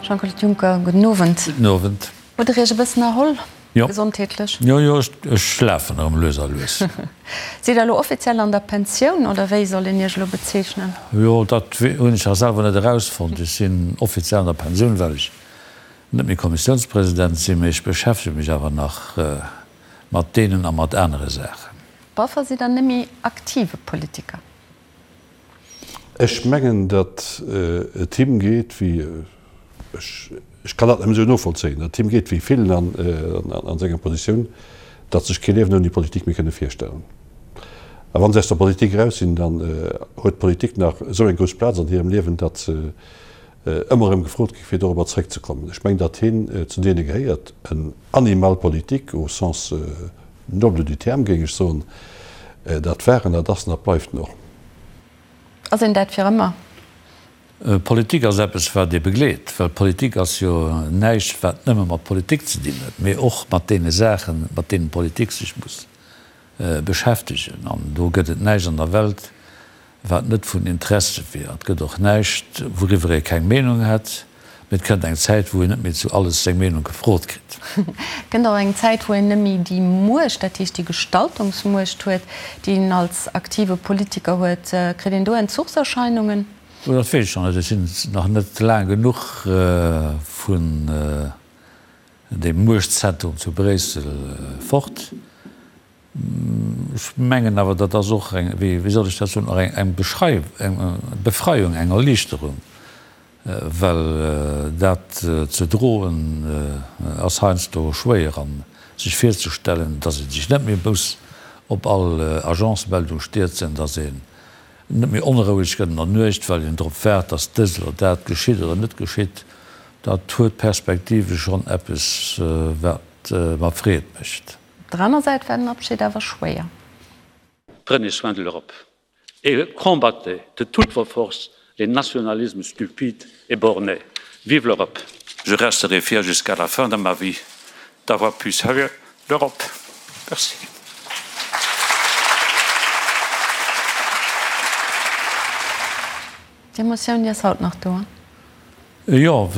Jean-Claude Juncker, gudden Owend. Gudden Owend. Hutt Der Iech e bëssen erholl, gesondheetlech? Jo, jo, ech lafen erëm lues a lues. Sidd Der elo offiziell an der Pensioun oder wéi soll een Iech elo bezeechnen? Jo, dat hunn ech nach selwer net erausfonnt. Ech sinn offiziell an der Pensioun, well ech net méi Kommissiounspresident sinn, mee ech beschäftege mech awer nach mat deenen a mat anere Saachen. Boffer, sidd Der net méi aktive Politiker? Ech mengen, datt et him geet wéi, ech kann dat nëmmen esou novollzéien, datt et him geet wéi villen an senger Positioun, datt sech kee Liewen ouni Politik méi kënne virstellen. A wa se aus der Politik eraus sinn, dann huet d'Politik nach esou eng grouss Plaz an hirem Liewen, datt se ëmmer erëm gefrot gi fir dorobber zréckzekommen. Ech mengen, datt hien zu deene gehéiert, en Animal politique au sens noble du terme, géing ech soen. Dat war en, dat ass en, dat bleift en och. Ass een dat fir ëmmer? Politik ass eppes, wat ee begleet, well Politik ass jo näischt, wat nëmme mat Politik ze dinn huet, mee och mat deene Saachen, mat deenen d'Politik sech muss beschäftegen. An do gëtt et näischt an der Welt, wat net vun Interesse wier. Et gëtt och näischt, wouriwwer ee keng Meenung hätt, mee et kënnt eng Zäit, wou een net méi zu alles seng Meenung gefrot kritt. Et kënnt och eng Zäit, wou een net méi déi Muecht, dat heescht déi Gestaltungsmuecht huet, déi een als aktive Politiker huet. Kritt een do Entzuchserscheinungen? Oh, dat weess ech nach net. Ech sinn nach net laang genuch vun deem Muechtzentrum zu Bréissel fort. Ech mengen awer, dat ass och eng, wéi soll ech dat soen, och eng Befreiung, eng Erliichterung, well dat ze droen ass heiansdo schwéier an sech virzestellen, datt ee sech net méi muss op all Agencemeldung stierzen, datt een net méi onroueg gëtt an der Nuecht, well een drop waart, datt dëst oder dat geschitt oder net geschitt, dat huet perspektivesch schonn eppes, wat mer Freed mécht. Op der aner Säit war den Abschied awer schwéier. Prenez soin de l'Europe et combattez de toutes vos forces les nationalismes stupides et bornés. Vive l'Europe! Je resterai fier jusqu'à la fin de ma vie d'avoir pu servir l'Europe. Merci. D'Emotioun, déi ass haut nach do. Jo,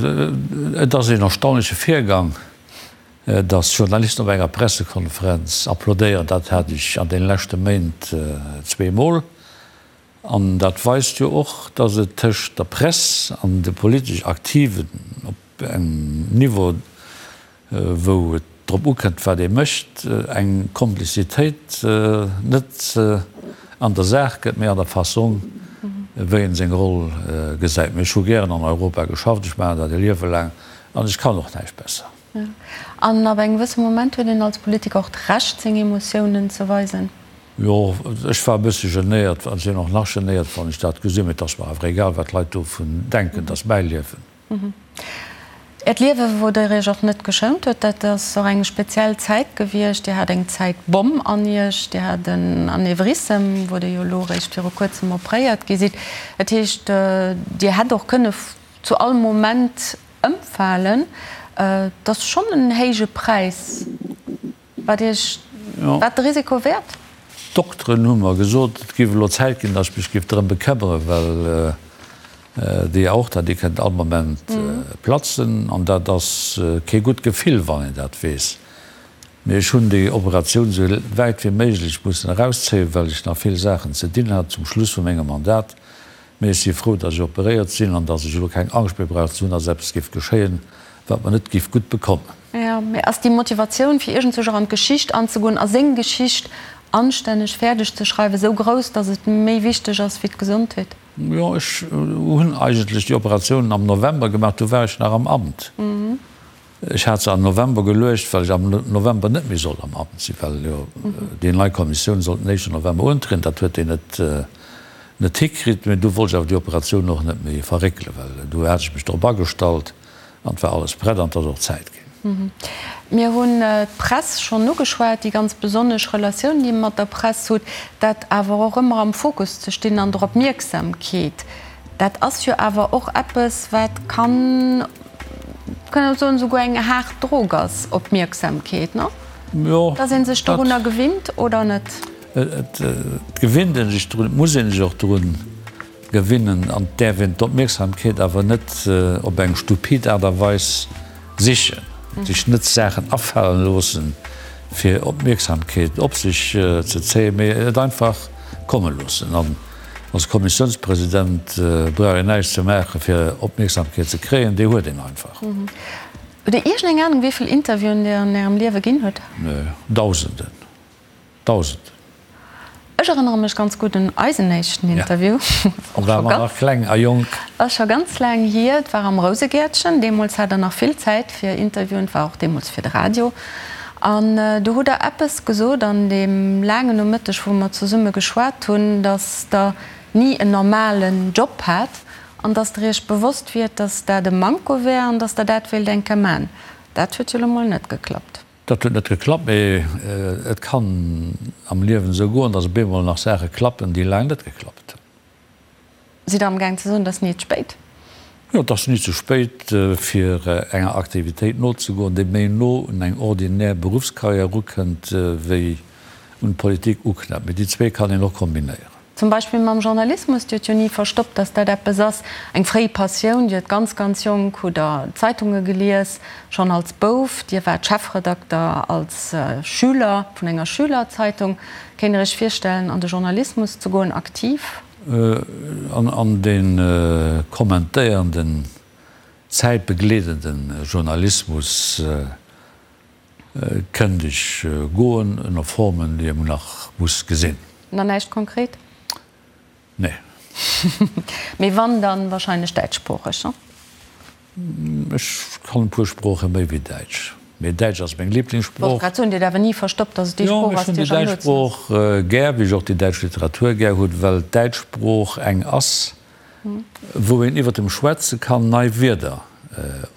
et ass een erstaunleche Virgang. Datt Journalisten op enger Pressekonferenz applaudéieren, dat hat ech an deene leschte Méint zweemol. An dat weist jo och, datt et tëscht der Press an de politesch Aktiven op engem Niveau, wou et drop ukënnt, wat ee mécht, eng Komplizitéit net an der Saach gëtt, mee an der Fassong, wéi een seng Roll gesäit. Mee ech hu gären an Europa geschafft, ech maachen dat e Liewe laang an ech kann och näischt besser. An ab engem gewësse Moment huet een als Politiker och d'Recht, seng Emotiounen ze weisen. Jo, ech war e bësse genéiert an sinn och nach genéiert, wann ech dat gesinn. Mee et ass mer awer egal, wat d'Leit dovun denken. Et ass mäi Liewen. Äert Liewe, wou Der Iech och net geschount huet, dat ass och eng speziell Zäit gewiescht. Dir hat eng Zäitbomm an Iech, Dir hat en Anevrissem, wou Der jo elo eréischt viru kuerzem opréiert gi sidd. Dat heescht, Dir hätt och kënne zu all Moment Ëmfalen, dat ass schonn en héije Präis. War Iech dat de Risiko wäert? D'Dokteren hu mer gesot, et géif elo Zäit ginn, datt ech mech géif drëm bekëmmeren, well déi Aorta, déi kënnt all Moment platzen. An dat ass kee gutt Gefill, wann een dat weess. Mee ech hunn déi Operatioun esou wäit wéi méiglech mussen erauszéien, well ech nach vill Saachen ze dinn hat zum Schluss vu mengem Mandat. Mee ech si frou, datt ech operéiert sinn an datt ech elo keng Angscht méi brauch ze hunn, datt eppes géif geschéien, wat mer net géif gutt bekommen. Jo, mee ass déi Motivatioun, fir iergendzwousch och an d'Geschicht anzegoen a seng Geschicht anstänneg fäerdeg ze schreiwen, esou grouss, datt et méi wichteg ass wéi d'Gesondheet? Jo, ech hunn eigentlech déi Operatioun am November gemaach, du war ech nach am Amt. Ech hat se am November geluecht, well ech am November net méi sollt am Amt sinn, well jo déi nei Kommissioun sollt den éischten November untrieden. Dat huet déi net net hikritt. Mee du wollt ech awer déi Operatioun och net méi verréckelen, well du hat ech mech drop agestallt an et war alles prett an et ass och Zäit ginn. Mir hunn d'Press schonn ugeschwat, déi ganz besonnesch Relatioun, déi Dir mat der Press hutt, dat awer och ëmmer am Fokus ze stinn an der Opmierksamkeet, dat ass jo awer och eppes, wat kann, Kann een soen, esouguer eng haart Drog ass, Opmierksamkeet, no? Jo. Dass ee sech dorunner gewinnt oder net? Et gewinnt ee sech drun, et muss ee sech och drun gewinnen an et däerf een d'Opmierksamkeet awer net op eng stupid Aart a Weis sichen, sech net Saachen afalen loossen, fir Opmierksamkeet op sech ze zéien, mee et einfach komme loossen. An als Kommissiounspresident brauch een näischt ze maachen, fir Opmierksamkeet ze kréien, déi huet een einfach. Hutt Dir iergendeng Anung, wéi vill Interviewen Dir an Ärem Liewe ginn hutt? Dausenden. Dausenden. Ech erënnere mech ganz gutt un eisen éischten Interview. Do ware mer nach kleng a jonk. Ass scho ganz laang hier. Et war am Rousegäertchen. Deemools hat Der nach vill Zäit fir Interviewen. Et war och deemools fir de Radio. An do hutt Der eppes gesot an deem laangen Nomëtteg, wou mer zesumme geschwat hunn, datt Der ni en normalen Job hat an datt Der Iech bewosst wiert, datt dat e Manko wär an datt Der dat wéilt eng Kéier man. Dat huet jo elo mol net geklappt. Dat huet net geklappt, mee et kann am Liewen esou goen, datt op eemol nach Saache klappen, déi laang net geklappt hunn. Sidd Der amgaang ze soen, et ass ni ze spéit? Jo, et ass ni ze spéit, fir enger Aktivitéit nozegoen, déi méi no un eng ordinär Beruffskarriär erukënnt, wéi un d'Politik uknäppt. Mee déi zwee kann een och kombinéieren. Zum Beispill mam Journalismus, Dir hutt jo ni verstoppt, dass dat eppes ass, eng fréi Passioun. Dir hutt ganz, ganz jonk hutt Der Zeitunge gelies, schonn als Bouf. Dir waart Chefredakter als Schüler vun enger Schülerzeitung. Kéint Der Iech virstellen, an de Journalismus ze goen, aktiv? An de kommentéierenden, zäitbegleedende Journalismus Kënnt ech goen, ënner Formen, déi ee nach muss gesinn. Nach näischt konkret? Nee. Mee wann, dann wahrscheinlech däitschsproocheg, ne? Ech kann e puer Sprooche méi wéi Däitsch, mee Däitsch ass meng Liblingssprooch. Wollt grad soen, Dir hutt awer ni verstoppt, dass et déi Sprooch ass, déi Iech am noosten ass. Jo, ech hunn déi däitsch Sprooch gär, wéi ech och déi däitsch Literatur gär hunn, well d'däitsch Sprooch eng ass, wou een iwwer dem Schwätze kann nei Wierder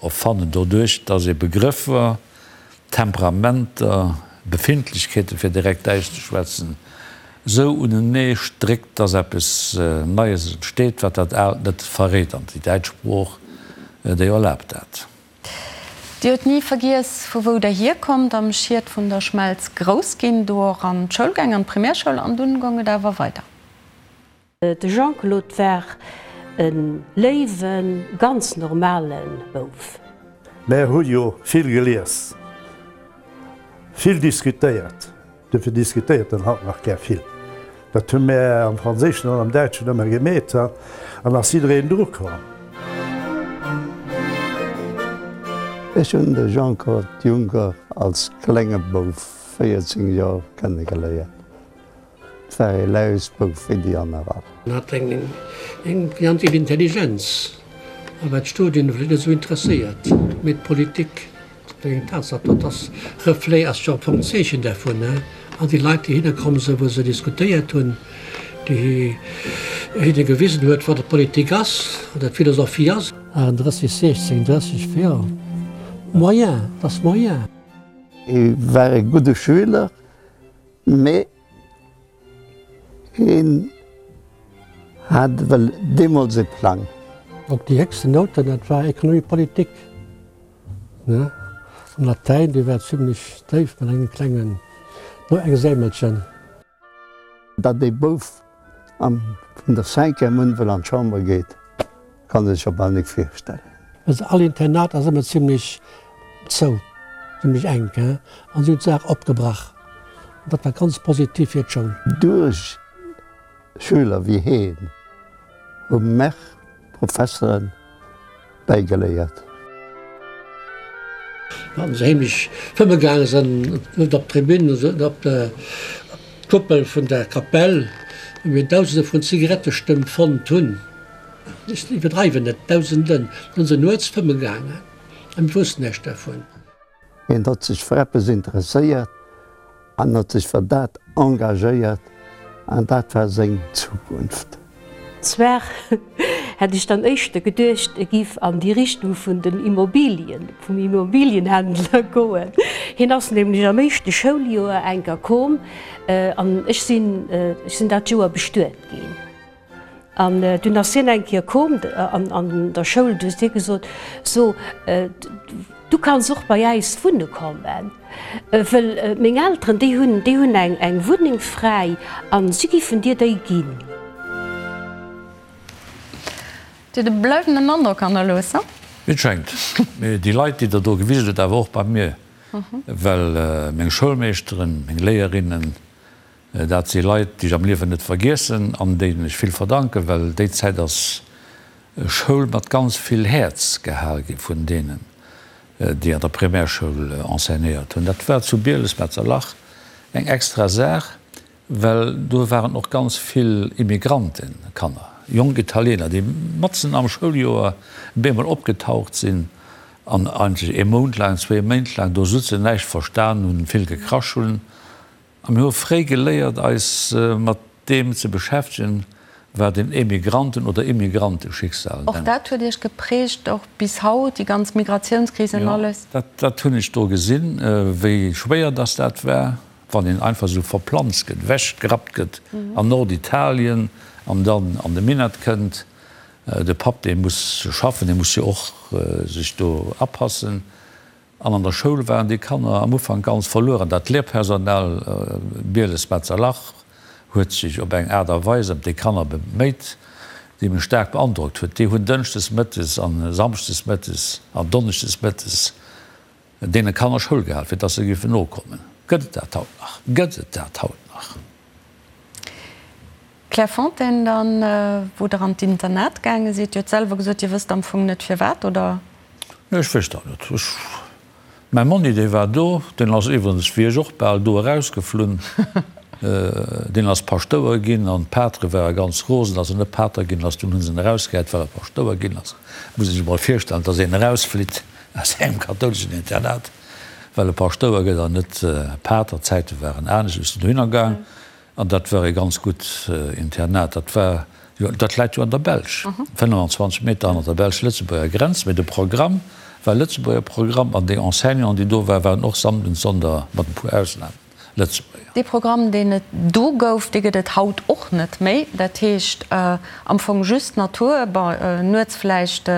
erfannen, doduerch dass ee Begrëffer, Temperamenter, Befindlechkeeten, fir direkt Däitsch ze schwätzen, esou unenee stréckt, dass eppes Neies entsteet, wat dat Aalt net verréit. An déi däitsch Sprooch, déi erlaabt dat. Dir hutt ni vergiess, vu wou Der hierkommt, am Schiet vun der Schmelz grouss ginn, do och an d'Schoul gaang, an d'Primärschoul, an dunn goung et awer weider. De Jean-Claude war e léiwen, ganz normale Bouf. Mär hu jo vill gelies, vill diskutéiert, duerfir diskutéiert en haut nach gär vill. Dat hu mär am Franséischen an am Däitschen ëmmer gemeet, an ass jiddereen dru komm. Ech hunn de Jean-Claude Juncker als klenge Bouf, 14 Joer, kennegeléiert. 't war ee Lausbouf wéi déi aner all. En hat eng ganz vill Intelligenz, a war d'Studien vläicht net esou interesséiert, mee d'Politik, dat war eng Tatsaach, dat ass Reflet, ass jo am Fong d'Zeechen dervun, an déi Leit, déi hinne komm sinn, wou se diskutéiert hunn, déi hinne gewisen huet, wat Politik ass, oder d'Philosophie ass. 38, 16, 30, jo, moyen, dat ass moyen. Hie war e gudde Schüler, mee Hien hat ewell deemools e Plang. Op déi héchsten Nouten, dat war Économie politique, ne? An Latäin, déi war zimlech déif mat engem klengen Noexämelchen. Datt ee Bouf vun der Cinquième un wëll an d'Chamber geet, kann ee sech jo bal nik virstellen. Also all Internat ass ëmmer zimlech zou, zimlech enk, hein, an si hunn d'Saach opgebrach. An dat war ganz positiv fir d'Schoul. Duerch Schüler wéi heen hu mär Professeren bäigeléiert. Wann se heemlech fëmme gaange sinn, net op d'Tribün, net op d'Kuppel vun der Kapell, wou mir Dausende vun Zigarettestëmp fonnt hunn, ech iwwerdreiwen net, Dausenden, da si se nuets fëmme gaangen a mir woussten näischt dervun. Hien hott sech fir eppes interesséiert an hott sech fir dat engagéiert an dat war seng Zukunft. Zwar hätt ech dann éischter geduecht, e giff an déi Richtung vun den Immobilien, vum Immobilienhändler goen. Hien ass nämlech am éischte Schouljoer enker koom an ech sinn, ech sinn dat Joer bestuet ginn. An dunn ass hien eng Kéier koom an der Schoul, du hues hie gesot, So, du kanns och bei äis wunne kommen, wëll meng Elteren, déi hunn, déi hunn eng Wunneng fräi a si giffen dir déi ginn. Dir hutt e bleiwenden Androck hannerlooss, he? Et schéngt. Mee déi Leit, déi Der do gewisen hutt, awer och bei mir, well meng Schoulmeeschteren, meng Léierinnen, dat si Leit, déi ech am Liewen net vergiessen an deenen ech vill verdanken, well déi Zäit ass Schoul mat ganz vill Häerz gehal gi vun deenen, déi an der Primärschoul enseignéiert hunn. Dat war zu Bieles-Metzerlach eng extra Saach, well do waren och ganz vill Immigrantekanner, jonk Italiener, déi matzen am Schouljoer bemol opgetaucht sinn an eigentlech ee Mount laang, zwéi Méint laang do sutzen, näischt verstan hunn, vill gekrasch hunn. A mir hu fréi geléiert, eis mat deem ze beschäftegen, wat een Emigranten oder Immigranteschicksal nennt. Och dat huet Iech geprägt, och bis haut, déi ganz Migratiounskris an alles? Jo, dat hunn ech do gesinn, wéi schwéier dass dat war, wann een einfach esou verplanzt gëtt, ewechgerappt gëtt an Norditalien an dann an de Minett kënnt. De Papp, dee muss schaffen, dee muss jo och sech do apassen. An an der Schoul waren déi Kanner am Ufank ganz verluer an dat Lehrpersonal, Bieles-Metzerlach, huet sech op eng Aart a Weis ëm déi Kanner beméit, déi mech staark beandrockt huet. Déi hunn dënschdes mëttes a samschdes mëttes an donneschdes mëttes deene Kanner Schoul gehal, fir dass se géifen nokommen. Gëtt et dat haut nach? Gëtt et dat haut nach? Clairefontaine dann, wou Der an d'Internat gaange sidd. Dir hutt selwer gesot, Dir wësst am Fong net firwat, oder? Nee, ech wësst dat net. Ech, mäi Monni, dee war do, deen ass iwwerens wéi ech och bal do erausgeflunn. Deen ass Paschtouer ginn an d'Patere ware ganz rosen, datt en net Pater ginn ass. Dunn hu se en erausgehäit, well e Paschtouer ginn ass. Muss ee sech emol virstellen, datt een erausflitt aus engem kathouleschen Internat, well e Paschtouer gëtt an net Pater. D'Zäite waren anescht. Ech sinn dohinner gaang. An dat war ee ganz gutt Internat. Dat war jo, dat läit jo an der Belsch, 25 Meter hanner der belsch-lëtzebuerger Grenz. Mee de Programm war Lëtzebuerger Programm an déi Enseignanten, déi do waren, waren och Samden, Sonder, mat e puer Ausnamen, Lëtzebuerger. Dee Programm, deen et do gouf, dee gëtt et haut och net méi. Dat heescht am Fong just Natur, bon, nuets vläicht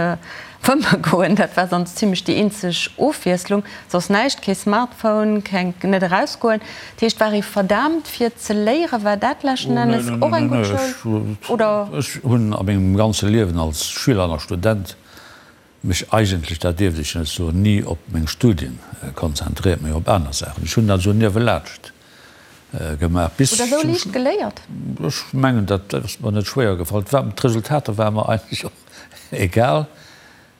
Fëmme goen, dat war sonst zimlech déi eenzeg Ofwiesslung, soss näischt, kee Smartphone, keng, net erausgoen. Dat heescht, war ee verdaamt fir ze léieren? War dat leschten Ennes och eng gutt Schoul, oder? Ech hunn a mengem ganze Liewen als Schüler an als Student mech eigentlech, dat dierft ech net soen, ni op meng Studien konzentréiert, mee op aner Saachen. Ech hunn dat esou niewelaanscht gemaach bis Hutt Der esou liicht geléiert? Ech mengen, dat ass mer net schwéier gefall. D'Resultater ware mer eigentlech och Egal,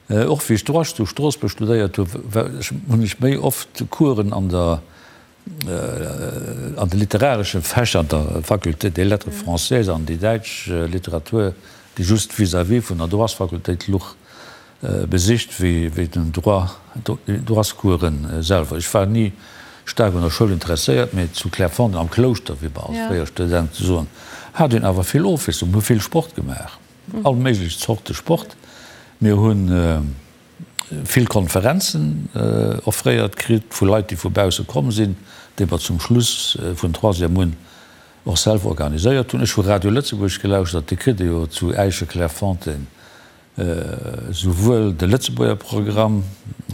och wéi ech Droit zu Stroossbuerg studéiert hu hunn ech méi oft Coursen an der an de literaresche Fächer an der Faculté des Lettres françaises an déi däitsch Literatur, déi just vis-à-vis vun der Droitsfakultéit luch, besicht wéi wéi den Droit, Droitscoursen selwer. Ech war ni staark un der Schoul interesséiert, mee zu Clairefontaine am Klouschter, wéi mer als fréier Studente soen, hat een awer vill Ofwiesslung, mir hu vill Sport gemaach. All méiglech Zorte Sport. Mir hu vill Konferenzen offréiert kritt vu Leit, déi vu bausse komm sinn, déi mer zum Schluss vun Troisième un och selwer organiséiert hunn. Ech hu Radio Lëtzebuerg gelauschtert, dee kritt ee jo zu Äische-Clairefontaine Souwuel de Lëtzebuerger Programm,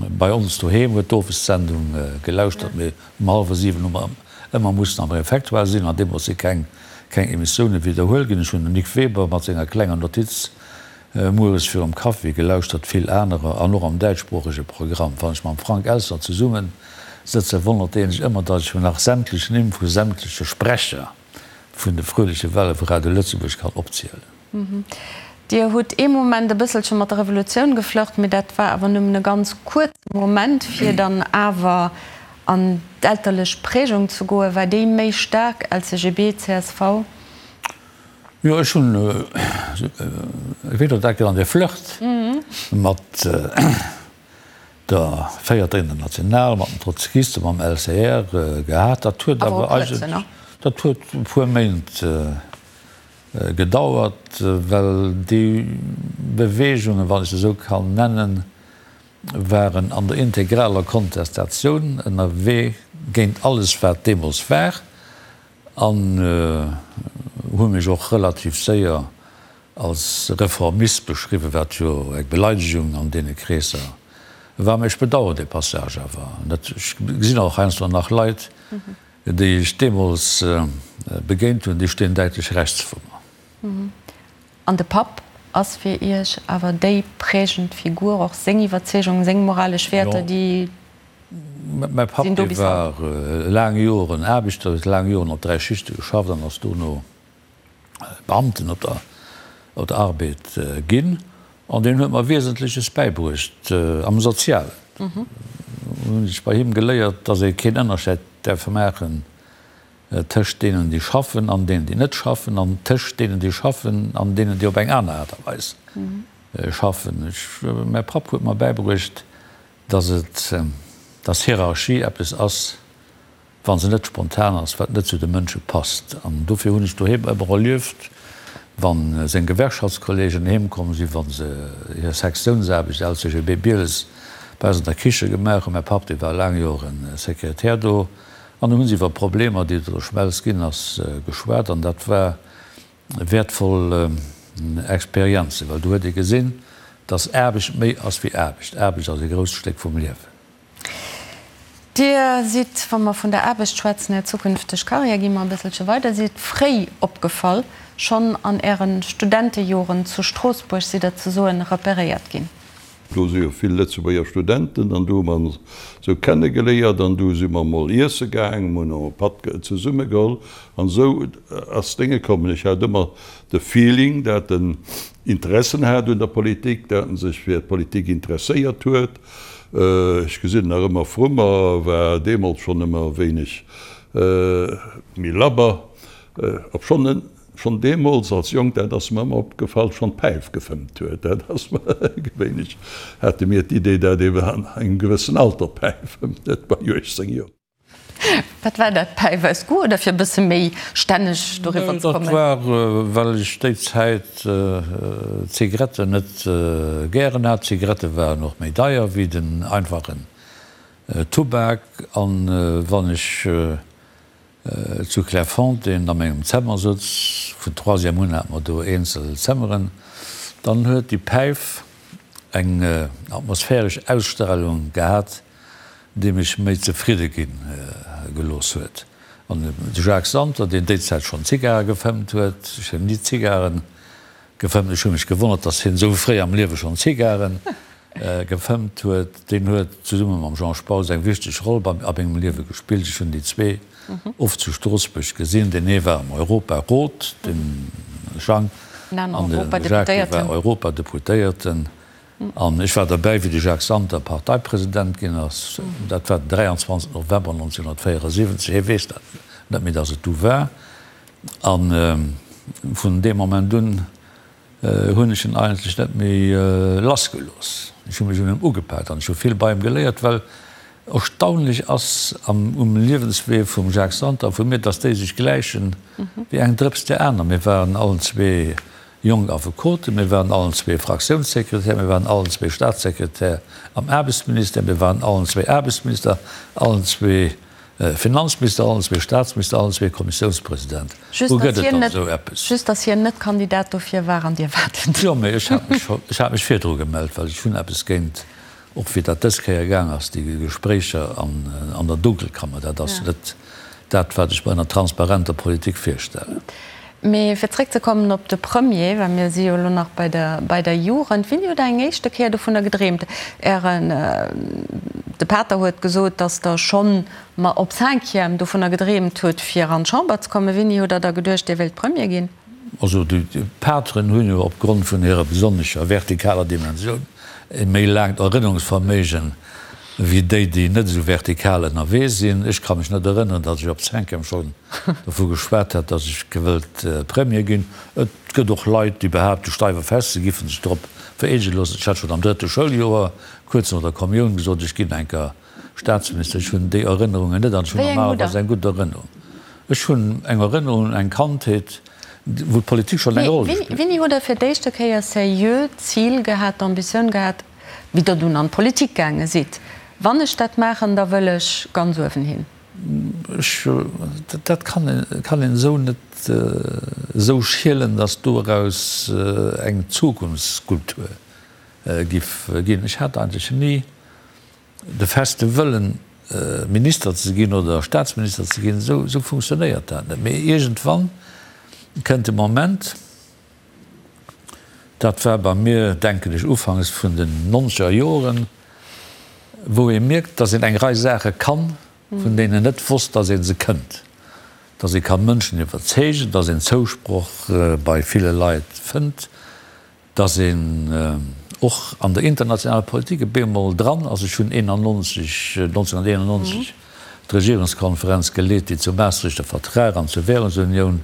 Bei ons doheem huet d'Owessendung gelauschtert, mee um hallwer 7 hu mer ëmmer mussen am Refectoire sinn an deemools si keng keng Emissioune widderhuel ginn. Ech hunn den Nic Weber mat senger klenger Notiz mueres virum Kaffi gelauschtert, vill anerer an och am däitschsproochege Programm. Wann ech mam Frank Elstner zesumme sëtzen, wonnert dee sech ëmmer, datt ech mir nach sämtlech Nimm vu sämtleche Sprecher vun de Fröhliche Welle vu Radio Lëtzebuerg kann opzielen. Dir hutt ee Moment e bësselche mat der Revolutioun geflirt, mee dat war awer nëmmen e ganz kuerze Moment, fir dann awer an d'elterlech Prägung ze goen. War déi méi staark, LCGB, csv? Jo, ech hunn, wéi Der dat genannt, e Flirt mat der Véierter International, mat den Trotzkisten, mam LCR gehat. Dat huet awer eigentlech, dat huet e puer Méint Gedauert, well déi Beweegungen, wann ech se esou kann nennen, waren an der integraler Kontestatioun ënnerwee géint alles, wat deemools war, an hu mech och relativ séier als Reformist beschriwwen, wat jo eng Beleidegung an deene Kreesser war. Mä ech bedauern dee Passage awer net. Ech gesinn och heiansdo nach Leit, Déi ech deemools begéint hunn, déi stinn däitlech rechts vu mer. An de Papp? Ass fir Iech awer déi prägend Figur, och seng Iwwerzeegungen, seng moralesch Wäerter, déi Mäi Papp, sinn do dee bis haut? war laang Joren Aarbechter, huet laang Joren op 3 Schichte geschafft an ass dono Beamten op der op der Arbed ginn. An deen huet mer Wiesentleches bäibruecht am Sozialen. Hunn ech bei him geléiert, dass ee keen Ënnerscheid däerf maachen tëscht deenen, déi schaffen an deenen, déi net schaffen, an tëscht deenen, déi schaffen an deenen, déi op eng aner Aart a Weis schaffen. Ech, mäi Papp huet mer bäibruecht, dass et, dass Hierarchie eppes ass, wa se net spontan ass, wat net zu de Mënsche passt. An dofir hunn ech doheem ëmmer erlieft, wa seng Gewerkschaftskollegen heem komm sinn, wa se hir Sektiounsaarbecht, LCGB Bieles, bei eis an der Kiche gemaach hunn, mäi Papp, dee war laang Joren Sekretär do, An do hu se iwwer Problemer, déi et an der Schmelz ginn ass, geschwat. An dat war wäertvoll Experienzen, well do huet ee gesinn, dass Aarbecht méi ass wéi Aarbecht. Aarbecht ass e grousst Stéck vum Liewen. Dir sidd, wa mer vun der Aarbecht schwätzen, Är zukünfteg Karriär, gi mer e bësselche weider, sidd fréi opgefall. Schonn an Äre Studentejoren zu Stroossbuerg sidd Der ze soen reperéiert ginn. Do si jo vill Lëtzebuerger Studenten an do hu mer ons esou kennegeléiert an du si mer mol iesse gaang, mer hunn och e Patt zesumme geholl an esou ass d'Dénge kommen. Ech hat ëmmer de Feeling, dat en Interessen hat un der Politik, dat en sech fir d'Politik interesséiert huet. Ech gesinn en nach ëmmer vru mer, war deemools schonn ëmmer e wéineg méi labber, obschonn en Schonn deemools als Jonk, dat ass mer ëmmer opgefall, schonn d'Päif gefëmmt huet. Dat ass mer gewéinlech, hate mir d'Idee, dat ee an engem gewëssen Alter Päif fëmmt, net bei 18 Joer. Wat war dat, Päif aus Goût oder fir e bësse méi stänneg doriwwer ze Dat kommen? war, well ech déi Zäit d'Zigaretten net gären hat. D'Zigarette waren och méi deier wéi den einfachen Tubak. An wann ech Zu Clairefontaine a mengem Zemmer souz, vun Troisième un hate mer do eenzel Zëmmeren, dann huet déi Päif eng atmosphäresch Ausstrahlung gehat, déi mech méi zefridde gi gelooss huet. An de Jacques Santer, deen déi Zäit schonn Zigare gefëmmt huet, ech hunn ni Zigaren gefëmmt, ech hu mech gewonnert, datt hien esou fréi am Liewe schonn Zigaren gefëmmt huet, deen huet zesumme mam Jean Spautz eng wichteg Roll bei a mengem Liewe gespillt. Ech hunn déi zwee oft zu Stroossbuerg gesinn. Deen ee war am Europarot, de Jang, an de Jacques, dee war Europadeputéierten. An ech war derbäi, wéi de Jacques Santer Parteipresident ginn ass. Dat war den 23 November 1974. Hie weess dat net méi, datt et du war. A vun deem Moment un hunn ech en eigentlech net méi lass gelooss. Ech hu mech un em ugepaakt an ech hu vill bei em geléiert, well erstaunlech ass am um Liewenswee vum Jacques Santer a vu mir, dass déi sech gläichen wéi eng Drëps där aner. Mir waren allen zwee jonk Affekoten, mir waren allen zwee Fraktiounssekretär, mir waren allen zwee Staatssekretär am Aarbechtsministère, mir waren allen zwee Aarbechtsminister, allen zwee Finanzminister, allen zwee Staatsminister, allen zwee Kommissiounspresident. Just Wou dass gëtt et hien dann net, esou eppes? just dass hien net Kandidat dofir war an Dir waart et. Jo, mee ech hat mech scho, ech hat mech virdru gemellt, well ech hunn eppes géint, och wéi dat dës Kéier gaang ass, déi Gespréicher an, an der Dunkelkammer, dat ass net dat, wat ech mer ënner transparenter Politik virstellen. Mee fir zréckzekommen op de Premier, well mir si jo elo nach bei der, bei der Jugend, Wéini hutt Der eng éischte Kéier dovunner gedreemt? Ären, de Pater huet gesot, datt Der schonn, ma op Cinquième, dovunner gedreemt hutt, fir an d'Chamber ze kommen. Wéini hutt Der da geduecht, Dir wéilt Premier ginn? Also déi Pateren hunn jo opgrond vun hirer besonnescher vertikaler Dimensioun e méi laangt Erënnerungsverméigen wéi déi, déi net esou vertikal ënnerwee sinn. Ech ka mech net erënneren, datt ech op Cinquième schonn dovu geschwat hätt, datt ech gewëllt Premier ginn. Et gëtt och Leit, déi behaapten, steif a fest, se giffen sech drop vereedege loossen. Ech hat schonn am drëtte Schouljoer, kuerz no der Kommioun, gesot, ech ginn eng Kéier Staatsminister. Ech hunn déi Erënnerungen net an ech hunn normalerweis eng gutt Erënnerung. Ech hunn eng Erënnerung un eng Kandheet, wou d'Politik schonn eng Roll gespillt huet. Wéini hutt Der fir d'éischte Kéier seriö d'Zil gehat, d'Ambitioun gehat, wéi Der dunn an d'Politik gaange sidd, Wann ech dat maachen, da wëll ech ganz uewen hin? Ech, dat kann een, kann een esou net esou schielen, datt doraus eng Zukunftsskulptur giff ginn. Ech hat eigentlech ni de feste Wëllen, Minister ze ginn oder Staatsminister ze ginn. Esou, esou funktionéiert dat net. Mee iergendwann kënnt de Moment. Dat war bei mir, denken ech, ufanks vun den nonzeger Joren, wou ee mierkt, datt een eng Rei Saache kann, vun deenen een net wosst, datt ee se kënnt. Datt ee ka Mënschen iwwerzeegen, datt een Zousproch bei ville Leit fënnt, datt een och an der internationaler Politik e bemol dran ass. Ech hunn 91, 1991 d'Regierungskonferenz geleet, déi zum Maastrichter Vertrag an zur Währungsunioun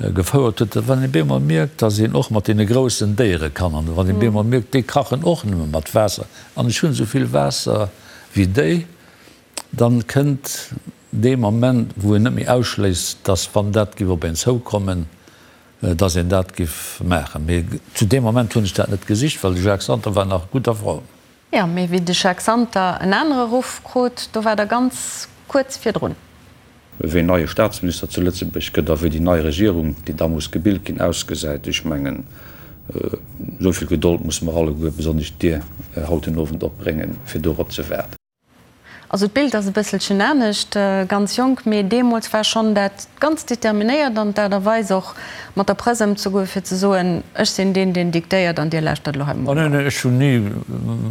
gefouert huet, wann ee bemol mierkt, datt een och mat deene groussen Déiere kann an wann ee bemol mierkt, déi kachen och nëmme mat Waasser an ech hunn esou vill Waasser wéi déi, dann kënnt dee Moment, wou een net méi ausschléisst, datt wann dat géif op een zoukommen, datt een dat géif maachen. Mee zu deem Moment hunn ech dat net gesicht, well de Jacques Santer war nach gutt a Form. Jo, mee wéi de Jacques Santer en anere Ruff krut, do war der ganz kuerz virdrun. Ween neie Staatsminister zu Lëtzebuerg gëtt a wéi déi nei Regierung, déi da muss gebilt ginn, ausgesäit, ech mengen, esou vill Gedold musse mer alleguer, besonnesch Dir, haut den Owend opbréngen, fir dorop ze waarden. Also d'Bild ass e bësselchen anescht, ganz jonk, mee deemools war schonn dat ganz determinéiert an d'Aart a Weis och mat der Press ëmzegoen, fir ze soen, ech sinn deen, deen diktéiert an dir lauschtert elo hei mol op. Neen, ech hunn ni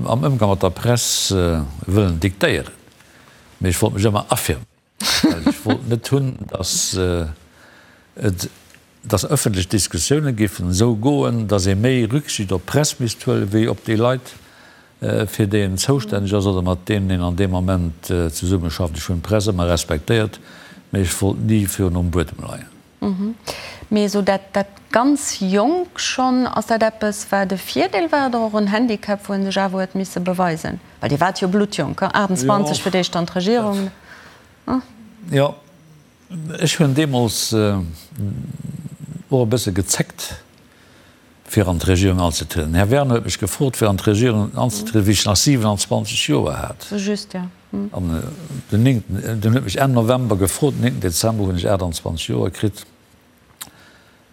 am Ëmgang mat der Press wëllen diktéieren, mee ech wollt mech ëmmer affirméieren. Well ech wollt net hunn, datt et, datt ëffentlech Diskussioune géifen esou goen, datt ee méi Rücksicht op d'Press misst huelen, wéi op déi Leit, fir déi een zoustänneg ass oder mat deenen een an deem Moment zesummeschafft. Ech hunn d'Press ëmmer respektéiert, mä ech wollt ni virun um Buedem leien. Mee esou dat, dat ganz jonk schonn, ass dat eppes, wat e Virdeel war oder och en Handicap, wou ee sech awer huet misse beweisen? Well Dir waart jo bluttjonk, 28 fir d'éischt an d'Regierung. Jo, ech hunn deemools och e bësse gezéckt, fir an d'Regierung anzetrieden. Den Här Werner huet mech gefrot, fir an d'Regierung anzetrieden, wéi ech nach 27 Joer hat. Sou just, jo. An den néngten, den huet mech Enn November gefrot, den néngten Dezember hunn ech 28 Joer kritt.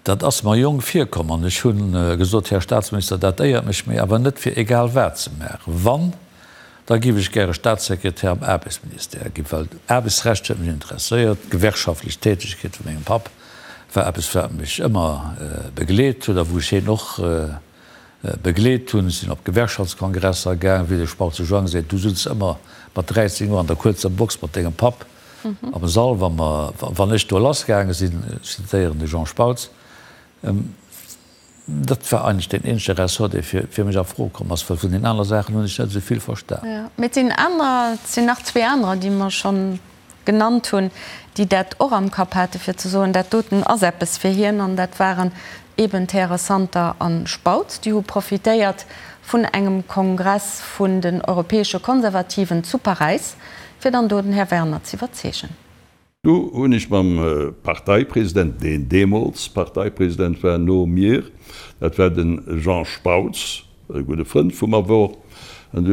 Dat ass mer jonk virkomm an ech hu gesot, Här Staatsminister, dat éiert mech, mee awer net fir egal wat ze maachen. Wann, da géif ech gäre Staatssekretär am Aarbechtsministère ginn, well Aarbechtsrecht huet mech interesséiert, d'gewerkschaftlech Tätegkeet vu mengem Papp war eppes, wat mech ëmmer begleet huet a wou ech hien och begleet hunn. Ech sinn op Gewerkschaftskongresser gaang, wéi de Spautz de Joang seet, du sutz ëmmer mat 13 Joer an der kuerzer Box mat dengem Papp am Sall, wa mer, wann ech do lassgaange sinn, ech zitéieren de Jean Spautz. Dat war eigentlech deen eenzege Ressort, dee fir mech a Fro komm ass, well vun den aner Saachen hunn ech net esou vill verstan. Jo, mee et sinn anerer, et sinn nach zwee anerer, déi mer schonn genannt hunn, déi dat och am Kapp hate fir ze soen, dat doten ass eppes fir hien. An dat waren eben d'Häre Santer a Spautz. Déi hu profitéiert vun engem Kongress vun den europäesche Konservativen zu Paräis, fir dann do den Här Werner z'iwwerzeegen. Du hunn ech mam Parteipresident, deen deemools Parteipresident war no mir, dat war de Jean Spautz, e gudde Frënd vu mer wor, an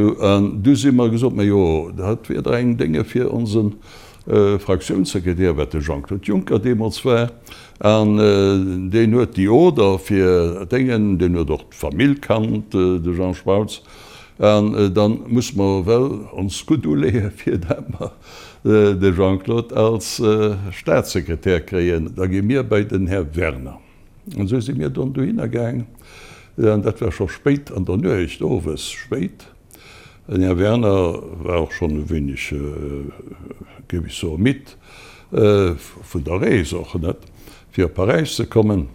du si mer gesot, ma jo, dat wier dach eng Dénge fir onse Fraktiounssekretär, wat de Jean-Claude Juncker deemools war, an deen huet déi Oder fir Déngen, deen huet och d'Famill kannt, de Jean Spautz, an dann muss mer well ons gutt uleeë fir dat mer de Jean-Claude als Staatssekretär kréien, da gi mir bei den Här Werner. An esou si mir dann dohinner gaang, an dat war scho spéit an der Nuecht, owes spéit. Den Här Werner war och schonn e wéineg, géif ech soen, midd vun der Rees och, net, fir op Paräis ze kommen.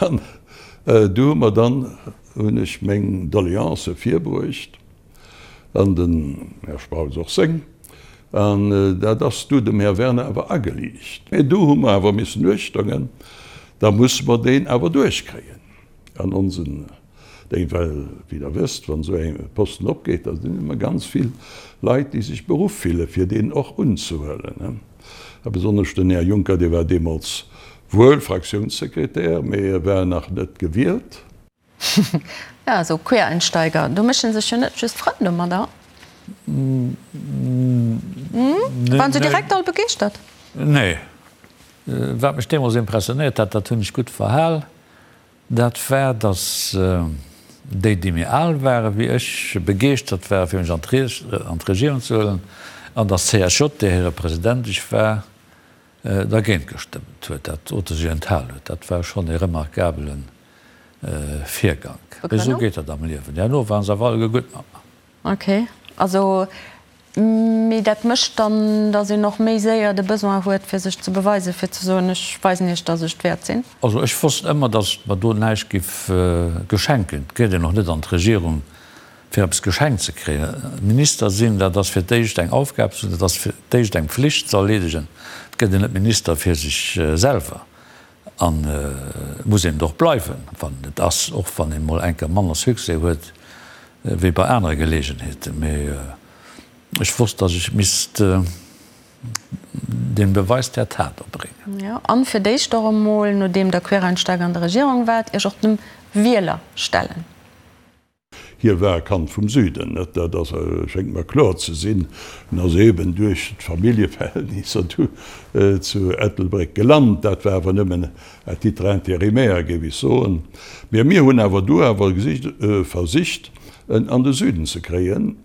An du hu mer dann, hunn ech meng Doleancë virbruecht. An den Här Spautz och seng. An dat ass du dem Här Werner awer ageliicht. Mä do hu mer awer missen uechtongen, da musse mer deen awer duerchkréien an onsen Déng, well, wéi Der wësst, wann esou e Posten opgeet, da sinn ëmmer ganz vill Leit, déi sech beruff fille fir deen och unzehuelen. A besonnesch den Här Juncker, dee war deemools wuel Fraktiounssekretär, mä e war nach net gewielt. Jo, esou Quereinsteiger, do méchen sech jo net just Frënn domadder. Waren se direkt all begeeschtert? Nee. Wat mech deemools impressionéiert hat, dat hunn ech gutt verhal, dat war, datt déi, déi méi al ware wéi ech, begeeschtert ware fir mech an d'Regierung ze huelen, an datt d'CSJ, där hire President ech war, dergéint gestëmmt huet, dat oder sech enthal huet. Dat war schonn e remarkabelen. Virgank. Mee esou geet dat am Liewen. Herno waren se awer alleguer gutt mat mer. Ok, also, mee dat mécht dann, datt een och méi séier de Besoin huet, fir sech ze beweisen, fir ze soen, ech weisen iech, datt ech et wäert sinn? Also ech wosst ëmmer, datt et mer do näischt giff geschenkt ginn. Et geet een och net an d'Regierung, fir eppes geschenkt ze kréien. Minister sinn, dat ass fir d'éischt eng Aufgab, dat ass fir d'éischt eng Pflicht ze erleedegen. Et gëtt een net Minister fir sech selwer. An et muss een et och bleiwen, wann een et ass, och wann een mol eng Kéier manner Succès huet wéi bei anere Geleegenheeten. Mee ech wosst, datt ech misst den Beweis der Tat erbréngen. Jo, an fir d'éischt och emol, nodeem Der Quereinsteiger an der Regierung waart, Iech och dem Wieler stellen. Hie war e Kand vum Süden, net? Dat ass, schéngt mer kloer ze sinn. En ass eben duerch d'Familljeverhältnisser du zu Ettelbréck gelant. Dat war awer nëmmen à titre intérimaire, géif ech soen. Mä mir hunn awer du awer gesicht, versicht, en an de Süden ze kréien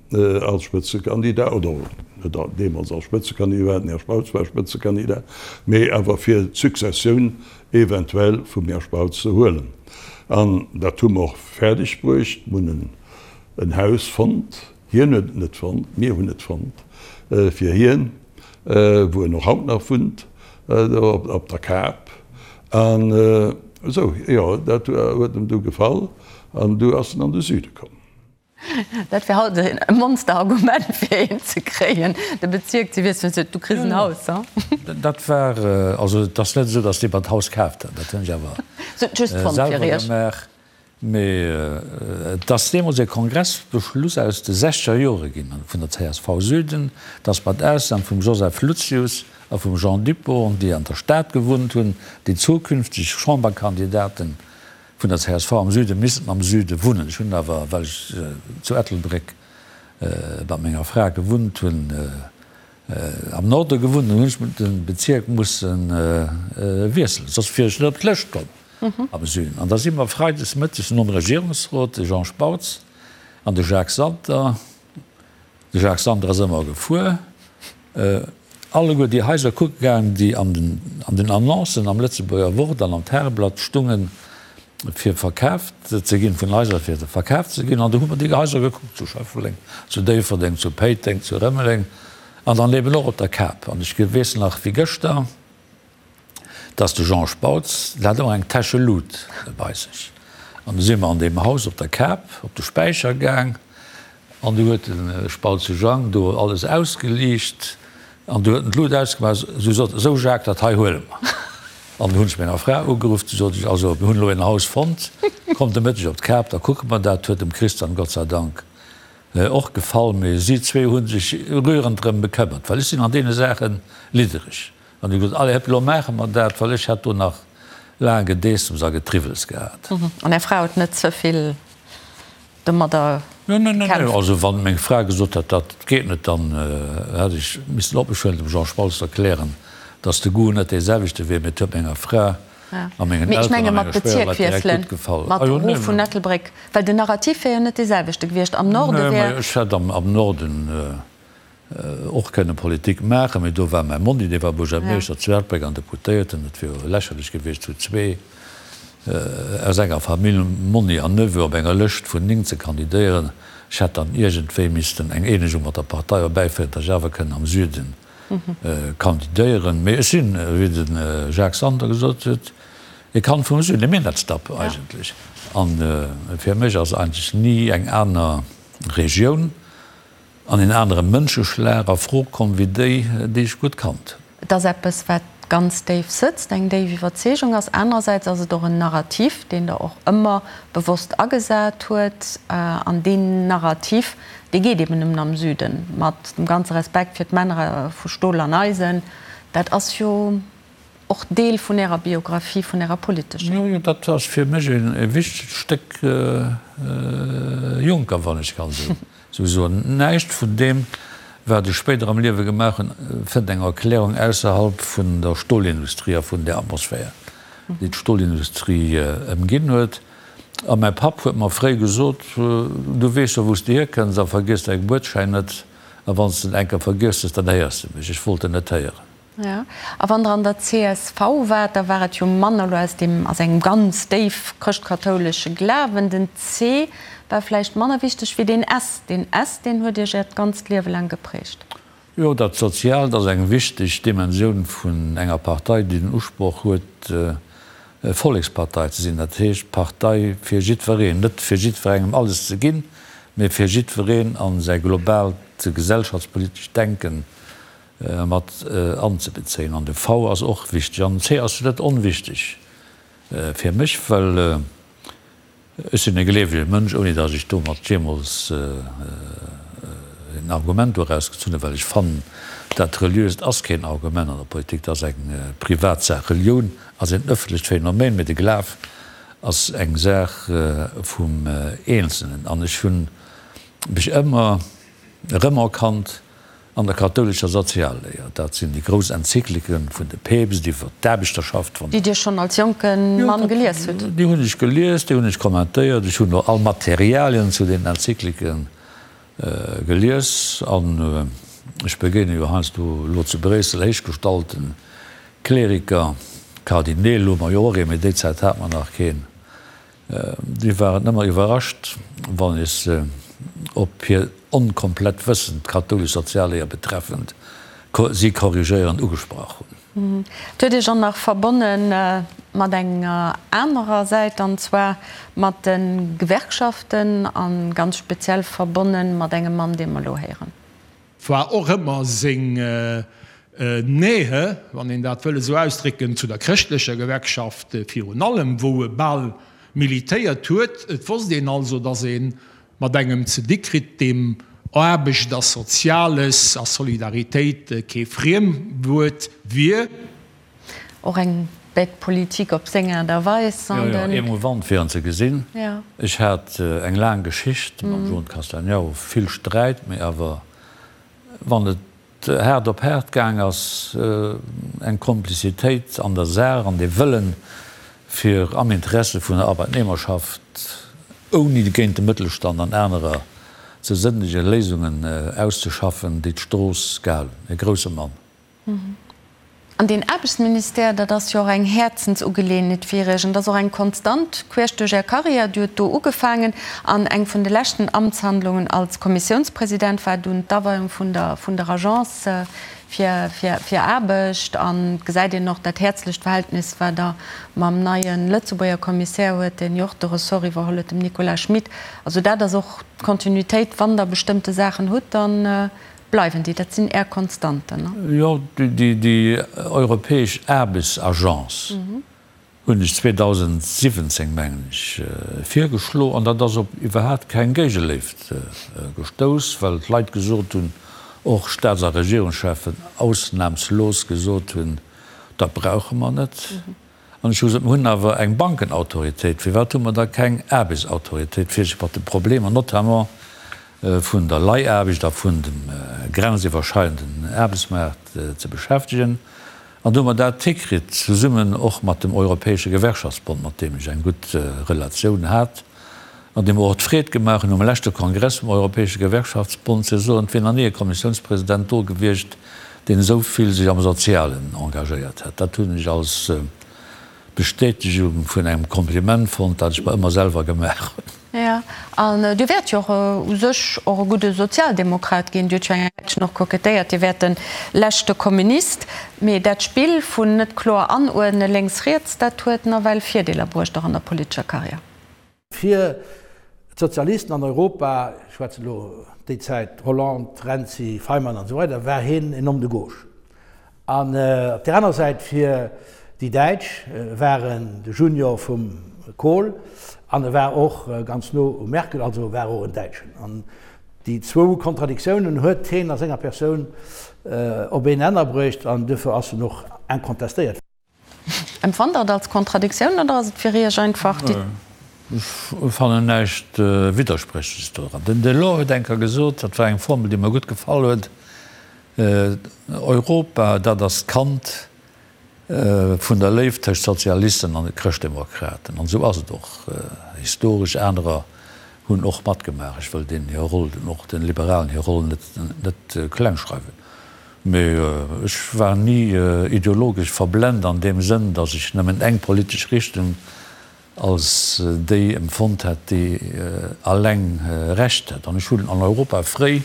als Spëtzekandidat, oder net deemools als Spëtzekandidat, den Här Spautz war Spëtzekandidat, mee awer fir d'Successioun eventuell vum Här Spautz ze huelen. An dat hu mer och fäerdeg bruecht. Mir hunn en Haus fonnt, hien huet et net fonnt, mir hunn et fonnt fir hien, wou en och haut nach wunnt, do op der Kap. An esou, jo, dat huet em du gefall an du ass en an de Süde komm. Dat wär haut e Monsterargument fir een ze kréien, de Bezierk ze wiesselen, sou, du kriss en Haus, ha? Dat war, also et ass net esou, datt dee mer d'Haus kaaft hat, dat hunn ech awer selwer gemaach. Mee et ass deemools e Kongressbeschluss aus de sechzeger Jore ginn vun der csv Süden, datt mat Ausnam vum Joseph Lucius a vum Jean Dupong, déi an der Stad gewunnt hunn, déi zukünfteg Chamberkandidaten Vun der csv am Süde missten am Süde wunnen. Ech hunn awer, well ech zu Ettelbréck mat menger Fra gewunnt hunn, am Norde gewunnt, dann hunn ech de Bezierk musse wiesselen, soss wier ech net op d'Lëscht komm am Süden. An da si mer freides mëttes nom Regierungsrot, de Jean Spautz an de Jacques Santer, De Jacques Santer ass ëmmer gefuer, alleguer déi Haiser kucke gaang, déi an den Annoncen am Lëtzebuerger Wort an am Tageblatt stungen, fir verkaaft ze ginn, vun Haiser fir verkaaft ze ginn. An do hu mer déi Haiser gekuckt, zu Schëffleng, zu Déifferdeng, zu Péiteng, zu Rëmeleng an dann eben och op der Kap. An ech weess nach wéi gëschter, dass de Jean Spautz, deen hat ëmmer eng Täsche Lut bei sech. An du si mer an deem Haus op der Kap op de Späicher gaang an du huet de Spautze Jang do alles ausgeliicht an du huet en d'Lut ausgemaach, sou sot en, Sou Jacques, dat hei huele mer. An du hunn ech menger Fra ugeruff, du sot ech, Also mir hunn elo een Haus fonnt, kommt de Mëtteg op d'Kap, da kucke mer dat. Huet dem Christian Gott sei Dank och gefall, mee si zwee hu sech rührend drëm bekëmmert, well ech sinn an deene Saache liddereg. An hu gesot, Allez, hëpp, elo maache mer dat, well ech hätt do nach laang Gedeessems a Getriwwels gehat. An Är Fra huet net ze vill domadder gekämpft? Also wann meng Fra gesot hätt, dat geet net, dann hätt ech missen op mech huelen, dem Jean Spautz erklären, datt de Goût net dee selwechte wier. Mee et huet menger Fra a mengen Mee ech Elteren menge a mat menger Schwéierleit direkt Bezierk gutt gefall. Mat erof vun Ettelbréck, well den Narrativ wär jo net dee selwechte gewiescht. Am Norde wär. Nee, ech hätt am Norden och kënne Politik maachen, mee do war mäi Monni, dee war Buergermeeschter zu Ettelbréck an Deputéierten. Et wier jo lächerlech gewiescht, zu zwee aus enger Famill, Monni an Neveu, op enger Lëscht vun 9 ze kandidéieren. Ech hätt dann iergendwéi missten eng Eenegung mat der Partei erbäiféieren, datt ech awer kënn am Süde kandidéieren. Mee ech sinn, wéi de Jacques Santer gesot huet, e Kand vum Süden, e Minettsdapp eigentlech. A fir mech ass eigentlech ni eng aner Regioun an een anere Mënscheschlag a Fro komm wéi déi, déi ech gutt kannt hunn. Et ass eppes, wat ganz déif sëtzt, eng déif Iwwerzeegung ass. Anerersäits ass et och en Narrativ, deen Der och ëmmer bewosst agesat huet. An deen Narrativ, dee geet eben nëmmen am Süden. Mat dem ganze Respekt fir d'Männer vu Stol an Eisen, dat ass jo och Deel vun Ärer Biographie, vun Ärer politescher. Jo, jo, dat ass fir mech e wichtegt Stéck Juncker, wann ech kann esou soen. Näischt vun deem, wat ech spéider am Liewe gemaach hunn, fënnt eng Erklärung ausserhalb vun der Stolindustrie a vun där Atmosphär, déi d'Stolindustrie ëmginn huet. A mäi Papp huet mer fréi gesot, Du weess jo, wou s de hierkënns a vergiess däi Gebuertsschäin net, a wann s de en eng Kéier vergiess hues, dann héiers de mech. Ech wollt en net héieren. Jo, a wann Der an der csv waart, da war et jo manner elo aus deem, aus engem ganz déif chrëschtkathoulesche Glawen. Den C war vläicht manner wichteg wéi deen S. Deen S, deen huet Iech Äert ganzt Liewe laang geprägt. Jo, dat Soziaalt ass eng wichteg Dimensioun vun enger Partei, déi den Usproch huet, Vollekspartei ze sinn. Dat heescht, Partei fir jiddwereen, net fir jiddwerengem alles ze ginn, mee fir jiddwereen a säi globaalt gesellschaftspolitescht Denken mat anzebezéien. An de V ass och wichteg. An den C ass net onwichteg fir mech, well ech sinn e gleewege Mënsch, ouni datt ech domat jeemools en Argument doraus gezunn hunn, well ech fannen, dat Reliöst ass keen Argument an der Politik, dat ass eng Privatsaach. Relioun ass en ëffentlecht Phänomen, mee de Glaf ass eng Saach vum Eenzelnen. An ech hu mech ëmmer erëmerkannt An der kathoulescher Sozialléier, dat sinn déi grouss Enzykliken vun de Päpst iwwer d'Aarbechterschaft, vun. Déi Dir schonn als jonke Mann gelies hutt? Déi hunn ech gelies, déi hunn ech kommentéiert. Ech hunn och all Materialien zu den Enzyklike gelies. An ech begéine jo heiansdo elo zu Bréissel héichgestallte Kleriker, Kardineel hu mer jo och ee, mee déi Zäit hat mer nach keen. Déi waren ëmmer iwwerrascht, wann ech se op hir onkomplett Wëssen, d'kathoulesch Sozialléier betreffend, si korrigéierend ugesprach hunn. Et huet Iech och nach verbonne mat enger anerer Säit, an zwar mat de Gewerkschaften, a ganz speziell verbonne mat engem Mann, dee mer elo héieren. War och ëmmer seng Nähe, wann een dat wëll esou ausdrécken, zu der chrëschtlecher Gewerkschaft virun allem, wou e bal militéiert huet. Et wosst een also, datt ee mat engem ze di kritt, deem Aarbecht a Soziales a Solidaritéit kee Friemwuert wier. Och eng bête politique op seng Aart a Weis. Jo, jo, émouvant fir en ze gesinn. Ech hat eng laang Geschicht mam Jean Castagnaro, vill Sträit, mee awer wann et haart op haart gaang ass, eng Komplizitéit an der Saach an dee Wëllen, fir am Interesse vun der Arbeitnehmerschaft, ouni géint de Mëttelstand an anerer ze sënnegen, Léisungen auszeschaffen, déi d'Strooss gehalen hunn. E grousse Mann. An deen Aarbechtsministère, dat ass jo och eng Häerzensugeleeënheet fir Iech an dat ass och eng Konstant queesch duerch Är Karriär. Dir hutt do ugefaangen an eng vun de leschten Amtshandlungen als Kommissiounspresident war dunn d'Aweiung vun der vun der Agence fir fir fir Aarbecht. An et gesäit een och dat häerzlecht Verhältnis, wat Der mam neie Lëtzebuerger Kommissär huet, deen jo och de Ressort iwwerholl huet, dem Nicolas Schmit. Also dat ass och d'Kontinuitéit, wann Der bestëmmte Saachen hutt, dann Bleiwen déi? Dat sinn Är Konstanten, ne? Jo, déi europäesch Aarbechtsagence hunn ech 2017, mengen ech, virgeschlo. An dat ass op iwwerhaapt keng Géigeléift gestouss, well d'Leit gesot hunn, och Staats a Regierungscheffen ausnahmslos gesot hunn, dat brauche mer net. An ech hu gesot, Mer hunn awer eng Bankenautoritéit, firwat hu mer da keng Aarbechtsautoritéit, fir sech mat de Problemer notamment vun der Leihaarbecht a vun dem grenziwwerschreidenden Aarbechtsmaart ze beschäftegen? An do hu mer dat hikritt, zesummen och mat dem Europäesche Gewerkschaftsbond, mat deem ech eng gutt Relatioun hat an deem mer och d'Freed gemaach hunn, um leschte Kongress vum Europäesche Gewerkschaftsbond ze soen, et wier nach ni e Kommissiounspresident do gewiescht, deen esou vill sech am Sozialen engagéiert hätt. Dat hunn ech als Bestätegung vun engem Kompliment fonnt, dat ech mer ëmmer selwer gemaach hunn. Jo, an Dir wäert jo och u sech och e gudde Sozialdemokrat ginn. Dir hutt jo eng Zäitchen och kokettéiert, Dir wäert de leschte Kommunist. Mee dat Spill vun net kloer anuerdne lénks-riets, dat huet nawell Virdeeler bruecht, och an der politescher Karriär. Fir d'Sozialisten an Europa, ech schwätzen elo déi Zäit Hollande, Renzi, Faymann an esou weider, war hien en Homme de gauche. An op där aner Säit fir déi Däitsch war en de Junior vum Kohl an e war och ganz no um Merkel, also war och en Däitschen. An déi zwou Kontradiktiounen huet hien a senger Persoun op een Nenner bruecht an duerfir ass en och incontestéiert. Empfannt Der et als Kontradiktioun oder ass et fir Iech einfach déi. Ech fannen näischt Widderspréchleches doran. Den Delors huet eng Kéier gesot, dat war eng Formel, déi mer gutt gefall huet, Europa, dat ass d'Kand vun der Léift tëscht Sozialisten an Chrëschtdemokraten. An esou ass et och historesch. Anerer hunn och matgemaach. Ech wëll deenen hir Roll, och de Liberalen hir Roll net klengschreiwen. Mee ech war ni ideologesch verblent an deem Sënn, datt ech nëmmen eng politesch Richtung als déi empfonnt hätt, déi alleng Recht hätt. An ech hunn an Europa fréi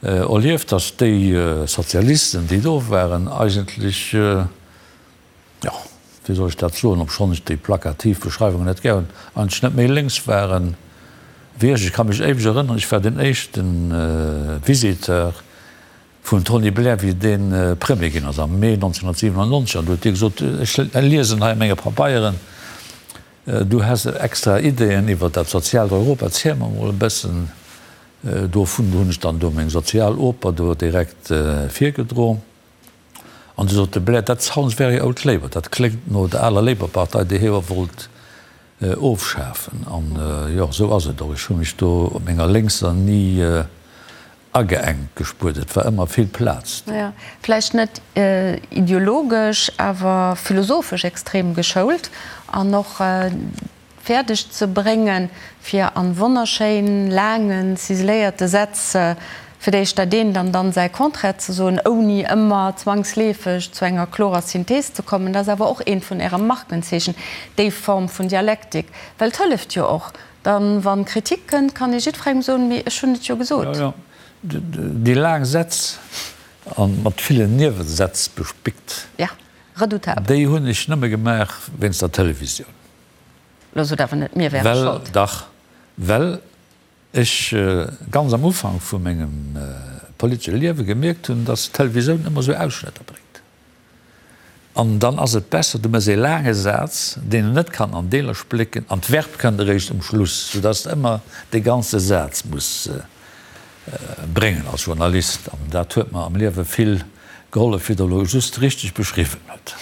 erlieft, datt déi Sozialisten, déi do waren, eigentlech, jo, wéi soll ech dat soen, obschonn ech déi plakativ Beschreiwungen net gär hunn, eigentlech net méi lénks waren wéi ech. Ech ka mech éiweg erënneren, ech war den éischte Visiteur vum Tony Blair, wéi dee Premier ginn ass am Mee 1997, an du huet dee gesot, ech liesen hei a menge Pabeieren, du häss extra Ideeën iwwer dat soziaalt Europa, erziel mer emol e bëssen dovun. Do hunn ech dann do meng sozial Oper do direkt virgedroen. An du sot de Blair, That sounds very old Labour, dat kléngt no der aler Labour-Partei, déi hie jo wollt ofschafen. An jo, esou ass et och. Ech hu mech do op menger Lénkser ni ageengt gespuert. Et war ëmmer vill Plaz do. Jo, vläicht net ideologesch, awer philosophesch extrem geschoult an och fäerdeg ze bréngen, fir an wonnerschéin laangen, ciseléierte Sätz fir d'éischt dat eent an dann säi Contraire ze soen, ouni ëmmer zwangsleefeg zu enger klorer Synthees ze kommen. Dat ass awer och eent vun Äre Markenzeechen, déi Form vun Dialektik. Well et hëlleft jo och dann, wa Kritik kënnt, kann ee jiddwerengem soen, mee ech hunn et jo gesot. Jo, jo, déi laang Sätz a mat villen Niewesätz bespickt, redoutabel. Déi hunn ech nëmme gemaach wéinst der Televisioun. Lo sot awer net, mir wäre Well, Schold. dach, well ech ganz am Ufank vu mengem politesche Liewe gemierkt hunn, dass d'Televisioun ëmmer esou Ausschnëtter bréngt. An dann ass et besser, du méchs ee laange Saz, deen en net kann an Deeler splécken, an d'Verb kënnt eréischt um Schluss, soudass de ëmmer dee ganze Saz muss bréngen als Journalist. An dat huet mer am Liewe vill gehollef, wéi Der elo just richteg beschriwwen hutt.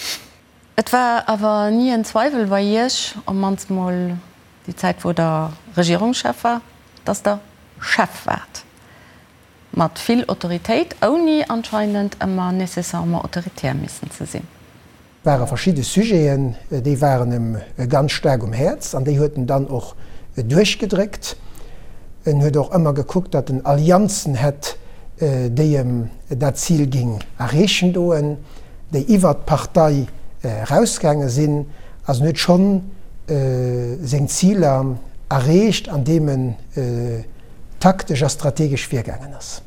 Et war awer ni en Zweiwel bei Iech, op mannst mol déi Zäit wou Der Regierungschef war, datt Der Chef waart. Mat vill Autoritéit, ouni anscheinend ëmmer nécessairement autoritär missen ze sinn. Ware verschidde Sujeten, déi waren em ganz staark um Häerz an déi huet en dann och duerchgedréckt. En huet och ëmmer gekuckt, datt en Allianzen hätt, déi em dat Zil géing erreechen doen, déi iwwert d'Partei erausgaange sinn. Also en huet schonn seng Ziler erreecht, andeem en taktesch a strategesch virgaangen ass.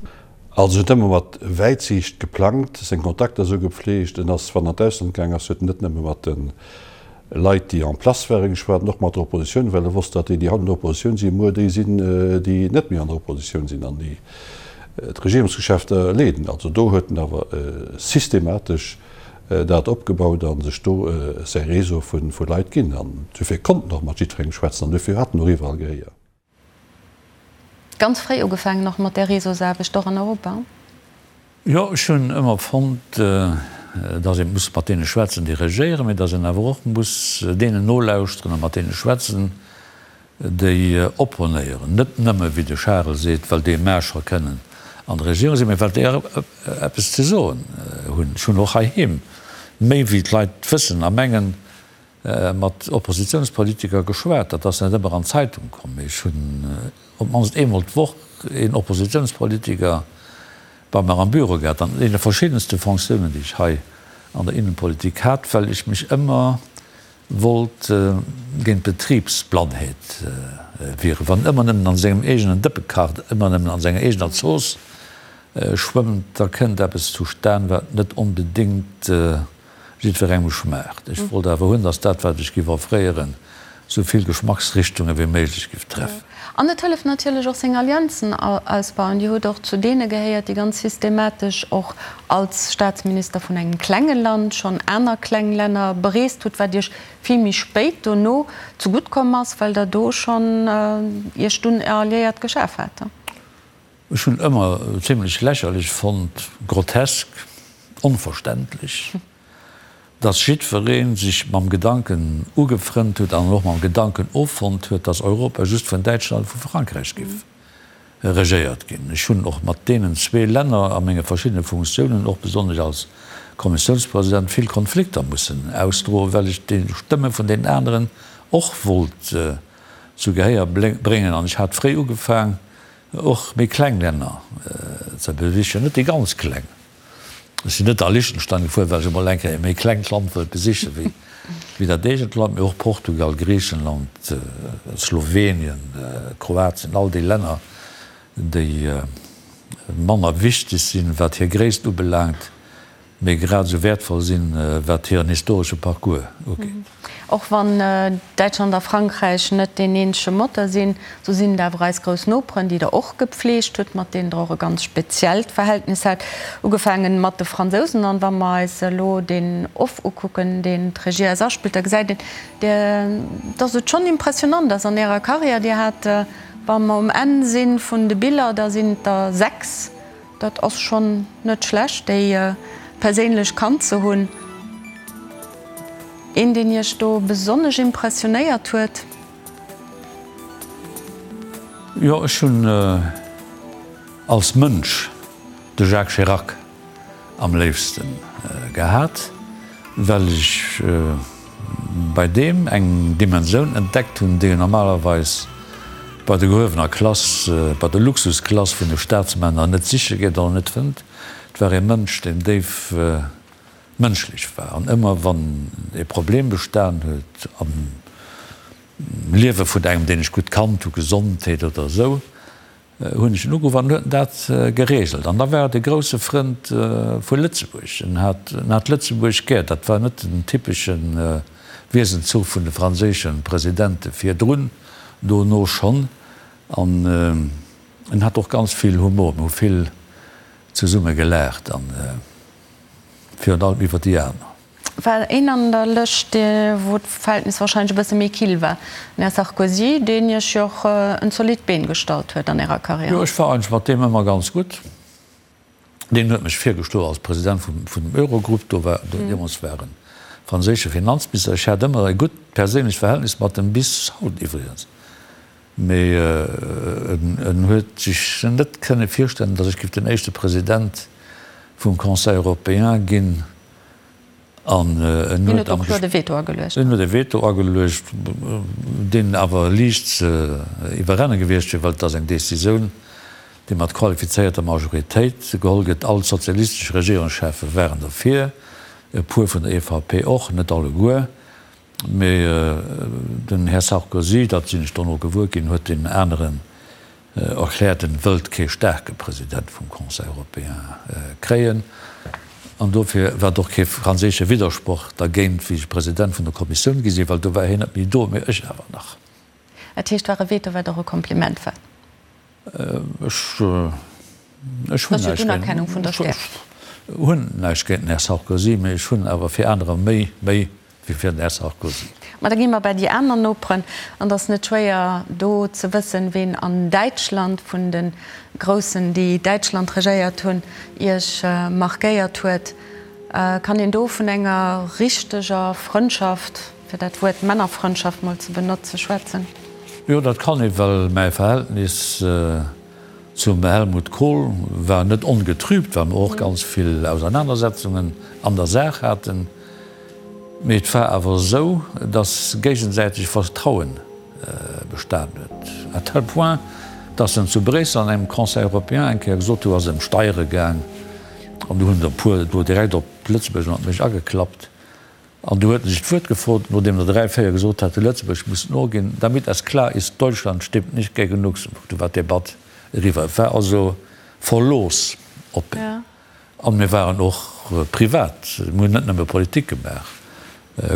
Also en huet ëmmer mat Wäitsiicht geplangt, seng Kontakter esou gepflegt. En ass, wann en an d'Ausland gaang ass, huet en net nëmme mat de Leit, déi en place waren, geschwat, an och mat der Oppositioun, well e wosst, datt déi, déi haut an der Oppositioun sinn, muer déi sinn, déi net méi an der Oppositioun sinn an déi d'Regierungsgeschäfter leeden. Also do huet en awer systematesch dat opgebaut a sech do säi Réseau vu Leit ginn. An dofir konnt en och mat jiddwerengem schwätzen an dofir hat en och iwwerall Gehéier. Ganz fréi ugefaangen och mat där Réseausaarbecht, och an Europa? Jo, ech hunn ëmmer fonnt, datt ee muss mat deene schwätzen, déi regéieren, mee datt een awer och muss deenen nolauschteren a mat deene schwätzen, déi opponéieren. Net nëmme, wéi de Charel seet, well déi mä scho kënnen an der Regierung sinn, mee well déi och eppes ze soen hunn. Ech hunn och heiheem méi wéi d'Leit wëssen a mengen, mat Oppositiounspolitiker geschwat. Dat ass net ëmmer an d'Zeitung komm, mee ech hunn op d'mannst eemol d'Woch een Oppositiounspolitiker bei mer am Büro gehat, an deene verschiddenste Fonctiounen, déi ech hei an der Innenpolitik hat, well ech mech ëmmer wollt géint d'Betribsblannheet wieren. Wann ëmmer nëmmen an sengem eegenen Dëppe kacht, ëmmer nëmmen an senger eegener Zooss schwëmmt, da kënnt eppes zustan, wat net onbedéngt jiddwerengem schmaacht. Ech wollt awer hunn, dass dat, wat ech giff offréieren, sou vill Geschmacksrichtunge wéi méiglech giff treffen. An et hëlleft natierlech och seng Allianzen ausbauen. Dir hutt och zu deene gehéiert, déi ganz systematesch och als Staatsminister vun engem klenge Land schonn aner kleng Länner bereest hutt, wat Iech vill méi spéit dono zegutt komm ass, well Der do schonn Iech dunn Alliéiert geschaf hat. Ech hunn ëmmer zimlech lächerlech fonnt, grotesk, onverständlech, dass jiddweree sech mam Gedanken ugefrënnt huet an och mam Gedanken offonnt huet, dass Europa just vun Däitschland a vu Frankräich giff regéiert ginn. Ech hunn och mat deenen zwee Länner a menge verschiddene Funktiounen, och besonnesch als Kommissiounspresident, vill Konflikter mussen ausdroen, well ech déi Stëmme vun deenen aneren och wollt zu Gehéier bréngen. An ech hat fréi ugefaang, Och méi kleng Länner ze besichen, net déi ganz kleng. Ech sinn net a Liechtenstein gefuer, well ech emol eng Kéier e méi klengt Land wëllt besiche wéi dat eegent Land, mee och Portugal, Griichenland, Slowenien, Kroatien, all déi Länner, déi manner wichteg sinn, wat hir Gréisst ubelaangt, mee grad esou wäertvoll sinn, wat hiren historesche Parcours ugeet. Och wann Däitschland a Frankräich net deen eenzege Moteur sinn, sou sinn et awer eis grouss Noperen, déi Der och gepfleegt hutt, mat deenen Der och e ganz speziellt Verhältnis hat, ugefaangen mat de Fransousen. An wa mer eis elo deen Off ukucken, deen d'Regie eis aspillt, da gesäit een, dass et schonn impressionant ass an Ärer Karriär. Dir hat, wa mer um Enn si vun de Biller, da sinn et der 6, Dat ass schonn net schlecht, déi perséinlech kannt ze hunn. Een, deen Iech do besonnesch impressionéiert huet? Jo, ech hunn als Mënsch de Jacques Chirac am léifste gehat, well ech bei deem eng Dimensioun entdeckt hunn, déi een normalerweis bei der gehuewener Klass, bei der Luxusklass vun de Staatsmänner net siche geet oder net fënnt. Et war ee Mënsch, deen déif mënschlech war an ëmmer wann ee Problem bestan huet am Liewe vun engem, deen ech gutt kannt hu, Gesondheet oder esou, hunn ech en ugeruff an en huet dat geregelt. An da war et e grousse Frënd vu Lëtzebuerg. En hat, en hat Lëtzebuerg gär. Dat war net den typesche Wiesenzuch vun de franséische Presidente virdrun, dono schonn. An en hat och ganz vill Humor. Mir hu vill zesumme gelaacht an virun allem iwwer déi aner. War een an der Lëscht, wou d'Verhältnis wahrscheinlech e bësse méi kill war, den Här Sarkozy, deen Iech jo och en zolidd Been gestallt huet an Ärer Karriär. Jo, ech war eigentlech mat deem ëmmer ganz gutt. Deen huet mech virgeschloen als President vum vun dem Eurogrupp. Do war, deemools war en franséische Finanzminister. Ech hat ëmmer e gutt perséinlecht Verhältnis mat em, bis haut iwwregens. Mee en huet sech net kënne virstellen, datt ech géif den éischte President vum Conseil européen ginn. An en huet am Hien huet e Veto ageluecht. En huet e Veto ageluecht, deen awer liicht ze iwwerrenne gewiescht wier, well et ass eng Decisioun, déi mat qualifizéierter Majoritéit geholl gëtt. All d'sozialistesch Regierungscheffe waren derfir, e puer vun der EVP och, net alleguer. Mee den Här Sarkozy, dat sinn ech dono gewuer ginn, huet deenen aneren erkläert, en wëllt kee staarke President vum Conseil européen kréien. An dofir war et och kee franséische Widdersproch dergéint, wéi ech President vun der Kommissioun gi sinn, well do war hien net méi do, mee ech awer nach. Dat heescht, war e Veto, wat och e Kompliment war? Ech hunn näischt géint den Här Sarkozy, mee ech hunn awer fir anerer méi Méi wéi fir den Här Sarkozy. Ma da gi mer bei déi aner Noperen. An et ass net schwéier do ze wëssen, ween an Däitschland vun de Groussen, déi Däitschland regéiert hunn, Iech markéiert huet. Kann een do vun enger richteger Frëndschaft, fir dat Wuert Männerfrëndschaft mol ze benotze, schwätzen? Jo, dat kann ee, well mäi Verhältnis zum Helmut Kohl war net ongetrübt, well mer och ganz vill Ausernanersetzungen an der Saach haten. Mee et war awer esou, datt géigesäiteg Vertrauen bestan huet, à tel point, datt en zu Bréissel an engem Conseil européen eng Kéier gesot huet, do ass et ëm Steiere gaang, an do hunn der e puer do direkt op Lëtzebuerg an op mech ageklappt, an du huet en sech d'Wuert gefrot, nodeem der 3, 4 gesot haten, Lëtzebuerg muss noginn, damit es klar ist, Deutschland stimmt nicht gegen Luxemburg. Du war d'Debatt eriwwer. Et war also Verlooss op en. An mir waren och privat, mir hunn net nëmme Politik gemaach.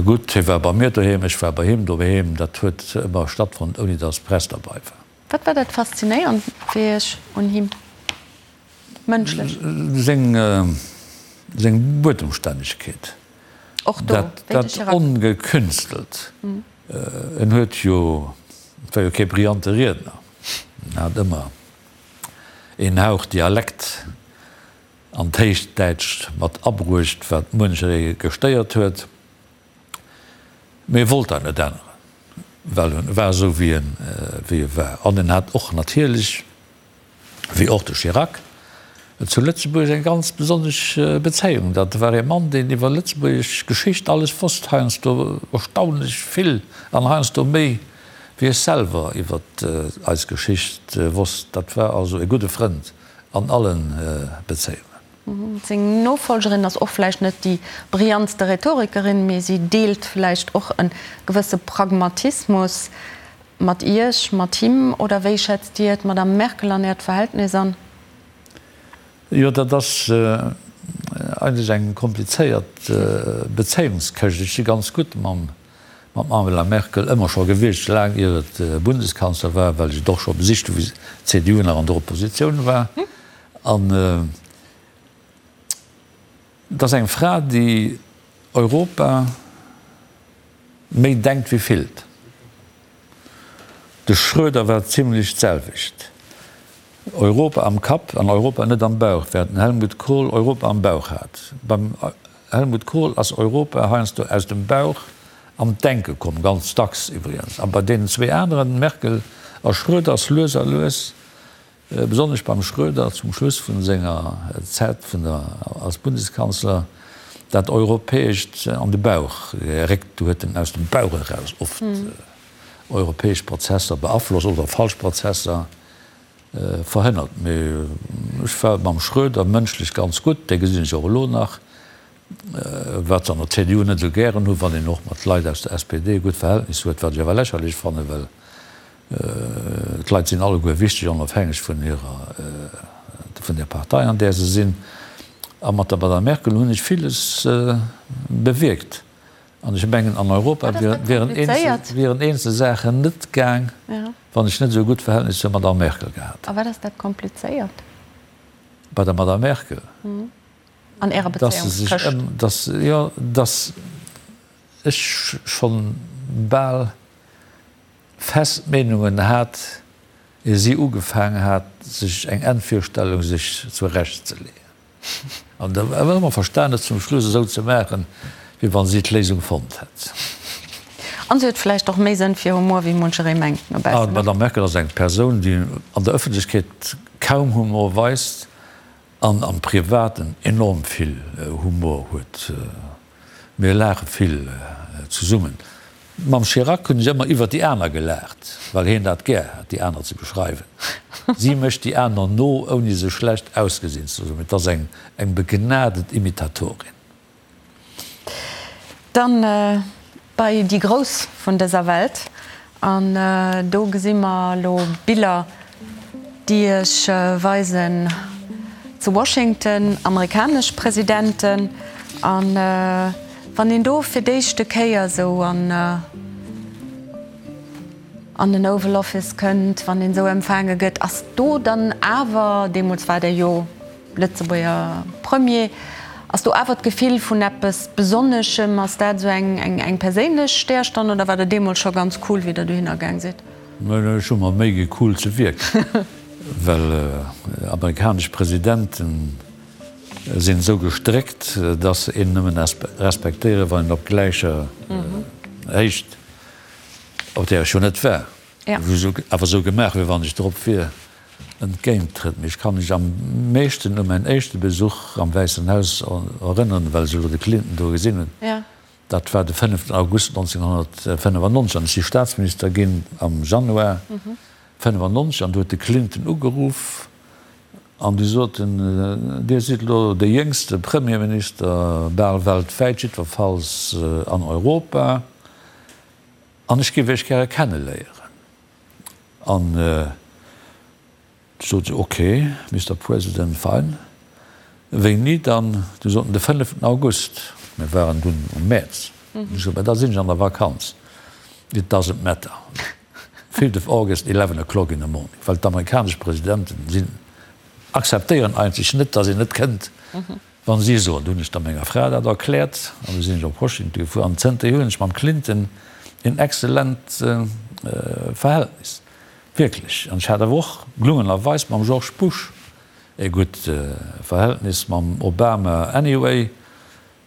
Gutt, hie war bei mir doheem, ech war bei him doheem, dat huet ëmmer stattfonnt, ouni datt d'Press derbei war. Wat war dat Faszinéierend fir Iech un him, mënschlech? Seng, seng Buedemstännegkeet. Och do, wéi de Chirac. Dat Ongekünstelt. En huet jo, et war jo kee brillante Riedner, en hat ëmmer een Hauch Dialekt an d'Héichdäitscht mat abruecht, wat muencheree gestéiert huet. Mee e wollt dat net änneren, well en war esou wéi en wéi e war. An en hat och natierlech, wéi och de Chirac, zu Lëtzebuerg eng ganz besonnesch Bezéiung. Dat war ee Mann, deen iwwer lëtzebuergesch Geschicht alles wosst, heiansdo erstaunlech vill an heiansdo méi wéi ech selwer iwwer eis Geschicht wosst. Dat war also e gudde Frënd an alle Bezéiungen. Seng Nofolgerin ass och vläicht net déi brillantste Rhetorikerin, mee si deelt vläicht och e gewësse Pragmatismus mat Iech, mat him. Oder wéi schätzt Dir d'Madame Merkel an Äert Verhältnis an? Jo, dat ass eigentlech eng komplizéiert Bezéiungskëscht. Ech si ganz gutt mam Angela Merkel ëmmer scho gewiescht, laang ier et Bundeskanzler war, well ech et och scho besicht hu wéi d'CDU nach an der Oppositioun war. An et ass eng Fra, déi Europa méi denkt wéi fillt. De Schröder war zimlech d'selwecht. Europa am Kapp an Europa net am Bauch, während den Helmut Kohl Europa am Bauch hat. Beim Helmut Kohl ass Europa heiansdo aus dem Bauch an d'Denke komm, ganz dacks iwwregens. A bei deenen zwee aneren, Merkel a Schröder, ass lues a lues, besonnesch beim Schröder zum Schluss vun senger Zäit vun der als Bundeskanzler, dat Europäescht an de Bauch geréckt. Do huet en aus dem Bauch eraus oft europäesch Prozesser beaflosst oder falsch Prozesser verhënnert. Mee ech war mam Schröder mënschlech ganz gutt, dee gesinn ech och elo nach, wat se an der CDU net esou gären hu wann een och mat Leit aus der SPD e gutt Verhältnis huet, wat ech awer lächerlech fannen, well d'Leit sinn alleguer wichteg, onofhängeg vun hirer, vun der Partei an där se sinn. A mat der Madame Merkel hunn ech villes bewierkt. An ech mengen, an Europa wieren eenzel Saachen net gaang, wann ech net esou e gutt Verhältnis zur Madame Merkel gehat hätt. A wat ass dat komplizéiert? Bei der Madame Merkel? An Ärer Bezéiungskëscht? Dass, jo, dass ech schonn bal fest Meenungen hat, ier si ugefaang hat, sech eng Endvirstellung sech zurecht ze leeën. An da awer ëmmer verstan, et zum Schluss esou ze maachen, wéi wann si d'Léisung fonnt hätt. An si huet vläicht och méi Sënn fir Humor, wéi muncheree mengt no baussen. D'Madame Merkel ass eng Persoun, déi an der Ëffentlechkeet kaum Humor weist an am Privaten enorm vill Humor huet. Mir laache vill zesummen. Mam Chirac hunn ech ëmmer iwwer déi aner gelaacht, well hien dat gär hat, déi aner ze beschreiwen. Si mécht déi aner no, ouni se schlecht ausgesinn ze loossen. Et ass eng begnadet Imitatorin. Dann bei déi Grouss vun dëser Welt. An do gesi mer elo Biller, déi Iech weisen zu Washington amerikanesch Presidenten. A wann een do fir d'éischte Kéier esou an an den Oval Office kënnt, wann een esou empfaange gëtt, ass do dann awer, deemools war Der jo Lëtzebuerger Premier, ass do awer d'Gefill vun eppes Besonneschem? Ass dat esou eng perséinlech Stärstonn oder war der deemools scho ganz cool, wéi der dohinner gaang sidd? Ech hu mer Méi gi cool ze wierken, well amerikanesch Presidenten sinn esou gestréckt, dass se een nëmmen respektéieren, wann een op gläicher Héicht, op där ech jo net war, awer esou gemaach, wéi wann ech drop wier, entgéint trëtt. Mee ech ka mech am meeschten u mäin éischte Besuch am Wäissen Haus erënneren, well ech elo de Clinton do gesinn hunn. Dat war de fënneften August 1995 an ech si Staatsminister ginn am Januar 95 an do huet de Clinton ugeruff an du sot en, Dir sidd elo de jéngste Premierminister bal weltwäit, jiddwerfalls an Europa, an ech géif Iech gäre kenneléieren. An du sot se, Ok, Mister President, fine. Wéini dann? Du sot en, De fënneften August. Mir waren dunn um Mäerz. Ech sot, Mä da sinn ech an der Vakanz. It doesn't matter. Fifth of August, eleven o'clock in the morning. Well d'amerikanesch Presidenten sinn, akzeptéieren eigentlech net, datt een net kënnt. Wann si soen, du hunn ech da menger Fra dat erkläert an du sinn ech op Washington gefuer an zënterhier hunn ech mam Clinton een excellent Verhältnis, wierklech. An ech hat awer och gelungenerweis mam George Bush e gutt Verhältnis, mam Obama anyway.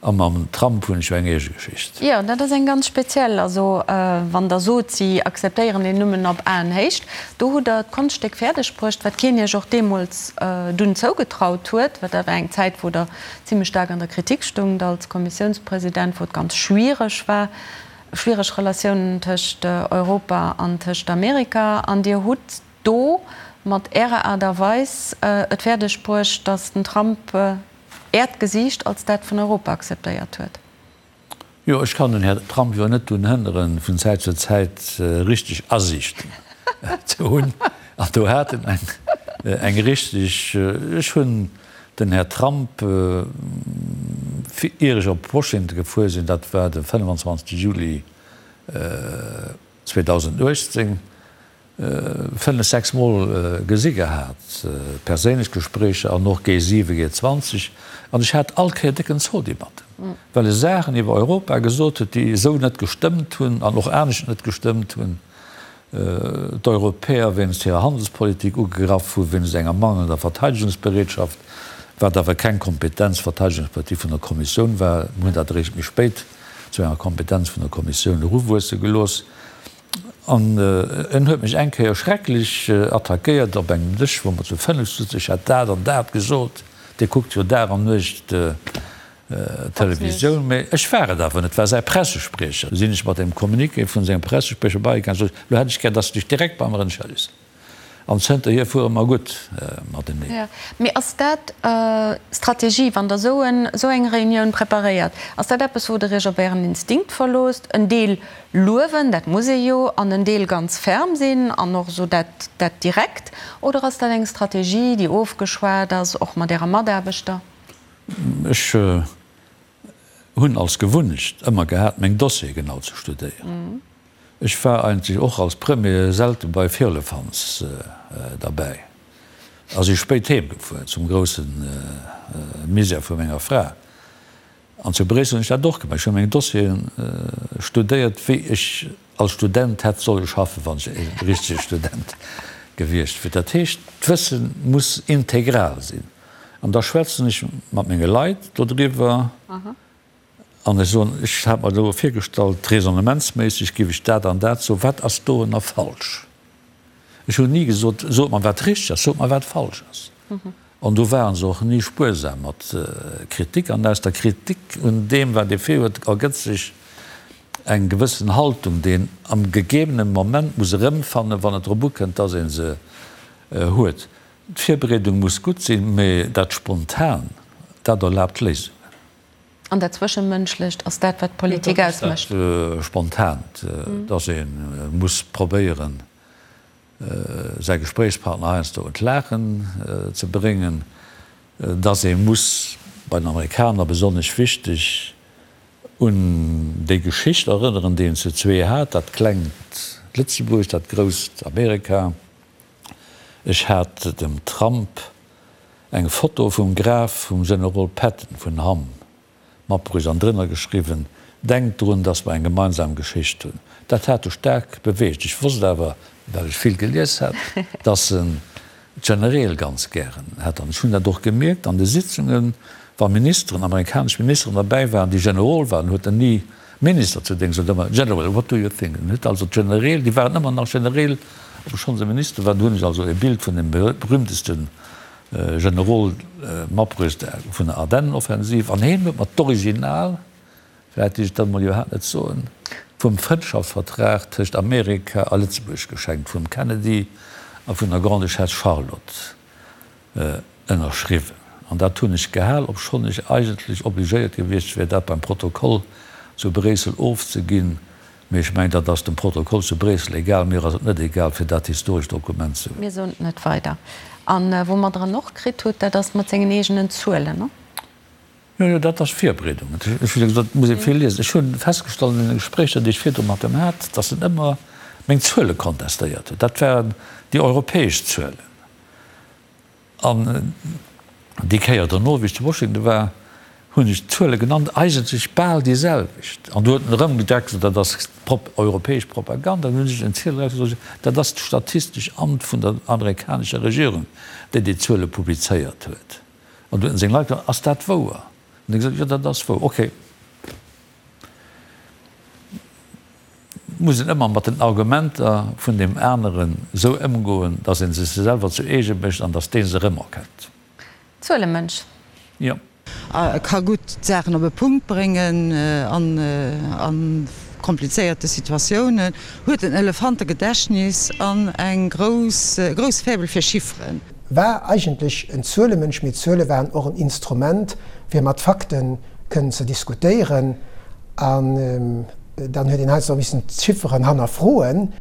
A mam Trump hunn ech jo eng eege Geschicht. Jo, dat ass eng ganz speziell. Also wann Der sot, si akzeptéieren een nëmmen op Aenhéicht, do hutt Der d'Konschtstéck fäerdeg bruecht, wat keen Iech och deemools dunn zougetraut huet, well dat war eng Zäit, wou Der zimlech staark an der Kritik stoungt als Kommissiounspresident, wou et ganz schwiereg war, schwiereg Relatiounen tëscht Europa an tëscht Amerika. An Dir hutt do mat Ärer Aart a Weis et fäerdeg bruecht, datt den Trump. Äert Gesiicht als dat vun Europa akzeptéiert huet. Jo, ech kann den Här Trump jo net drun hënneren, vun Zäit zu Zäit richteg Asiichten ze hunn. An do hat en eng richteg. Ech hunn den Här Trump, ier ech op Washington gefuer sinn, dat war de 25 Juli 2018, 5, 6 Mol gesi gehat, perséinlech Gespréicher an och G7, G20, an ech hat all Kéier décken Zodi mat em, well e Saachen iwwer Europa gesot huet, déi esou net gestëmmt hunn an och anescht net gestëmmt hunn, d'Europäer wéinst hirer Handelspolitik ugegraff hu wéinst enger mangelnder Verteidegungsbereetschaft, wat awer keng Kompetenz Verteidegungspolitik vun der Kommissioun war. Mir hunn dat eréischt méi spéit zu enger Kompetenz vun der Kommissioun eruwuesse gelooss. An en huet mech eng Kéier schrecklech attackéiert op engem Dësch, wou mer zu fënnef souzen, ech hätt dat an dat gesot, Dir kuckt jo Dag an Nuecht Televisioun. Mee ech war et awer net, et war säi Pressespriecher. Du sinn ech mat dem Communiqué vun sengem Pressespriecher beigaangen, sot ech, elo hätt ech gär, dass de dech direkt bei mer entschëllegs. An zënterhier fuere mer gutt mateneen. Jo, mee ass dat Strategie, wann Der esou en, esou eng Reunioun preparéiert? Ass dat eppes, wou Der Iech op Ären Instinkt verloosst, en Deel luewen, dat muss ee jo, an en Deel ganz ferm sinn an och esou dat, dat direkt? Oder ass dat eng Strategie, déi ofgeschwat ass, och mat Äre Mataarbechter? Ech hunn als Gewunnecht ëmmer gehat, meng Dossiere genau ze studéieren. Ech war eigentlech och als Premier selte bei Firlefanz derbäi a si spéit heem gefuer, zum grousse Misär vu menger Fra. An zu Bréissel hunn ech dat och gemaach. Ech hu meng Dossieren studéiert, wéi ech als Student hätt solle schaffen, wann ech e richtege Student gewiescht wier. Dat heescht, d'Wësse muss integral sinn. An da schwätzen ech mat menge Leit dodriwwer. An ech soen, ech hat mer elo virgestallt, raisonnementsméisseg géif ech dat an dat soen, wat ass dorënner falsch? Ech hunn ni gesot, sot mer wat richteg ass, sot mer wat falsch ass. An do ware se och ni spuersam mat Kritik. An aus der Kritik un deem, wat ee virhuet, ergëtt sech eng gewëssen Haltung, déi een am gegebene Moment muss erëmfannen, wann et drop ukënnt, dass ee se huet. D'Virbereedung muss gutt sinn, mä dat Spontan, dat erlaabt Léisungen. An dat Zwëschemënschlecht ass dat, wat d'Politik ausmécht. Dat Spontant, dass ee muss probéieren, säi Gespréichspartner heiansdo un d'Laachen ze bréngen, dass ee muss, bei den Amerikaner besonnesch wichteg, un déi Geschicht erënneren, déi een zu zwee hat, dat klengt Lëtzebuerg, dat grousst Amerika. Ech hat dem Trump eng Foto vum Graf vum Generol Patton vun Hamm matbruecht an drënner geschriwwen, Denkt drun, dass mer eng gemeinsam Geschicht hunn. Dat hat e staark beweegt. Ech wosst awer, well ech vill gelies hat, dass en d'Genereel ganz gären hätt. An ech hunn dat och gemierkt an de Sitzungen, wa Ministeren, amerikanesch Ministeren derbäi waren, déi Generol waren, huet en ni Minister zu Déngscht, huet ëmmer, General, what do you think? En huet also d'Genereel, déi waren ëmmer nach Genereel, obschonn se Minister waren. Do hunn ech also e Bild vun dem berühmtesten Generol matbruecht vun der Ardennenoffensiv. An heen huet mer d'Original, vläicht dierf ech dat emol iwwerhaapt net soen, vum Frëndschaftsvertrag tëscht Amerika a Lëtzebuerg geschenkt, vum Kennedy a vun der Grande-Duchesse Charlotte. Ënnerschriwwen. An dat hunn ech gehal, obschonn ech eigentlech obligéiert gewiescht wär, dat beim Protokoll zu Bréissel ofzeginn. Mee ech mengen, dat ass dem Protokoll zu Bréissel egal. Mir ass et net egal, fir dat historescht Dokument ze hunn. Mir soen et net weider. A wou mer dran och kritt hutt, dat ass mat sengen eegenen Zuelen, ne? Jo, jo, dat ass Virbereedung. Ech hu jo gesot, et muss ee vill liesen. Ech hu festgestallt an deene Gespréicher, déi ech virdru mat em hat, datt en ëmmer meng Zuele kontestéiert huet. Dat waren déi europäesch Zuelen. An déi Kéier dono, wéi ech zu Washington war, hunn ech d'Zuele genannt, eigentlech bal déi selwecht. An do huet en erëm gedacht, dat ass europäesch Propaganda. Dann hunn ech en Ziel erausgesot, dat ass d'Statistesch Amt vun der amerikanescher Regierung, déi déi Zuele publizéiert huet. An du huet en seng Leit gefrot, ass dat wouer? An déi gesot, jo, dat ass wouer. Okay. Muss een ëmmer mat den Argumenter vun deem aneren esou ëmgoen, datt ee se sech selwer zu eege mécht an datt dee se erëmerkennt. Zuelemënsch. Jo. E ka gutt d'Saachen op e Punkt bréngen a komplizéierte Situatiounen, huet en Elefantegedächtnis an eng grouss, e grousse Faible fir Chifferen. war eigentlech en Zuelemënsch, mee d'Zuele waren och en Instrument, fir mat Fakte kënnen ze diskutéieren. An dann huet een heiansdo och missen d'Chifferen hannerfroen.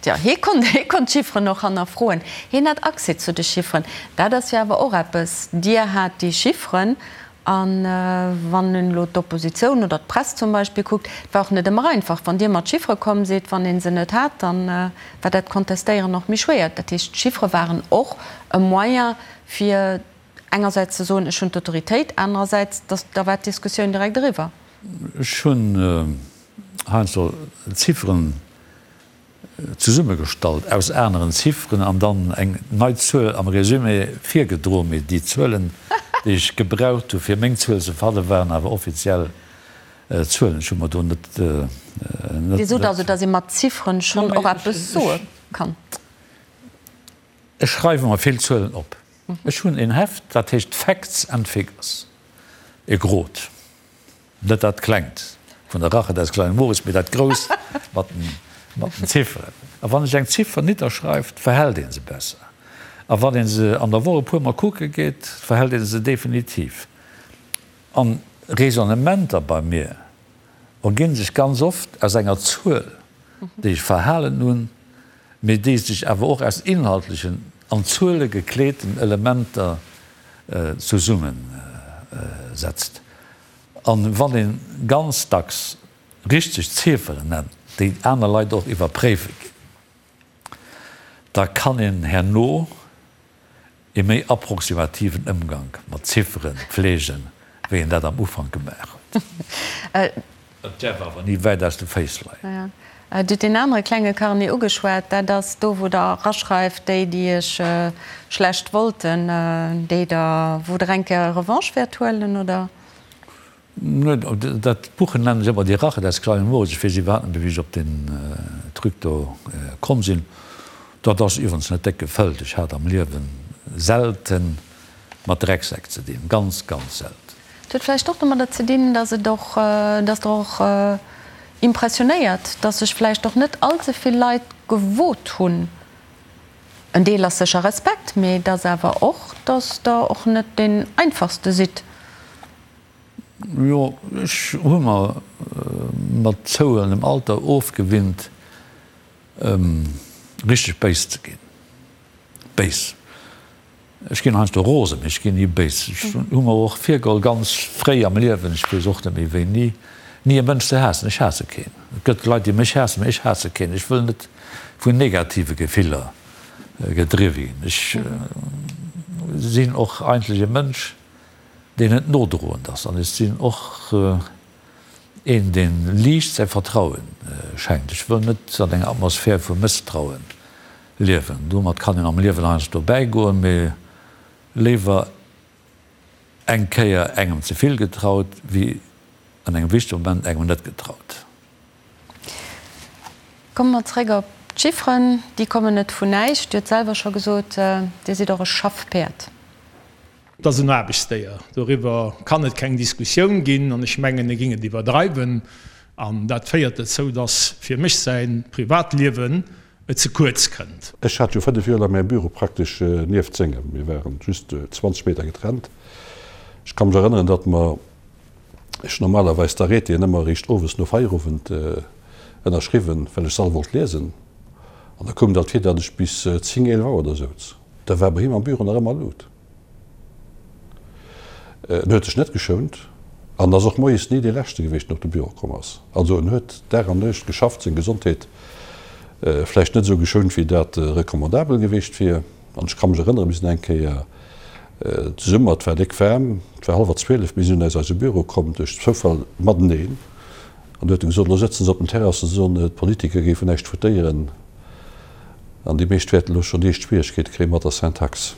Tja, hie konnt, hie konnt d'Chifferen och hannerfroen. Hien hat Accès zu de Chifferen. Dat ass jo awer och eppes. Dir hat déi Chifferen A wann een elo d'Oppositioun oder d'Press zum Beispill kuckt, et war och net ëmmer einfach, wann Dir mat Chiffere komm sidd, wann ee se net hat, da war dat Contestéieren och méi schwéier. Dat heescht, d'Chiffere waren och e Moyen, fir engersäits ze soen, ech hunn d'Autoritéit, anerersäits, dass da war d'Diskussioun direkt eriwwer. Ech hunn heiansdo Zifferen zesummegestallt aus aneren Zifferen an dann eng nei Zuel am Résumé virgedroen, mee déi Zuelen, déi ech gebraucht hu fir meng Zuel ze fannen, waren awer offiziell Zuelen. Ech hu mer do net. Dir sot also, datt ee mat Zifferen schonn och eppes soe kann? Ech schreiwe mer vill Zuelen op. Ech hunn een Heft, dat heescht Facts and Figures, e grot. Net dat Klengt vun der Rache des kleinen Moritz, mee dat Grousst mat den Zifferen. A wann ech eng Ziffer nidderschreift, verhält ee se besser. A wann ee se an der Woch e puer Mol kucke geet, verhält ee se definitiv. An Raisonnementer bei mir erginn sech ganz oft aus enger Zuel, déi ech verhalen hunn, mee déi sech awer och aus inhaltlechen, an Zuele gekleeten Elementer zesummesetzt. An wann een ganz dacks richteg Zifferen nennt, déi aner Leit och iwwerpréiwe ginn, da kann een herno ee méi approximativen Ëmgank mat Ziffere pflegen, wéi een dat am Ufank gemaach huet. Et däerf awer ni wäit aus de Féiss leien. Dir hutt deen anere klenge Carnet ugeschwat. Dat ass do, wou Der eraschreift, déi, déi Iech schlecht wollten, déi Der, wou Der eng Kéier Revanche wäert huelen, oder? Nee, dat Buch nennen ech ëmmer Die Rache des kleinen Moritz. Ech weess iwwerhaapt net méi, wéi ech op deen Truc do komm sinn. Dat ass iwwerens net déck gefëllt. Ech hat am Liewe selte mat Drecksäck ze dinn, ganz, ganz selten. Et huet vläicht och domadder ze dinn, dass et och, dass Der och impressionéiert, dass sech vläicht och net all ze vill Leit gewot hunn, en Deel ass sécher Respekt, mee et ass awer och, dass Der och net deen Einfachste sidd. Jo, ech hu mer mat zouhuelendem Alter ofgewinnt, richteg béis ze ginn. Béis. Ech ginn heiansdo rosen, mee ech ginn ni béis. Ech hu mer och virgeholl, ganz fréi am Liewen, ech weess och net méi wéini, ni e Mënsch ze haassen. Ech haasse keen. Et gëtt Leit, déi mech haassen, mee ech haasse keen. Ech wëll net vun negative Gefiller gedriwwe ginn. Ech sinn och eigentlech e Mënsch, deen net nodroend ass. An ech sinn och een, dee liicht säi Vertraue schenkt. Ech wëll net an enger Atmosphär vu Mësstrauen Liewen. Domat kann een am Liewen heiansdo bäigoen, mee léiwer eng Kéier engem ze vill getraut, wéi an engem wichtege Moment engem net getraut. Komme mer zréck op d'Chifferen. Déi kommen net vun näischt. Dir hutt selwer scho gesot, Dir sidd och e Schaffpäerd. Et ass en Aarbechtsdéier, doriwwer kann et keng Diskussioun ginn an ech mengen, e géing et iwwerdreiwen. An dat féiert dozou, dass fir mech säi Privatliewen ze kuerz kënnt. Ech hat jo 5 Joer laang mäi Büro praktesch nieft sengem, mir waren just 20 Meter getrennt. Ech ka mech erënneren, datt mer, ech normalerweis d'Arrêtéen ëmmer eréischt owes no Feierowend ënnerschriwwen, well ech se all wollt liesen, an da koum et alt vir, datt ech bis 10, 11 Auer do souz. Da war bei him am Büro nach ëmmer Lut. En huet sech net geschount an ass och moies ni dee Leschte gewiescht, deen op de Büro komm ass. Also en huet Dag an Nuecht geschafft, seng Gesondheet vläicht net esou geschount, wéi dat recommandabel gewiescht wier. An ech ka mech erënneren, mir sinn eng Kéier zesummen, et war déck waarm, et war hallwer 12, mir sinn aus eise Büro komm, duerch Zoufall mateneen, an du huet e gesot, elo sëtzen se op den Terrassen, soen, d'Politiker géifen näischt votéieren. An déi meescht wäerten elo schonn déi éischt Schwieregkeete kréie mat der Syntax.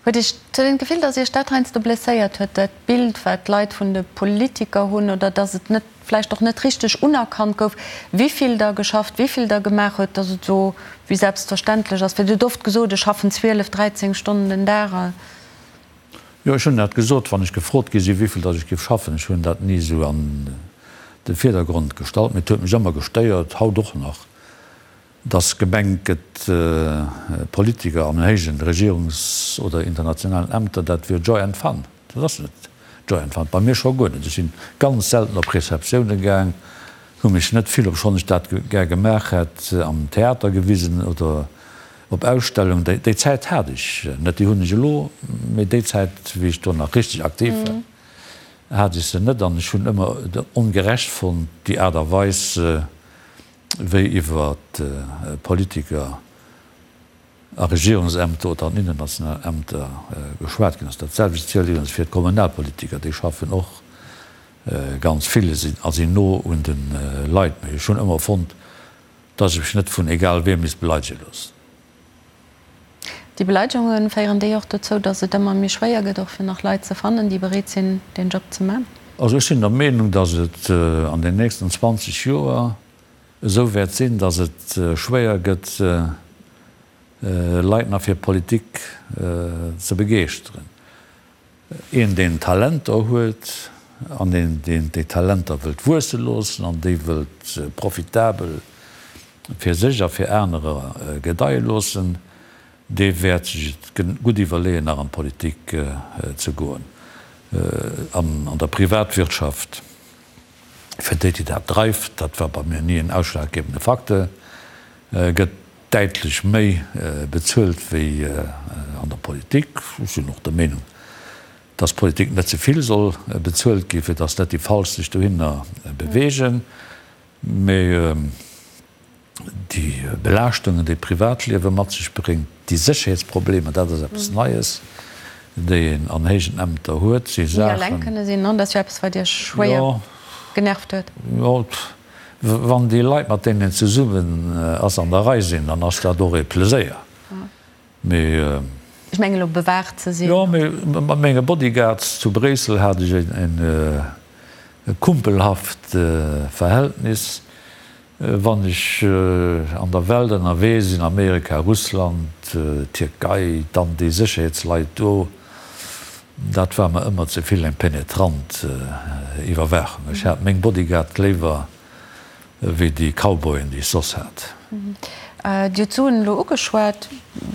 Huet Iech den Gefill, datt Iech dat heiansdo blesséiert huet, dat Bild, wat d'Leit vun de Politiker hunn, oder datt et net, vläicht och net richteg unerkannt gouf, wéi vill Der geschafft, wéi vill Der gemaach huet, datt et esou wéi selbstverständlech ass? Well Dir hutt oft gesot, ech schaffen 12, 13 Stonnen den Dag. Jo, ech hunn dat gesot, wann ech gefrot gi sinn, wéivill datt ech géif schaffen. Ech hunn dat ni esou an de Virdergrond gestallt, mee et huet mech ëmmer gestéiert, haut och nach. Dass gemengt gëtt, Politiker an héijen Regierungs oder internationalen Ämter, dat wier Joy and Fun. Dat ass net Joy and Fun. Bei mir scho guer net. Ech sinn ganz selten op Receptioune gaang, hu mech net vill, obschonn ech dat gär gemaach hätt, am Theater gewisen oder op Ausstellungen. Déi Zäit hat ech net. Déi hunn ech elo, mee déi Zäit, wéi ech do nach richteg aktiv war, hat ech se net. An ech hunn ëmmer et ongerecht fonnt, déi Aart a Weis, wéi iwwer Politiker a Regierungsämter oder an internationalen Ämter geschwat ginn ass. Dat selwecht zielt iwwregens fir d'Kommunalpolitiker, déi schaffen och ganz vill a sinn no un de Leit. Mee ech hunn ëmmer fonnt, datt ech mech net vun egal wiem misst beleidege loossen. Déi Beleidegunge féieren déi och dozou, datt et ëmmer méi schwéier gëtt, och fir nach Leit ze fannen, déi bereet sinn, deen Job ze man? Also ech sinn der Meenung, datt et an den nächsten 20 Joer esou wäert sinn, datt et schwéier gëtt, Leit nach fir Politik ze begeeschteren. Een, deen Talenter huet an een, deen déi Talenter wëllt wuesse loossen an déi wëllt profitabel fir sech a fir anerer gedeie loossen, dee wäert sech et gutt iwwerleeën, nach an d'Politik ze goen. An der Privatwirtschaft, fir déi, déi dat dreift, dat war bei mir ni en ausschlaggebende Facteur, gëtt däitlech méi bezuelt wéi an der Politik. Ech sinn och der Meenung, dass d'Politik net ze vill soll bezuelt ginn, fir dass net déi Falsch sech dohinner beweegen. Mee déi Belaaschtungen, déi d'Privatliewe mat sech bréngt, déi Sécherheetsproblemer, dat ass eppes Neies, déi een an héijen Ämter huet, si Saachen. Ni eleng kënne sinn, dat ass jo eppes, wat Iech schwéier genervt huet. Jo, Wann déi Leit, mat deenen een zesummen ass, an der Rei sinn, dann ass dat och ee Pleséier. Mee. Ech mengen elo bewaacht ze sinn. Jo, mee mat menge Bodyguards zu Bréissel hat ech e kumpelhaft Verhältnis. Wann ech an der Welt ënnerwee sinn, Amerika, Russland, Tierkei, dann déi Sécherheetsleit do, Dat war mer ëmmer ze vill eng penetrant Iwwerwaachung. Ech hat meng Bodyguard léiwer wéi déi Cowboyen, déi ech soss hat. Dir hutt d'Suen elo ugeschwat.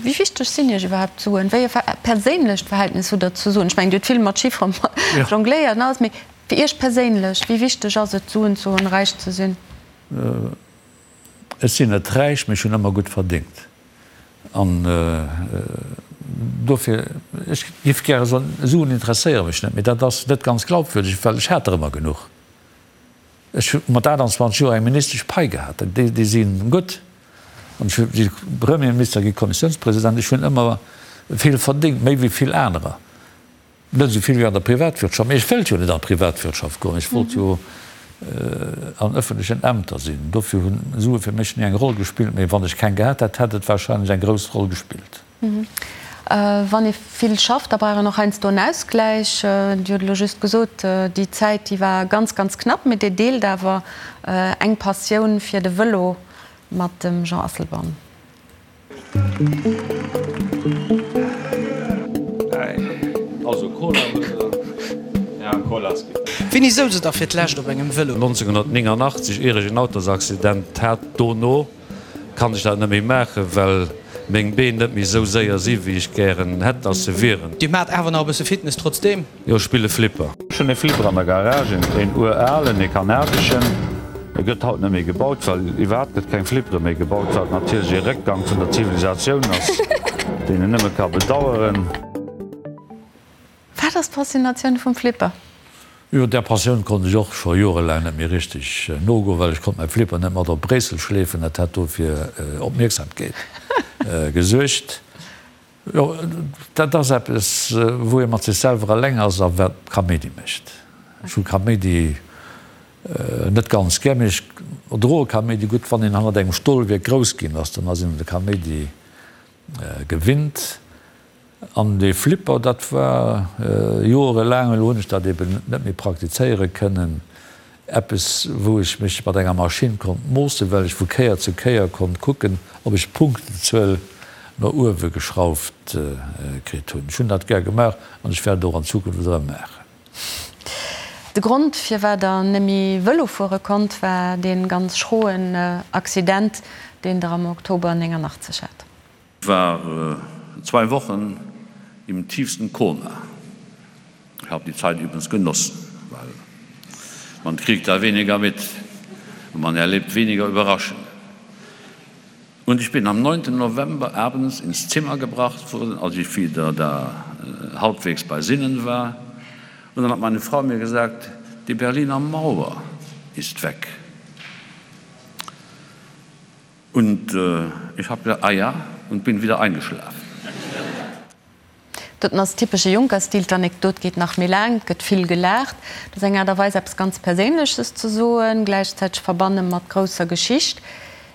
Wéi wichteg sinn Iech iwwerhaapt d'Suen? Wéi e perséinlecht Verhältnis hutt Der zu Suen? Ech mengen, Dir hutt vill mat Chiffere jongléiert an alles, mee fir Iech perséinlech, wéi wichteg ass et, Suen ze hunn, räich ze sinn? Ech sinn net räich, mee ech hunn ëmmer gutt verdéngt. An dofir, ech géif gäre soen, Suen interesséiere mech net, mee dat ass net ganz glaubwürdeg, well ech hat der ëmmer genuch. Ech hu mat 28 Joer eng ministesch Pai gehat, déi si gutt. An ech si Premierminister gi, Kommissiounspresident, ech hunn ëmmer vill verdéngt, méi wéi vill anerer. Net esou vill wéi an der Privatwirtschaft, mee ech wëllt jo net an d'Privatwirtschaft goen, ech wollt jo an ëffentlechen Ämter sinn. Dofir hunn Sue fir mech ni eng Roll gespillt, mee wann ech keng gehat hätt, hätt et warscheinlech eng grouss Roll gespillt. Wann ee vill schafft, da brauch een och heiansdo en Ausgläich. Dir hutt elo just gesot, déi Zäit, déi war ganz, ganz knapp, mee Dir deelt awer eng Passioun fir de Vëlo mat dem Jean Asselborn. Wéini souz et da fir d'lescht op engem Vëlo? 1989, ier ech en Autosaccident hat, dono kann ech dat net méi maachen, well meng Been net méi esou séier si wéi ech gären hätt, dass se wieren. Dir maacht awer nach e bësse Fitness trotzdeem? Jo, ech spille Flipper. Ech hunn e Flipper an der Garage, een uralen, ee kanadeschen. E gëtt haut net méi gebaut, well iwwerhaapt gëtt keng Flippere méi gebaut, wat natierlech ee Réckgang vun der Zivilisatioun ass, deen een nëmme ka bedaueren. Wat ass d'Faszinatioun vum Flipper? Jo, där Passioun konnt ech och scho jorelaang net méi richteg nogoen, well ech konnt mäi Flipper net mat op Bréissel schleefen, dat hätt do fir Opmierksamkeet gesuergt. Jo, dat ass eppes, wou ee mat sech selwer eleng ass a wat Kaméidi mécht. Ech hu Kaméidi net ganz gär, mee ech erdroe Kaméidi gutt. Wann een hannert engem Stolwierk grouss ginn ass, dann ass een un de Kaméidi gewinnt. An dee Flipper, dat war joerelaang, elo hunn ech dat eben net méi praktizéiere kënnen, Eppes, wou ech mech mat enger Maschinn konnt moossen, well ech vu Kéier zu Kéier konnt kucken, ob ech d'Punktenzuel no uewe geschrauft kritt hunn. Ech hunn dat gär gemaach an ech wäert et och an Zukunft erëm maachen. De Grond, firwat Der net méi Vëlo fuere konnt, war dee ganz schroen Accident. deen Der am Oktober 89 hat. War zwei Wochen im tiefsten Koma. Ich habe die Zeit übrigens genossen, weil man kriegt da weniger mit und man erlebt weniger Überraschungen. Und ich bin am 9. November abends ins Zimmer gebracht worden, als ich wieder da äh, halbwegs bei Sinnen war. Und dann hat meine Frau mir gesagt, die Berliner Mauer ist weg. Und äh, ich habe gesagt, ah ja und bin wieder eingeschlafen. Dat ass typesche Juncker-Stil, d'Anekdot geet nach méi laang, et gëtt vill gelaacht. Dat ass eng Aart a Weis eppes ganz Perséinleches ze soen, gläichzäiteg verbanne mat grousser Geschicht.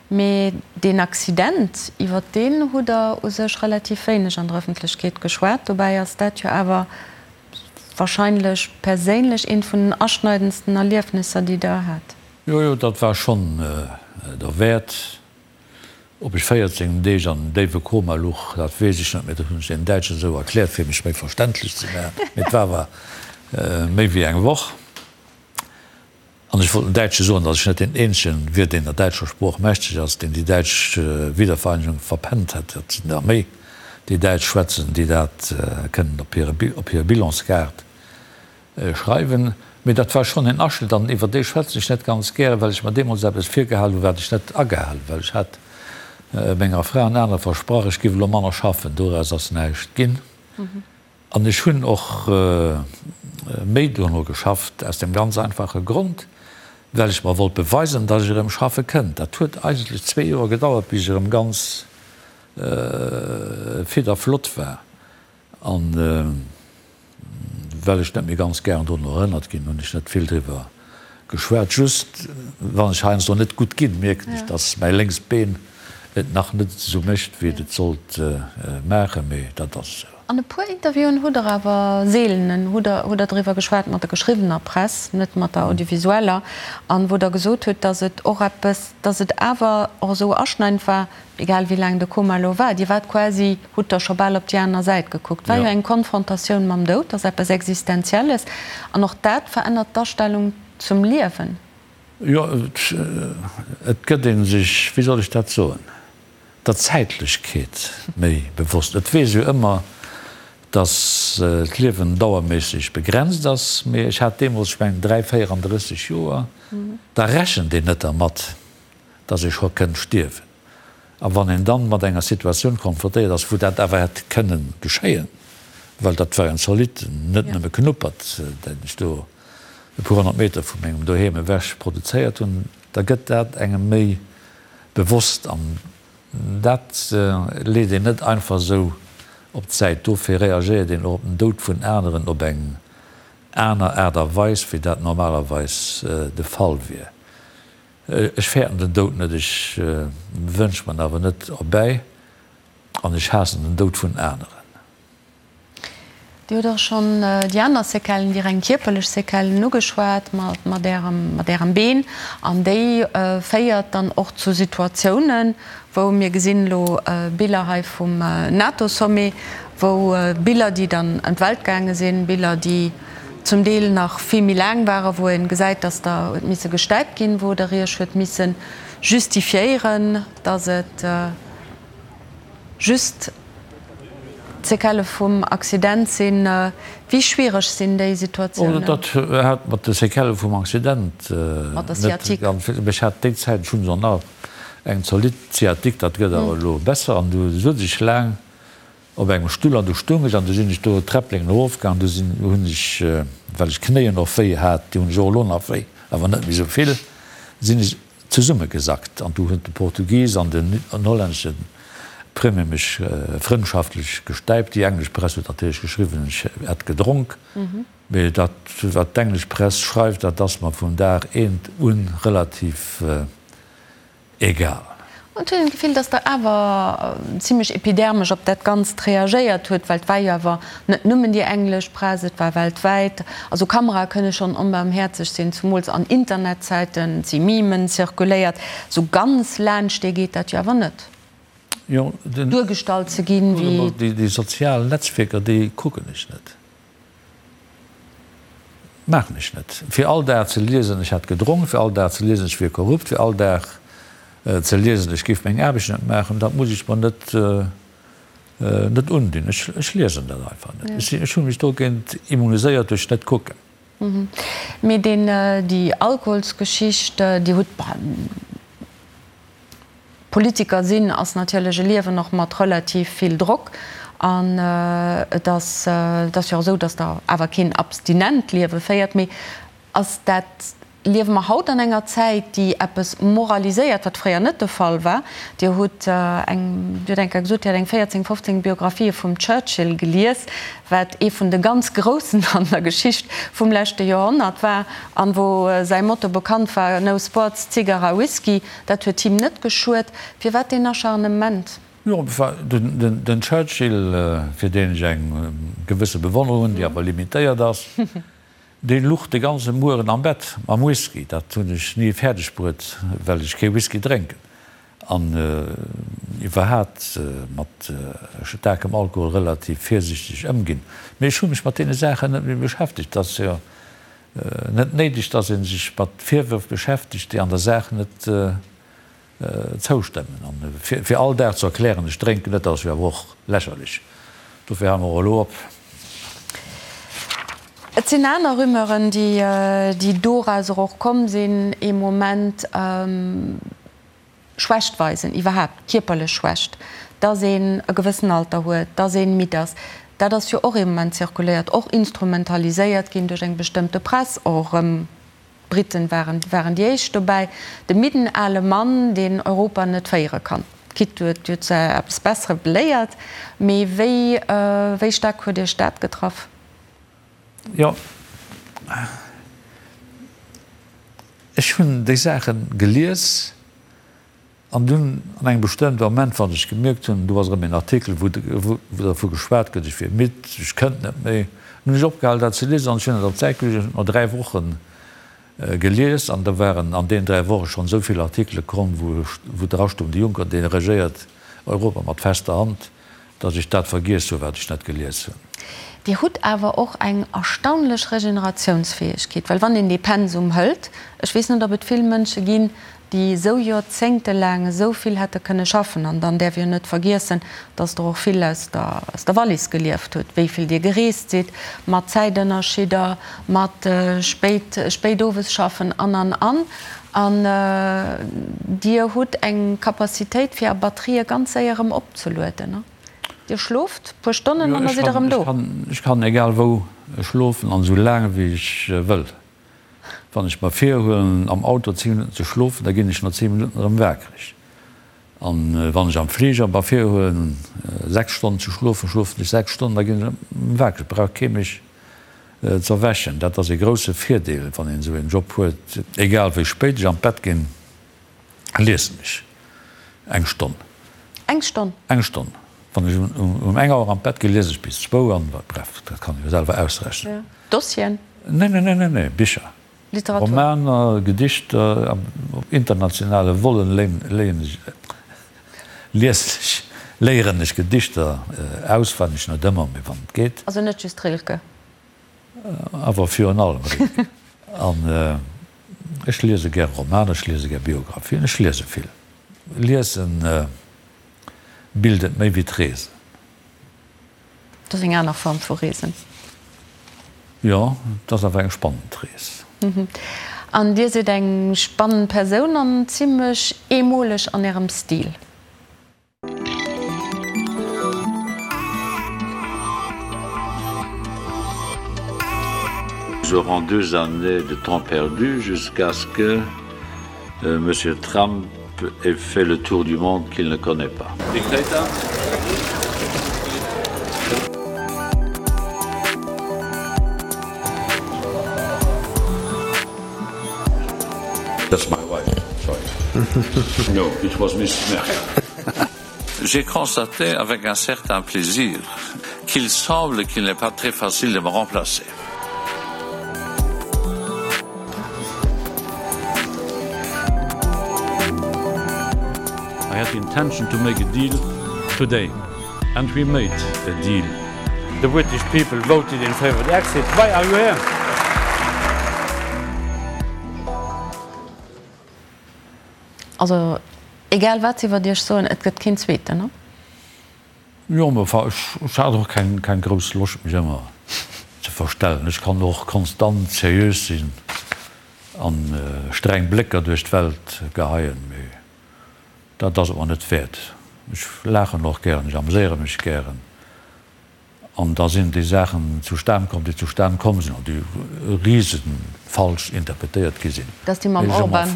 Mee deen Accident, iwwer deen hutt Der u sech relativ wéineg an der Ëffentlechkeet geschwat. Dobäi ass dat jo awer wahrscheinlech perséinlech eent vun den aschneidendsten Erliefnisser, déi Der hat. Jo, jo, dat war schonn derwäert. Ob ech 14 Deeg an engem déiwe Koma luch, dat weess ech net méi. Dat hunn ech deenen Däitschen esou erkläert, fir mech méi verständlech ze maachen. Mee et war awer méi wéi eng Woch. An ech wollt den Däitsche soen, datt ech net deen eenzegen wier, deen der däitscher Sprooch mächteg ass, deen déi däitsch Wiedervereinigung verpennt hätt. Et sinn der méi, déi Däitsch schwätzen, déi dat kënnen op hir Bilanskaart Schreiwen, mee dat war schonn en Aschnëtt an iwwer dee schwätzen ech net ganz gären, well ech mer deemools eppes virgehal hunn, wat ech net agehal hunn, well ech hat menger Fra an anere versprach, ech giff elo manner schaffen. Doraus ass näischt ginn an ech hunn och méi dono geschafft, aus dem ganz einfache Grond, well ech mer wollt beweisen, datt ech erëm schaffe kënnt. Dat huet eigentlech zwee Joer gedauert, bis ech erëm ganz fit a flott war. An well ech net méi ganz gären drun erënnert ginn, hunn ech net vill driwwer geschwat. Just wann ech heiansdo net gutt ginn, mierken ech, dass mäi lénkst Been et nach net esou mécht, wéi et et sollt maachen. Mee dat ass esou. An e puer Interviewen hutt Der awer, seelenen, hutt Der, hutt Der driwwer geschwat mat der geschriwwener Press, net mat der audiovisueller, an wou Der gesot hutt, dass et och eppes, dass et awer och esou aschneidend war, Egal wéi laang de Koma elo war, Dir waart quasi, hutt der scho bal op déi aner Säit gekuckt. War jo eng Konfrontatioun mam Doud, ass eppes Existenzielles an och dat verännert d'Astellung zum Liewen. Jo, et gëtt ee sech, wéi soll ech dat soen, der Zäitlechkeet méi bewosst. Et weess jo ëmmer, datt d'Liewen dauerméisseg begrenzt ass, mee ech hat deemools, ech mengen, 3, 34 Joer, da rechent een net dermat, dass ee scho kënnt stierwen. A wann een dann mat enger Situatioun konfrontéiert ass, wou dat awer hätt kënnen geschéien, well dat war en zolidd, net nëmme Knuppert, deen ech do e puer 100 Meter vu mengem Doheem ewech produzéiert hunn, da gëtt dat engem méi bewosst. An dat leet een net einfach esou op d'Säit. Dofir reagéiert een och op den Doud vun aneren op eng aner Aart a Weis, wéi dat normalerweis de Fall wier. Ech fäerten den Doud net, ech wënsch mer en awer net erbäi an ech haassen den Doud vun aneren. Dir hutt och schonn déi aner Séquellen, déi reng kierperlech Séquellen ugeschwat mat Ärem, mat Ärem Been. An déi féiert dann och zu Situatiounen, wou mir gesinn elo Biller hei vum NATO-Sommet, wou Biller, déi dann ëm d'Welt gaange sinn, Biller, déi zum Deel nach vill méi laang waren, wou ee gesäit, dass der huet misse gestäipt ginn, wou der Iech huet misse justifiéieren, dass et just d'Séquellë vum Accident sinn. Wéi schwiereg sinn déi Situatiounen? Dat hat mat de Séquellë vum Accident net ganz vill. Ech hat déi Zäit, ech hunn se nach, eng zolidd Sciatique, dat gëtt awer elo besser, an du sot ech laang, Op engem Stull an du stung ech an du sinn ech do d'Träppleng erofgaang, du sinn, hunn ech, well ech d'Knéien och wéi hat, déi hunn ech och elo nach wéi, awer net méi esou vill, sinn ech zesummegesackt an du huet de Portugis an den hollännesche Premier mech frëndschaftlech gestäipt. Déi englesch Press huet natierlech geschriwwen, ech hätt gedronk, mee dat wat d'englesch Press schreift, dat ass mer vun Dag eent un relativ Egal. An et huet een d'Gefill, datt Der awer zimlech epidermesch op dat Ganzt reagéiert huet, well et war jo awer net nëmmen déi englesch Press, et war weltwäit. Also Kamerae kënne schonn onbarmhäerzeg sinn, zumools an Internetzäiten, et si Memen zirkuléiert. Sou ganz laanscht dee geet dat jo awer net, duergestallt ze ginn, wéi. Déi sozial Netzwierker, déi kucken ech net. Maachen ech net. Fir all Dag ze liesen, ech hätt gedronk, fir all Dag ze liesen, ech wier korrupt, fir all Dag. ze liesen, ech géif meng Aarbecht net maachen, dat muss ech mer net net undinn. Ech ech liesen dat einfach net. Ech ech hu mech dogéint immuniséiert duerch net kucken. Mee deen déi Alkoholsgeschicht, Dir hutt, Politiker sinn ass natierlech e Liewen och mat relativ vill Drock an et ass et ass jo och esou, datt Der awer keen abstinent Liewe féiert. Mee ass dat, liewe mer haut an enger Zäit, déi eppes moraliséiert, wat fréier net de Fall war? Dir hutt eng, Dir hutt eng Kéier gesot, Dir hätt eng 14, 15 Biographië vum Churchill gelies, wat ee vun de ganz Groussen an der Geschicht vum leschte Joerhonnert war an wou säi Motto bekannt war, No sports, cigarra, whisky. Dat huet him net geschuet. Firwat deen Acharnement? Jo, den Churchill, fir deen ech eng gewësse Bewonnerung hunn, déi awer limitéiert ass, dee luch de ganze Mueren am Bett mam Whisky. Dat hunn ech ni fäerdeg bruet, well ech kee Whisky drénken an iwwerhaat mat staarkem Alkohol relativ virsichteg ëmginn. Mee ech hu mech mat deene Saachen net méi beschäftegt. Et ass jo net néideg, dass ee sech mat Virwërf beschäftegt, déi an der Saach net zoustëmmen. An fir all Dag ze erklären, ech drénken net, dat ass jo awer och lächerlech. Dofir hale mer och elo op. Et sinn aner Rumeuren, déi dorauser och komm sinn, ee Moment Schwächt weisen, iwwerhaapt kierperlech Schwächt, dass een e gewëssen Alter huet, dass ee midd ass, dat ass jo och ee Moment zirkuléiert, och instrumentaliséiert ginn duerch eng bestëmmte Press, och erëm d'Briten waren, waren déi éischt dobäi, de midden ale Mann, deen Europa net féiere kann. Quitte huet jo zu eppes Besserem beléiert, mee wéi, wéi staark huet Iech dat getraff? Jo, ech hunn déi Saache gelies an dunn an engem bestëmmte Moment, wann ech gemierkt hunn, do ass erëm een Artikel, wou dervu geschwat gëtt, ech wier midd, ech kënnt net méi, hunn ech opgehal dat ze liesen an ech hunn dat op d'Säit geluecht. Ech hunn et no 3 Woche gelies an da waren an deenen 3 Woche schonn esou vill Artikele komm, wou drastoung, de Juncker, dee regéiert Europa mat fester Hand. Datt ech dat vergiess hu wat ech net gelies hunn. Dir hutt awer och eng erstaunlech Regeneratiounsfäegkeet, well wann een dee Pensum hëlt, ech weess net ob et vill Mënsche ginn, déi esou joerzéngtelaang esou vill hätte kënne schaffen. An dann däerf een jo net vergiessen, datt Der och vill aus der aus der Wallis gelieft hutt, wéi vill Dir gereest sidd, mat Zäitënnerschidder, mat spéit spéit owes schaffen an an an. An Dir hutt eng Capacitéit fir Är Batterië ganz séier erëm opzelueden. Dir schloft puer Stonnen an da sidd Der erëm do. Ech kann egal wou schlofen an esou laang wéi ech wëll. Wann ech mer virhuelen am Auto 10 Minutten ze schlofen, da ginn ech no 10 Minutten erëm wakereg. An wann ech am Fliger mer virhuelen 6 Stonnen ze schlofen, schlofen ech 6 Stonnen, da ginn ech erëm wakereg. Brauch kee mech z'erwächen. Dat ass ee grousse Virdeel, wann een esou een Job huet. Egal wéi spéit ech an d'Bett ginn, liesen ech eng Stonn. Eng Stonn? Eng Stonn. Wann ech um eng Auer an d'Bett ginn, liese ech bis zwou an, bref, dat kann ee jo selwer ausrechnen. Dossieren? Nee, nee, nee, nee, nee, Bicher. Literatur. Romaner, Gedichter, op internationale Vollen léien ech, liesen ech, léieren ech Gedichter auswenneg, net ëmmer, mee wann et geet. Also net just Rilke? Awer virun allem Rilke. An ech liese gär Romaner, ech liese gär Biographien, ech liese vill. Liesen bildet méi wéi d'Reesen. Dat ass eng aner Form vu Reesen. Jo, et ass awer eng spannend Rees. An Dir sidd eng spannend Persoun an zimlech eemoleg an Ärem Stil. Nous aurons deux années de temps perdu jusqu'à ce que Monsieur Trump ait fait le tour du monde qu'il ne connaît pas. Dictator? That's my wife, sorry. No, it was Mrs. Merkel. J'ai constaté avec un certain plaisir qu'il semble qu'il n'est pas très facile de me remplacer. I had the intention to make a deal today and we made a deal. The British people voted in favour of the exit. Why are you here? Also. Egal wat se iwwert Iech soen, et gëtt keen Zweeten, ne? Jo, mä enfin, ech hat och keng, keng grouss Loscht mech ëmmer ze verstellen. Ech kann och konstant seriös sinn an streng Blécker duerch d'Welt geheien, mee dat ass et mer net wäert. Ech laachen och gären, ech ameséiere mech gären an da sinn déi Saachen zustan komm, déi zustan komm sinn an déi riesenfalsch interpretéiert gi sinn. Dat ass déi mam Orban.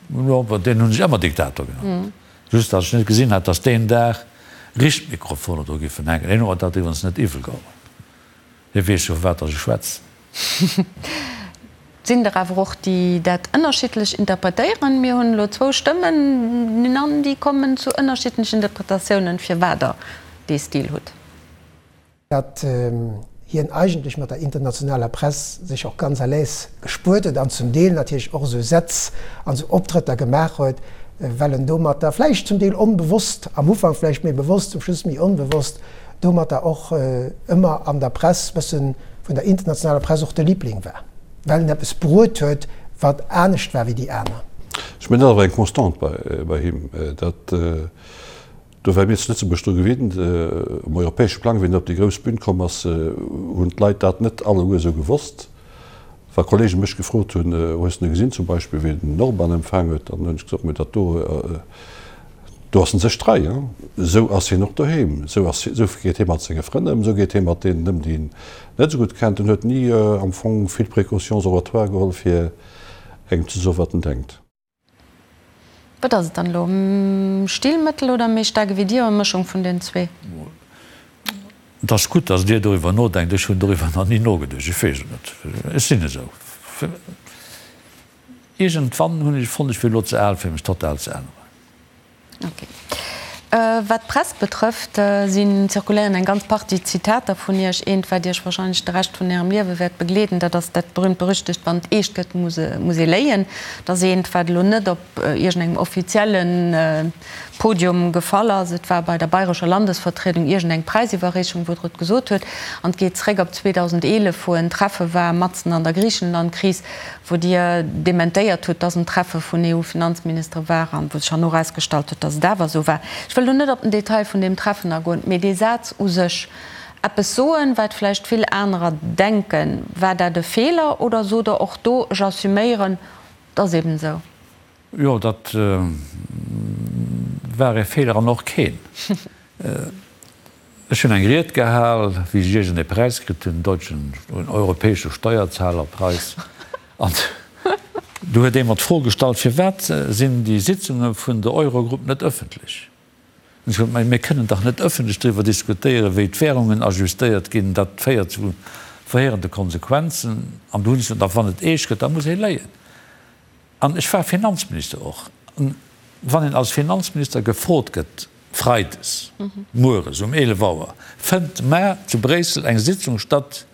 Jo, deen hunn ech ëmmer Diktator genannt. Just datt ech net gesinn hat, datt deen Dag Richtmikrofoner do giffen hänken. Hien huet mer dat iwwerens net iwwel geholl. Hie weess jo, vu wat datt ech schwätzen. Et sinn der awer och, déi dat ënnerschiddlech interpretéieren. Mir hunn elo zwou Stëmmen an déi kommen zu ënnerschiddlechen Interpretatiounen, firwat Der dee Stil hutt. Datt hien eigentlech mat der internationaler Press sech och ganz à l'aise gespuert huet an zum Deel natierlech och esou Sätz an esou Optrëtter gemaach huet, well en domatter, vläicht zum Deel onbewosst, am Ufank vläicht méi bewosst, zum Schluss méi onbewosst, domatter och ëmmer an der Press bëssen, vun der internationaler Press och de Liebling war, well en eppes bruet huet, wat anescht war wéi déi aner. Ech mengen, dat ass awer eng Constante bei him, datt Do ware mir zu Lëtzebuerg dru gewinnt. Um europäesche Plang, wéi en op déi grouss Bün komm ass, hunn d'Leit dat net alleguer esou gewosst. Wa Kollege mech gefrot hunn, Hues de gesinn zum Beispill, wéi den Orban empfaang huet, dann hunn ech gesot, Mä dat do, do ass en sech trei. Esou ass hien och doheem, esou ass, esou geet hie mat senge Frënn ëm, esou geet hie mat deenen ëm, déi en net esou gutt kennt. En huet ni am Fong vill Précautions oratoires geholl, fir engem ze soen, wat en denkt. Wat ass et dann elo? Stilmëttel oder méi staark ewéi dir? Eng Mëschung vun den zwee? Et ass gutt, datt Dir doriwwer nodenkt. Ech hunn doriwwer nach ni nogeduecht. Ech weess et net. Ech sinn esou. Iergendwann hunn ech fonnt, ech wier elo ze al, fir mech total ze änneren. Ok. Wat d'Press betrëfft, si zirkuléieren eng ganz Partie Zitater vun Iech. Eent, wat Iech wahrscheinlech de Rescht vun Ärem Liewe wäert begleeden, dat ass dat berühmt-berüchtegt Wann et eescht gëtt, muss ee léien. Dat ass eent, wat elo net op iergendengem offizielle Podium gefall ass. Et war bei der Bayrescher Landesvertriedung iergendeng Präisiwwerreechung, wou Der et gesot huet. An et geet zréck op 2011, wou en Treffe war matzen an der Griichenland-Kris, wou Dir dementéiert hutt, dass en Treffe vun EU-Finanzministere war an wou sech herno erausgestallt huet, dass et awer esou war. Ech wëll do net op den Detail vun deem Treffen agoen, mee dee Saz u sech, eppes soen, wat vläicht vill anerer denken, war dat e Feeler oder sot Der och do, ech assuméieren, et ass eben esou? Jo, dat war e Feeler an och keen. Ech hunn eng Ried gehal, wéi ech iergend ee Präis kritt hunn, den deutschen, den europäesche Steuerzahlerpreis. An du huet ee mer d'Fro gestallt, Firwat sinn déi Sitzunge vun der Eurogrupp net ëffentlech? An ech gesot, Mä mir kënnen dach net ëffentlech driwwer diskutéieren, wéi d'Währungen ajustéiert ginn. Dat féiert zu verheerende Konsequenzen. An du hunn ech gesot, Da wann et eescht gëtt, da muss ee léien. An ech war Finanzminister och. An wann een als Finanzminister gefrot gëtt, freides mueres um 11 Auer fënnt mar zu Bréissel eng Sitzung statt,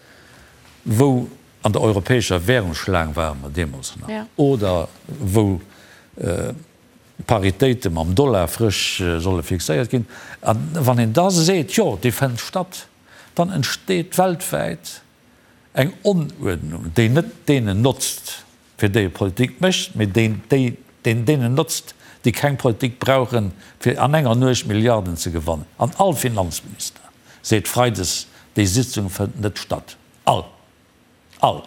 wou an der europäescher Währungsschlaang ware mer deemools nach, oder wou d'Paritéite mam Dollar frësch solle fixéiert ginn, a wann een da seet, jo, déi fënnt statt, dann entsteet weltwäit eng Onuerdnung, déi net deenen notzt, fir déi e Politik mécht, mee deen, déi, deen deenen notzt, déi keng Politik brauchen, fir an enger Nuecht Milliarden ze gewannen. An all Finanzminister seet freides, déi Sitzung fënnt net statt. All! All!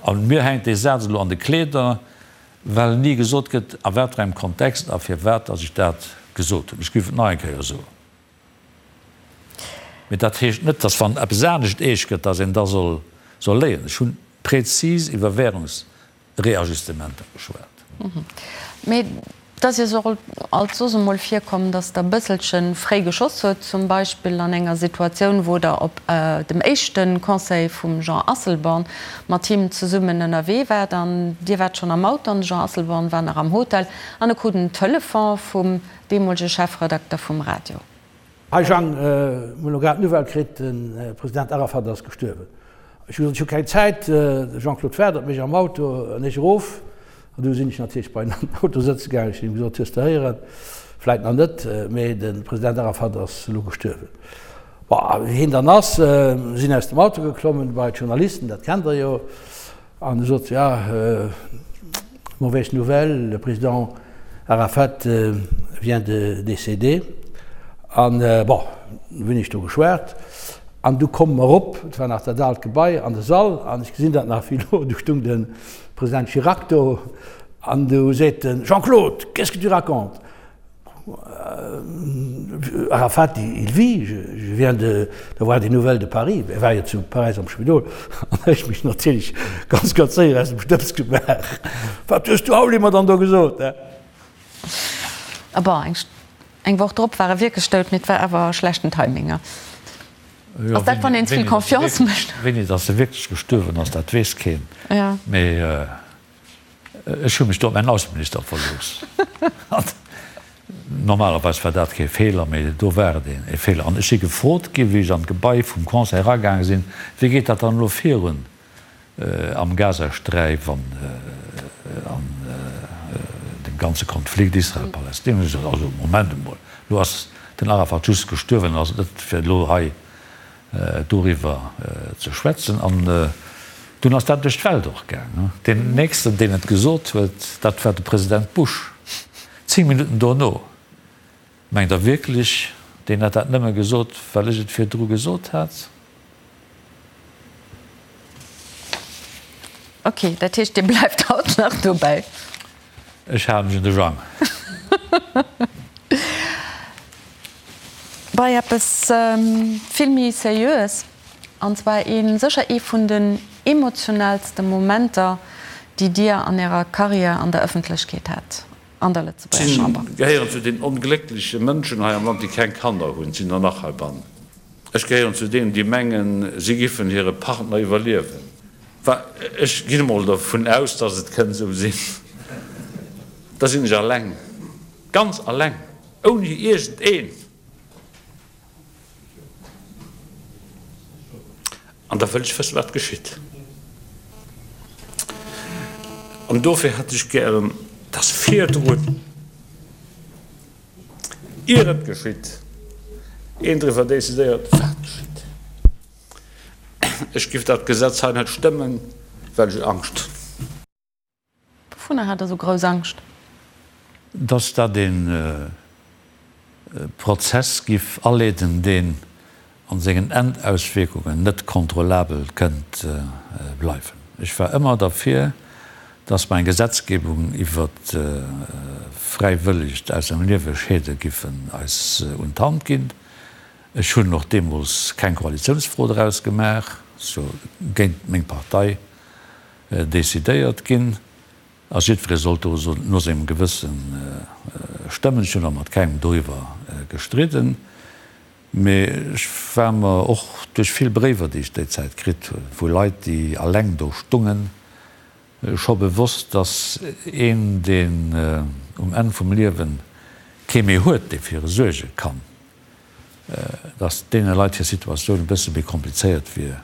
A mir hänkt dee Saz elo an de Kleeder, well ni gesot gëtt, a wat fir engem Kontext a firwat datt ech dat gesot hunn. Ech géif et nach eng Kéier soen. Mee dat heescht net, datt wann eppes anescht eescht gëtt, datt een da soll soll léien. Ech hunn prezis iwwer Währungsreajustementer geschwat. Mee et ass Iech och alt soss emol virkomm, datt Der e bësselche fréi geschoss hutt, zum Beispill an enger Situatioun, wou Der op dem éischte Conseil vum Jean Asselborn mat him zesummen ënnerwee waart an Dir waart schonn am Auto an de Jean Asselborn war nach am Hotel an e krut en Telefon vum deemolege Chefredakter vum Radio. Hi Jang, mir hunn elo grad d'Nouvelle kritt, de President Arafat ass gestuerwen. Ech hu gesot, ech hu keng Zäit, de Jean-Claude waart op mech am Auto an ech erof. An du sinn ech natierlech bei en an den Auto sëtze gaangen. Ech hunn him gesot, hues de héieren? Vläit nach net, mee de President Arafat ass elo gestuerwen. Bon, a wéi hien dann ass, sinn aus dem Auto geklommen bei d'Journalisten, dat kennt der jo, an e sot, ja, mauvaise nouvelle, le Président. Arafat vient de décéder. An, bon, du hunn ech do geschwat an du komme mer erop, et war nach dat aalt Gebai, an de Sall an ech gesinn dat nach wéi elo, du stung de President Chirac do an du seet en, Jean-Claude, qu'est-ce que tu racontes? Arafat, il vit, je viens d'avoir des nouvelles de Paris. E war jo zu Paräis am Spidol an ech mech natierlech ganz, ganz séier aus dem Stëbs gemaach. Wat hues du Auli mer dann do gesot, he? A bon, eng Woch drop war e wierklech dout, mee et war awer schlechten Timing. Ass dat, wann een ze vill Confiance mécht? Wéini datt e wierklech gestuerwen ass, dat weess keen. Mee ech hu mech do op mäin Ausseminister verlooss. Normalerweis war dat kee Feeler, mee do war et e Feeler. An ech si gefrot ginn, wéi ech an d'Gebai vum Conseil eragaange sinn, Wéi geet dat dann elo virun? Am Gazasträif an an dem ganze Konflikt Israel-Palestina hunn ech gesot, also Moment emol, elo ass den Arafat just gestuerwen, ass et net fir elo hei doriwwer ze schwätzen. An dunn ass dat duerch d'Welt och gaang. Deen nächsten, deen et gesot huet, dat war de President Bush, 10 Minutten dono. Mengt Der wierklech, deen hätt dat nëmme gesot, well ech et virdru gesot hat? Ok, dat heescht, Dir bleift haut nach dobäi? Ech hale mech un de Jang. Bei eppes vill méi Seriöes, an zwar ee sécher ee vun den emotionaalste Momenter, déi Dir an Ärer Karriär an der Ëffentlechkeet hat. an der Lëtzebuerger Chamber. Ech gehéieren zu den ongléckleche Mënschen hei am Land, déi keng Kanner hunn. Et sinn der nach heibannen. Ech gehéieren zu deenen, déi mengen, si giffen hire Partner iwwerliewen. Enfin, ech ginn emol dervun aus, dass et kënnt esou sinn. Da sinn ech alleng, ganz alleng, ouni iergendeen. An da wëll ech wëssen, wat geschitt. An dofir hätt ech gären, dass virdrun, ier et geschitt, een driwwer decidéiert, wat geschitt. Ech giff dat Gesetz hei net stëmmen, well ech Angscht hunn. Wouvunner hat Der esou grouss Angscht? Dass dat ee Prozess giff aleeden, deen a sengen Endauswierkungen net kontrollabel kënnt bleiwen. Ech war ëmmer derfir, dass mer eng Gesetzgebung iwwer fräiwëllegt aus dem Liewe scheede giffen eis un d'Hand ginn. Ech hunn och deemools keng Koalitiounsfro draus gemaach, sou géint meng Partei Decidéiert ginn a jiddweree sollt do no sengem Gewësse stëmmen. Ech hunn och mat kengem doriwwer gestridden, mee ech war mer och duerch vill Bréiwer, déi ech déi Zäit kritt hunn, vu Leit, déi alleng do stungen, scho bewosst, datt een, deen um Enn vum Liewe kee méi huet, dee fir e suerge kann, datt deene Leit hir Situatioun e bësse méi komplizéiert wier,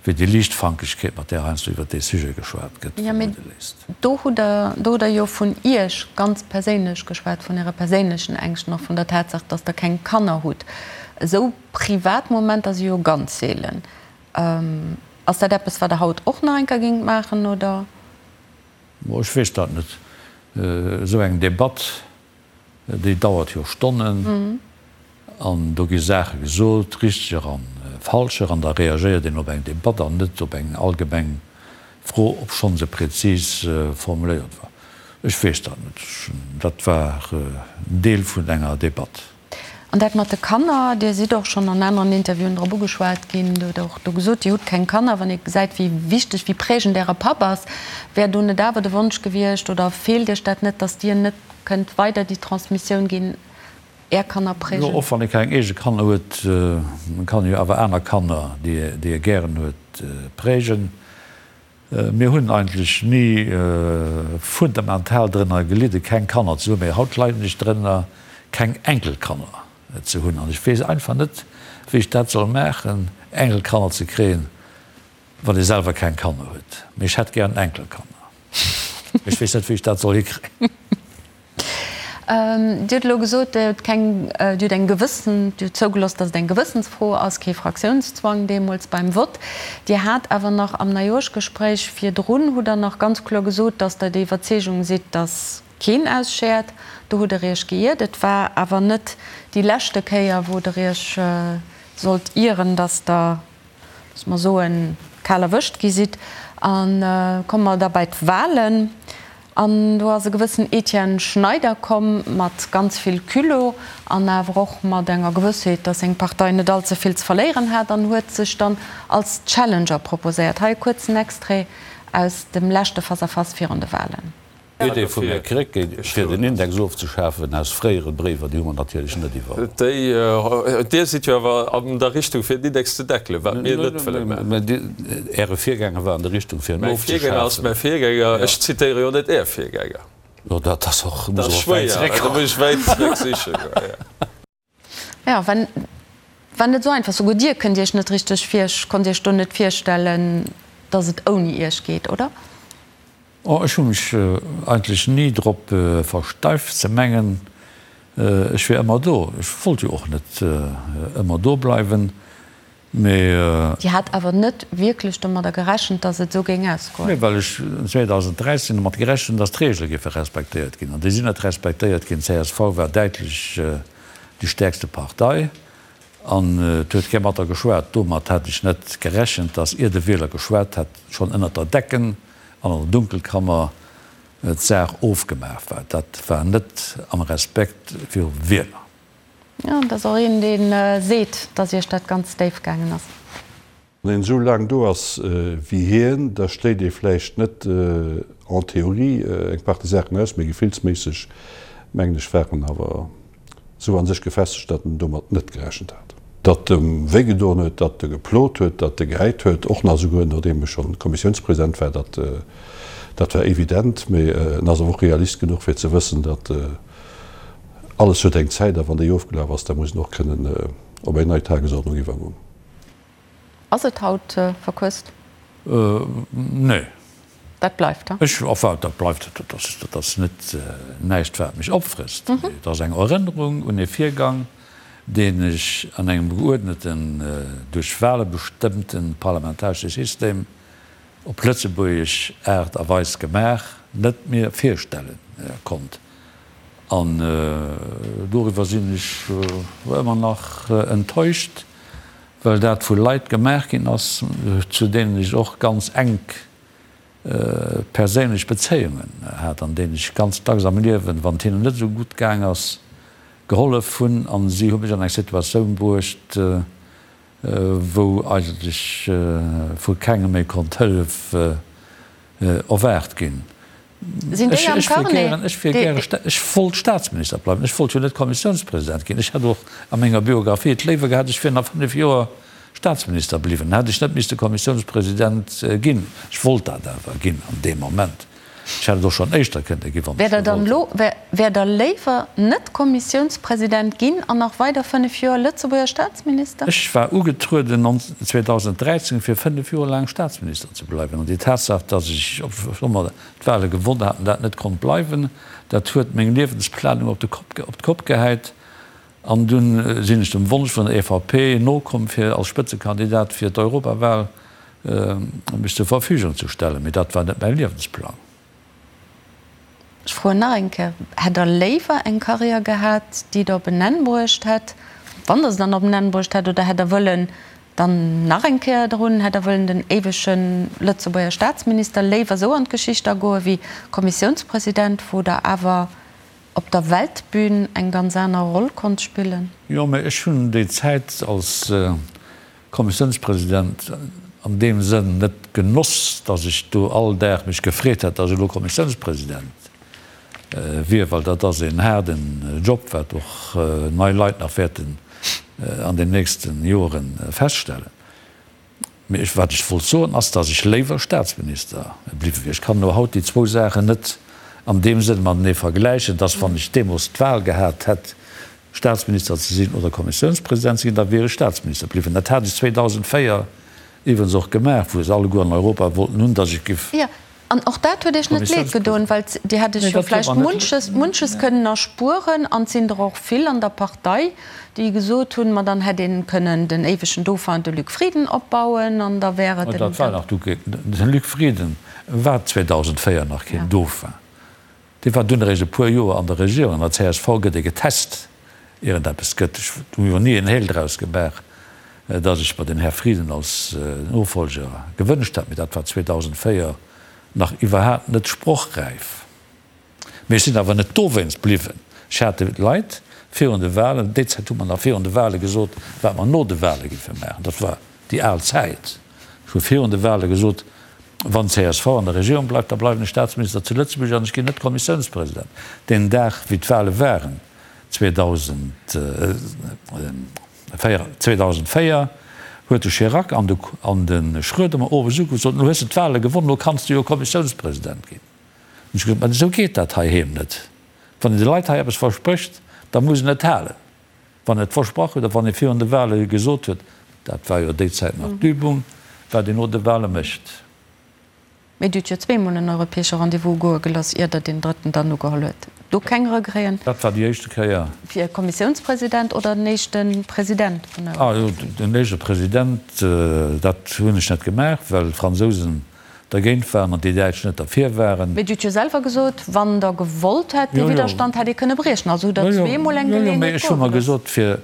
wéi déi Liichtfankegkeet, mat där heiansdo iwwert dee Sujet geschwat gëtt, Jo, mee vermudde léisst. do hutt Der, do hutt Der jo vun Iech ganz perséinlech geschwat, vun Äre perséinlechen Ängschten, och vun der Tatsaach, datt Der keng Kanner hutt. Esou privat Momenter si jo ganz seelen. Ass dat eppes, wat Der haut och nach eng Kéier géingt maachen, oder? Ech weess dat net. Esou eng Debatt Déi dauert jo Stonnen an do gi Saache gesot, richteger an falscher, an da reagéiert een op eng Debatt an net op eng allgemeng Fro, obschonn se prezis formuléiert war. Ech weess dat net. Dat war en Deel vun enger Debatt. An dat mat de Kanner, Dir sidd och schonn an aneren Interviewen drop ugeschwat ginn, Dir hutt och do gesot, Dir hutt keng Kanner. Wann ee gesäit, wéi wichteg, wéi prägend Äre Papp ass, wär do net awer de Wonsch gewiescht oder feelt Iech dat net, datt Dir net Kënnt weider déi Transmissioun ginn, Är Kanner prägen? Jo, och wann ee keng eege Kanner huet, kann ee jo awer aner Kanner, déi ee gären huet, prägen. Mir hunn eigentlech ni fundamental drënner gelidde keng Kanner ze hunn, mee haut leiden ech drënner keng Enkelkanner ze hunn an ech weess einfach net, wéi ech dat soll maachen, Enkelkanner ze kréien, wann ee selwer keng Kanner huet. Mee ech hätt gären Enkelkanner. Ech weess net, wéi ech dat soll hikréien. Dir hutt elo gesot, Dir hutt keng, Dir hutt eng gewëssen, Dir hutt zougelooss, datt et eng Gewëssensfro ass, kee Fraktiounszwang deemools beim Vott. Dir hat awer nach am Neijooschgespréich virdrun, hutt Der nach ganz kloer gesot, datt Der der Iwwerzeegung sidd, datt. Keen ausschäert. Do hutt Der Iech geiert. Et war awer net déi leschte Kéier, wou Der Iech sollt ieren, dass Der, loosse mer soen, kal erwëscht gi sidd. A komme mer da bei d'Wahlen. An do ass e gewëssen Etienne Schneider komm mat ganz vill Culot an awer och mat enger Gewëssheet, dass seng Partei net allze vill ze verléieren hat an huet sech dann als Challenger proposéiert. Hei e kuerzen Extrait aus dem leschte Face-à-Face virun de Wahlen. D'Idee vum Här Krecké, fir den Index ofzeschafen, aus fréiere Bréiwer, déi hu mer natierlech net iwwerholl. Déi, Dir sidd jo awer an der Richtung, fir den Index ze deckelen, wat mir net wëlle maachen. Mä Äre Virgänger war an der Richtung, fir en Mäi Virgänger ass ofzeschafen. mäi Virgänger. Ech zitéiere jo net Är Virgänger. Jo, dat ass och, muss och wäit zeréck. Da muss ech wäit zeréck siche goen, jo. Jo, war, war net esou einfach. Souguer Dir kënnt Iech net richteg vir, konnt Iech do net virstellen, datt et ouni Iech geet, oder? Oh, ech hu mech eigentlech ni drop versteift ze mengen, ech wier ëmmer do. Ech wollt jo och net ëmmer do bleiwen, mee. Dir hat awer net wierklech domadder gerechent, datt et esou géing ausgoen? Nee, well ech 2013 domat gerechent hunn, datt d'Reegele géife respektéiert ginn. An déi sinn net respektéiert ginn. D'CSV war däitlech déi stäerkste Partei an et huet kee mat der geschwat. Domat hat ech net gerechent, datt ier de Wieler geschwat hat, schonn ënnert der Decken an an der Dunkelkammer d'Saach ofgemaach war. Dat war net am Respekt virum Wieler. Jo, et ass och een, dee seet, datt Iech dat ganz déif gaangen ass. Wann een esou laang do ass wéi hien, da schléit ee vläicht net en théorie eng Partie Saachen aus, mee gefillsméisseg, mengen ech, war en awer esou a sech gefestegt, datt en domat net gerechent hat. Datt em wéigedoen huet, datt e geplot huet, datt e gehäit huet, och nach esouguer nodeem e schonn Kommissiounspresident war, dat, dat war evident. Mee en ass awer och Realist genuch, fir ze wëssen, datt alles huet eng Zäit a wann déi ofgelaf ass, da muss en och kënnen op eng nei Tagesordnung iwwergoen. Ass et haut verquësst? Nee. Dat bleift, he? Ech, enfin, dat bleift, dat ass, dat ass net näischt, wat mech opfrësst. Mee et ass eng Erënnerung un e Virgang, deen ech an engem geuerdneten, duerch Wahle bestëmmte parlamentaresche System op lëtzebuergesch Aart a Weis gemaach, net mir virstelle konnt. An doriwwer sinn ech ëmmer nach enttäuscht. Well dat vu Leit gemaach ginn ass, zu deenen ech och ganz enk perséinlech Bezéiungen hat an deenen ech ganz dacks am Liewen, wann et hinnen net esou gutt gaang ass, gehollef hunn. A si hu mech an eng Situatioun bruecht, wou eigentlech vu kengem méi konnt Hëllef erwaart ginn. Sinn déi am Carnet? Ech wier gäre, ech wollt Staatsminister bleiwen, ech wollt jo net Kommissiounspresident ginn. Ech hätt och a menger Biographie et léiwer gehat, ech wier nach 5 Joer Staatsminister bliwwen, dann hätt ech net misste Kommissiounspresident ginn. Ech wollt dat awer ginn an deem Moment. Ech hätt et och schonn éischter kënnte ginn, wann ech gewollt hätt. Wäert Der léiwer net Kommissiounspresident ginn an nach weider 5 Joer Lëtzebuerger Staatsminister? Ech war ugetrueden 2013 fir 5 Joer laang Staatsminister ze bleiwen. An déi Tatsaach, datt ech, obschonn mer d'Wahle gewonn haten, dat net konnt bleiwen, dat huet meng Liewensplanung op de Kopp, op d'Kopp gehäit. An dunn sinn ech dem Wonsch vun der EVP nokomm, fir als Spëtzekandidat fir d'Europawahl mech zur Verfügung ze stellen. Mee dat war net mäi Liewensplang. Ech froen nach eng Kéier, Hätt Der léiwer eng Karriär gehat, déi Der op en Enn bruecht hätt, wann Der se dann op en Enn bruecht hätt, oder hätt Der wëllen dann nach eng Kéier drun, hätt Der wëllen den éiwege Lëtzebuerger Staatsminister léiwer esou an d'Geschicht agoe wéi Kommissiounspresident, wou Der awer op der Weltbün eng ganz aner Roll konnt spillen? Jo, mä ech hunn déi Zäit als Kommissiounspresident an deem Sënn net genoss, datt ech do all Dag mech gefreet hätt, datt ech elo Kommissiounspresident wier, well dat ass een haarden Job, wat och nei Leit nach wäerten an den nächste Jore feststellen. Mee ech, wat ech wollt soen, ass, datt ech léiwer Staatsminister bliwwe wier. Ech kann elo haut déi zwou Saachen net an deem Sënn matenee vergläichen, datt wann ech deemools d'Wahl gehat hätt, Staatsminister ze sinn oder Kommissiounspresident ze ginn, da wier ech Staatsminister bliwwen. Dat hat ech 2004 iwwregens och gemaach, wou se alleguer an Europa wollten hunn, datt ech giff. Jo, an och dat huet Iech net leed gedoen, well Dir hätt Iech jo vläicht munches, munches kënnen erspueren. An et sinn der och vill an der Partei, déi gesot hunn, ma dann hätt een kënnen den éiwegen Dauphin, de Luc Frieden, opbauen an da wär et en. Dat war nach du, de Luc Frieden war 2004 nach keen Dauphin. Dee war dunn eréischt e puer Joer an der Regierung. An der csv gëtt ee getest, ier et eppes gëtt. Ech hu jo ni en Heel draus gemaach, datt ech mer den Här Frieden als Nofolger gewënscht hätt, mee dat war 2004 nach iwwerhaapt net sprochräif. Mee ech sinn awer net dowéinst bliwwen. Ech hat de Leit virun de Wahlen, déi Zäit hu mer nach virun de Wahle gesot, wat mer no de Wahle géife maachen. Dat war déi al Zäit. Ech hu virun de Wahle gesot, Wann csv an der Regierung bleift, da bleiwen ech Staatsminister zu Lëtzebuerg an ech ginn net Kommissiounspresident. Deen Dag, wéi d'Wahle waren, 2004, huet de Chirac an de Schröder mer owes ugeruff, sot, Elo hues de d'Wahle gewonnen, elo kanns de jo Kommissiounspresident ginn. Hunn ech gesot, Mä esou geet dat heiheem net. Wann een de Leit hei eppes versprécht, da muss en et halen. Wann en et versprach huet a wann ee virun de Wahle gesot huet, dat war jo déi Zäit nach d'Übung, wat een no de Wahle mécht. Mee Dir hutt jo zweemol en europäesche Rendez-vous goe gelooss, ier Der deen drëtten dann ugeholl huet. Do keng Regreten? Dat war déi éischte Kéier. Fir Kommissiounspresident oder den éischte President vun der Ah jo, den éischte President, dat hunn ech net gemaach, well d'Fransousen dergéint waren an déi Däitsch net derfir waren. Mee Dir hutt jo selwer gesot, wann Der gewollt hätt, dee Widderstand hätt ee kënne briechen. Also hutt Der zweemol eng Geleeënheet goe gelooss. Jo, jo, mee ech hu mer gesot, fir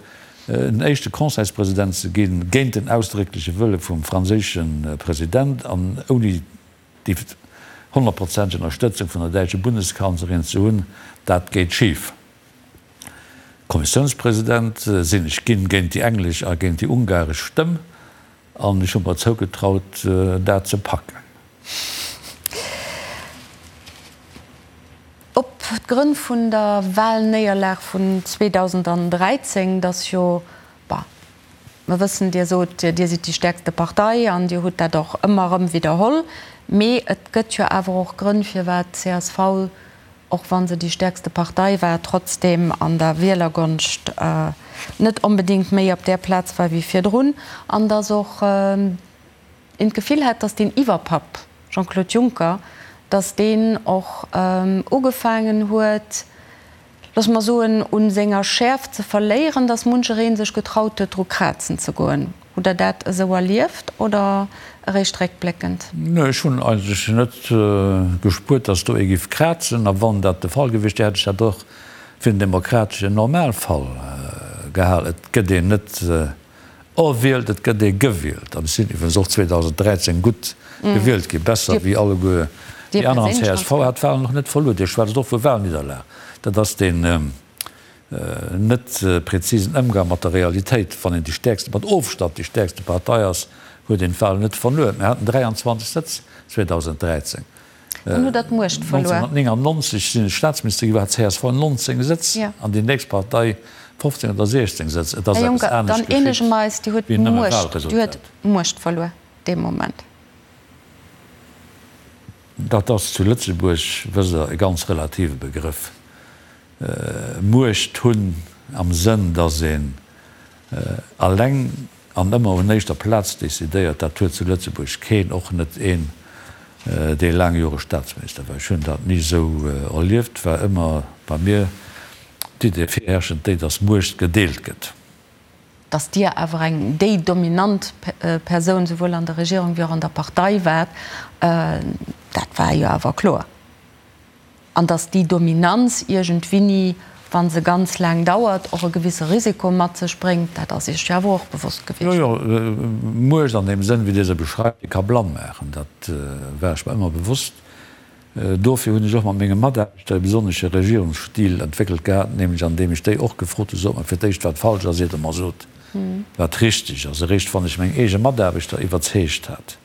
en éischte Conseilspresident ze ginn, géint den ausdréckleche Wëlle vum franséische President an ouni déi honnertprozenteg Ënnerstëtzung vun der däitsche Bundeskanzlerin ze hunn, dat geet schif. Kommissiounspresident sinn ech ginn, géint déi englesch a géint déi ungaresch Stëmm. An ech hu mer zougetraut, dat ze packen. Op d'Grënn vun der Wahlnéierlag vun 2013, dass jo, bah, mer wëssen, Dir sot, Dir sidd déi stäerkste Partei an Dir hutt dat och ëmmer erëm widderholl, mee et gëtt jo awer och Grënn, firwat d'CSV och wa se déi stäerkste Partei war, trotzdeem an der Wielergonscht net onbedéngt méi op där Plaz war wéi virdrun, an datt och een d'Gefill hat, datt deen Iwwerpapp Jean-Claude Juncker, datt deen och ugefaangen huet, loosse mer soen, u senger Schäerft ze verléieren, datt muncheree sech getraut huet, dru krazen ze goen. Hutt Der dat esou erlieft oder eréischt réckbléckend? Nee, ech hunn eigentlech net gespuert, datt do ee giff krazen. A wann dat de Fall gewiescht wier, hätt ech dat och fir den demokrateschen Normalfall gehal. Et gëtt een net erwielt, et gëtt ee gewielt. An ech sinn iwwregens och 2013 gutt gewielt ginn, besser wéi alleguer déi aner. An csv hat d'Wahlen och net verluer. Dir schwätzt och vu Wahlnidderlag. Dat ass deen. Net präzisen Ëmgang mat der Realitéit. Wann een déi stäerkste, mat Ofstand déi stäerkste Partei ass, huet een d'Wahlen net verluer. Mir haten 23 Sëtz 2013. Dann hutt Der d'Muecht verluer. 1999 sinn ech Staatsminister ginn, do hat csv 19 Sëtz an déi nächst Partei 15 oder 16 Sëtz. Et ass Här eppes Juncker, dann anescht eenege geschitt mer eis, Dir hutt wéi nëmme d'Muecht, Dir huet Wahlresultat. d'Muecht verluer dee Moment. Dat ass zu Lëtzebuerg, wësst Der, e ganz relative Begrëff. Muecht hunn am Sënn, datt een alleng an ëmmer un éischter Plaz decidéiert, dat huet zu Lëtzebuerg keen, och net een, dee laang Jore Staatsminister war. Ech hunn dat ni esou erlieft, war ëmmer bei mir d'Idee virherrschend déi, datt Muecht gedeelt gëtt. Datt Dir awer eng déi dominant Persoun souwuel an der Regierung wéi och an der Partei waart, dat war jo awer kloer. An datt déi Dominanz iergendwinni, wa se ganz laang dauert, och e gewisse Risiko mat sech bréngt, dat ass Iech jo awer och bewosst gewiescht. Jo, jo, Muecht an deem Sënn, wéi Dir se beschreift, déi ka blann maachen. Dat war ech mer ëmmer bewosst. Dofir hunn ech och mat menge Mataarbechter e besonnesche Regierungsstil entwéckelt gehat, nämlech an deem ech déi och gefrot hunn, Sot mer fir d'éischt, wat falsch ass, iert Der mer sot, wat richteg ass. Eréischt wann ech meng eege Mataarbechter iwwerzeegt hat,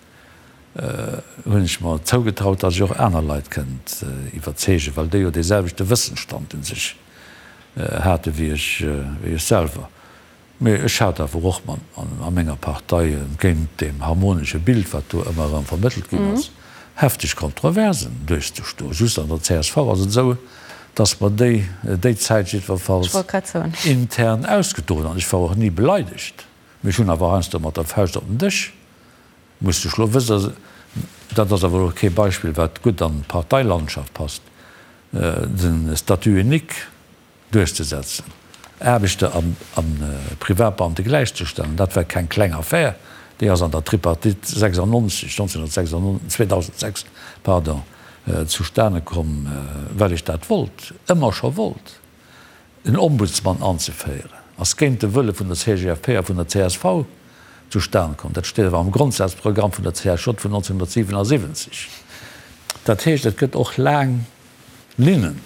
hunn ech mer zougetraut, datt ech och aner Leit kënnt iwwerzeegen, well déi jo dee selwechte Wëssensstand u sech hate wéi ech, wéi ech selwer. Mee ech hat awer och mat a menger Partei, entgéint deem harmonesche Bild, wat do ëmmer erëm vermëttelt ginn ass, hefteg Kontroversen duerchzestoen. Just an der csv ass et esou, datt mer déi déi Zäit jiddwerfalls intern ausgedroen hunn. An ech war och ni beleidegt, mee ech hunn awer heiansdo mat der Fauscht op den Dësch Muss de schlo wëssen, dat ass awer elo kee Beispill wat gutt an d'Parteilandschaft passt, de Statut unique duerchzesetzen, Aarbechter a Privatbeamte gläichzestellen, dat war keng kleng Affär, déi ass an der Tripartite 96, 1996, 2006, pardon, zustane komm, well ech dat wollt, ëmmer scho wollt. En Ombudsman anzeféieren, ass géint de Wëlle vun der CGFP a vun der csv zustan komm. Dat steet awer am Grondsazprogramm vun der CSJ vun 1977. Dat heescht, et gëtt och laang Linnen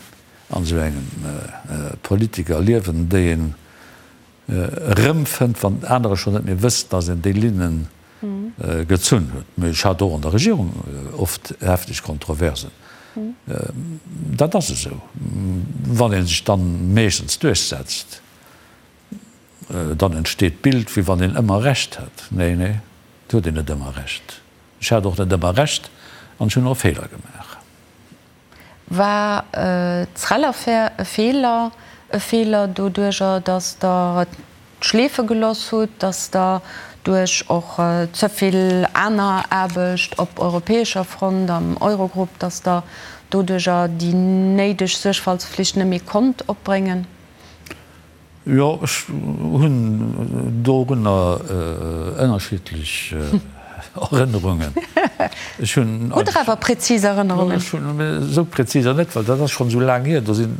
an esou engem Politikerliewen, déi een erëmfënnt, wann anerer schonn net méi wëssen, datt een déi Linne gezunn huet. Mee ech hat och an der Regierung oft hefteg Kontroversen. Dat ass esou. Wann ee sech dann meeschtens duerchsetzt, dann entsteet d'Bild, wéi wann een ëmmer Recht hätt. Nee, nee, et huet een net ëmmer Recht. Ech hat och net ëmmer Recht an ech hunn och Feeler gemaach. War d'Srel-Affär e Feeler? E Feeler doduerjer, datt Der et schleefe geloss hutt, datt Der duerch och ze vill aner Aarbecht op europäescher Front, am Eurogrupp, datt Der doduerjer déi néideg Suergfaltsflicht net méi konnt opbréngen? Jo, ech hunn dorunner ënnerschiddlech Erënnerungen. Ech hunn. Hutt Der awer präzis Erënnerungen? Ech hunn esou präziser net, well dat ass schonn esou laang hier. Do sinn,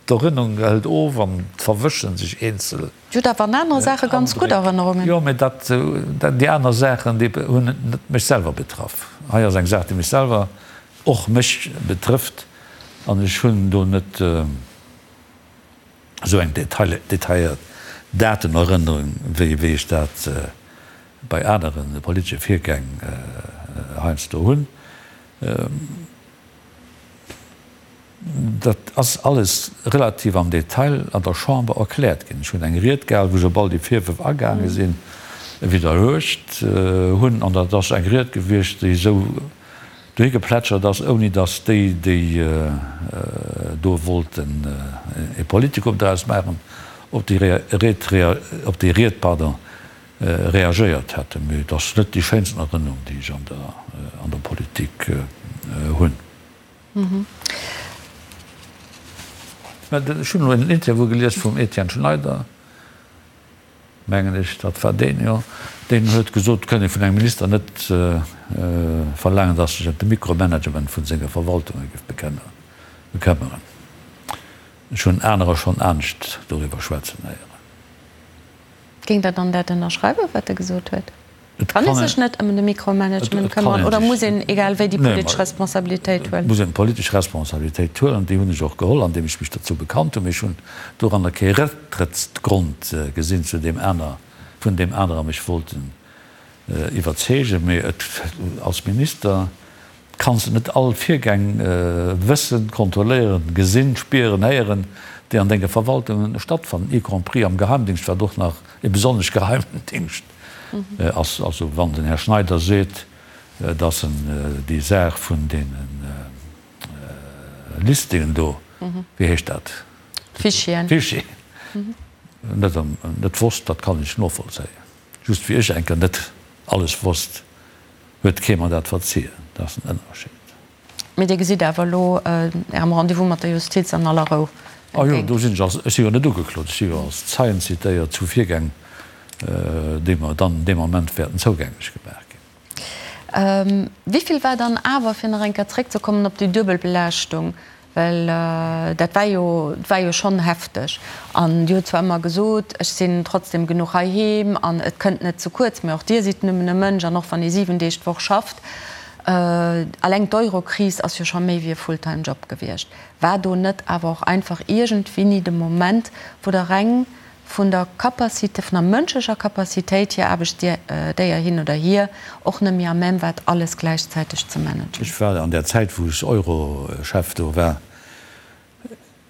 d'Erënnerung hëlt of an et verwëschen sech eenzel. Dir hutt awer an anere Saache ganz gutt Erënnerungen. Jo, mä dat, déi aner Saachen, déi hunn net mech selwer betraff. Hei ass eng Saach, déi mech selwer, och mech betrëfft an ech hunn do net. esou eng detailléiert Datenerënnerung, wéi ech dat bei anere politesche Virgäng heiansdo hunn. Dat ass alles relativ am Detail an der Chamber erkläert ginn. Ech hunn eng Ried gehal, wou ech op all déi Virwërf agaange sinn, widderluecht hunn. An dat ass eng Ried gewiescht, déi esou dohi geplätschert ass, ouni datt déi, déi do wollten e Politikum draus maachen, op déi Ried, op déi Ried, pardon, reagéiert hätten. Mee et ass net déi schéinsten Erënnerung, déi ech an der, an der Politik hunn. Mä ech hunn elo en Interview gelies vum Etienne Schneider. Mengen ech, dat war deen, jo, deen huet gesot, et kënnt ee vun engem Minister net verlaangen, datt sech ëm de Mikromanagement vun senge Verwaltunge géif bekëmmeren. Ech hunn anerer schonn anescht doriwwer schwätzen héieren. Géingt Der dann dat ënnerschreiwen, wat e gesot huet? Kann ee sech net ëm de Mikromanagement këmmeren oder muss een egal wéi déi politesch Responsabilitéit huelen? Et muss een d'politesch Responsabilitéit huelen. Déi hunn ech och geholl, andeem ech mech dozou bekannt hunn. Mee ech hunn doranner kee Récktrëttsgrond gesinn, zu deem aner, vun deem anerer mech wollten iwwerzeegen. Mee et, als Minister kanns de net all Virgäng wëssen, kontrolléieren, gesinn, spieren, héieren, déi an denge Verwaltungen stattfannen, y compris am Geheimdingscht, wat och nach e besonnesch geheimen Dingscht ass. Also wann den Här Schneider seet, datt en déi Saach vun deene Listingen do, wéi heescht dat? Fichieren. Fichieren, net, net wosst, dat kann ech novollzéien. Just wéi ech eng Kéier net alles wosst, huet kee mer dat verzien. Dat ass en Ënnerscheed. Mee Dir gesitt awer elo Ärem Rendez-vous mat der Justiz an aller Rou Ah jo, do sinn ech als, ech si jo net ugeklot, ech si jo als Zeien zitéiert zu Virgäng, déi mer dann dee Moment wäerten zougänglech gemaach ginn. Wéi vill war dann awer, fir nach eng Kéier zréckzekommen op déi duebel Belaaschtung, Well dat war jo, et war jo schonn hefteg. An Dir hutt zwar ëmmer gesot, ech sinn trotzdem genuch heiheem an et kënnt net ze kuerz, mä och Dir sidd nëmmen e Mënsch an och wann ee 7 Deeg d'Woch schafft, alleng d'Eurokris ass jo scho méi wéi e Fulltime-Job gewiescht. War do net awer och einfach iergendwéini de Moment, wou Der reng vun der Capacité, vun der mënschlecher Capacitéit hier, Aarbechtsdéier hin oder hier, och net méi à même waart, alles gläichzäiteg ze managen. Ech war an där Zäit, wou ech Euro-Chef do war,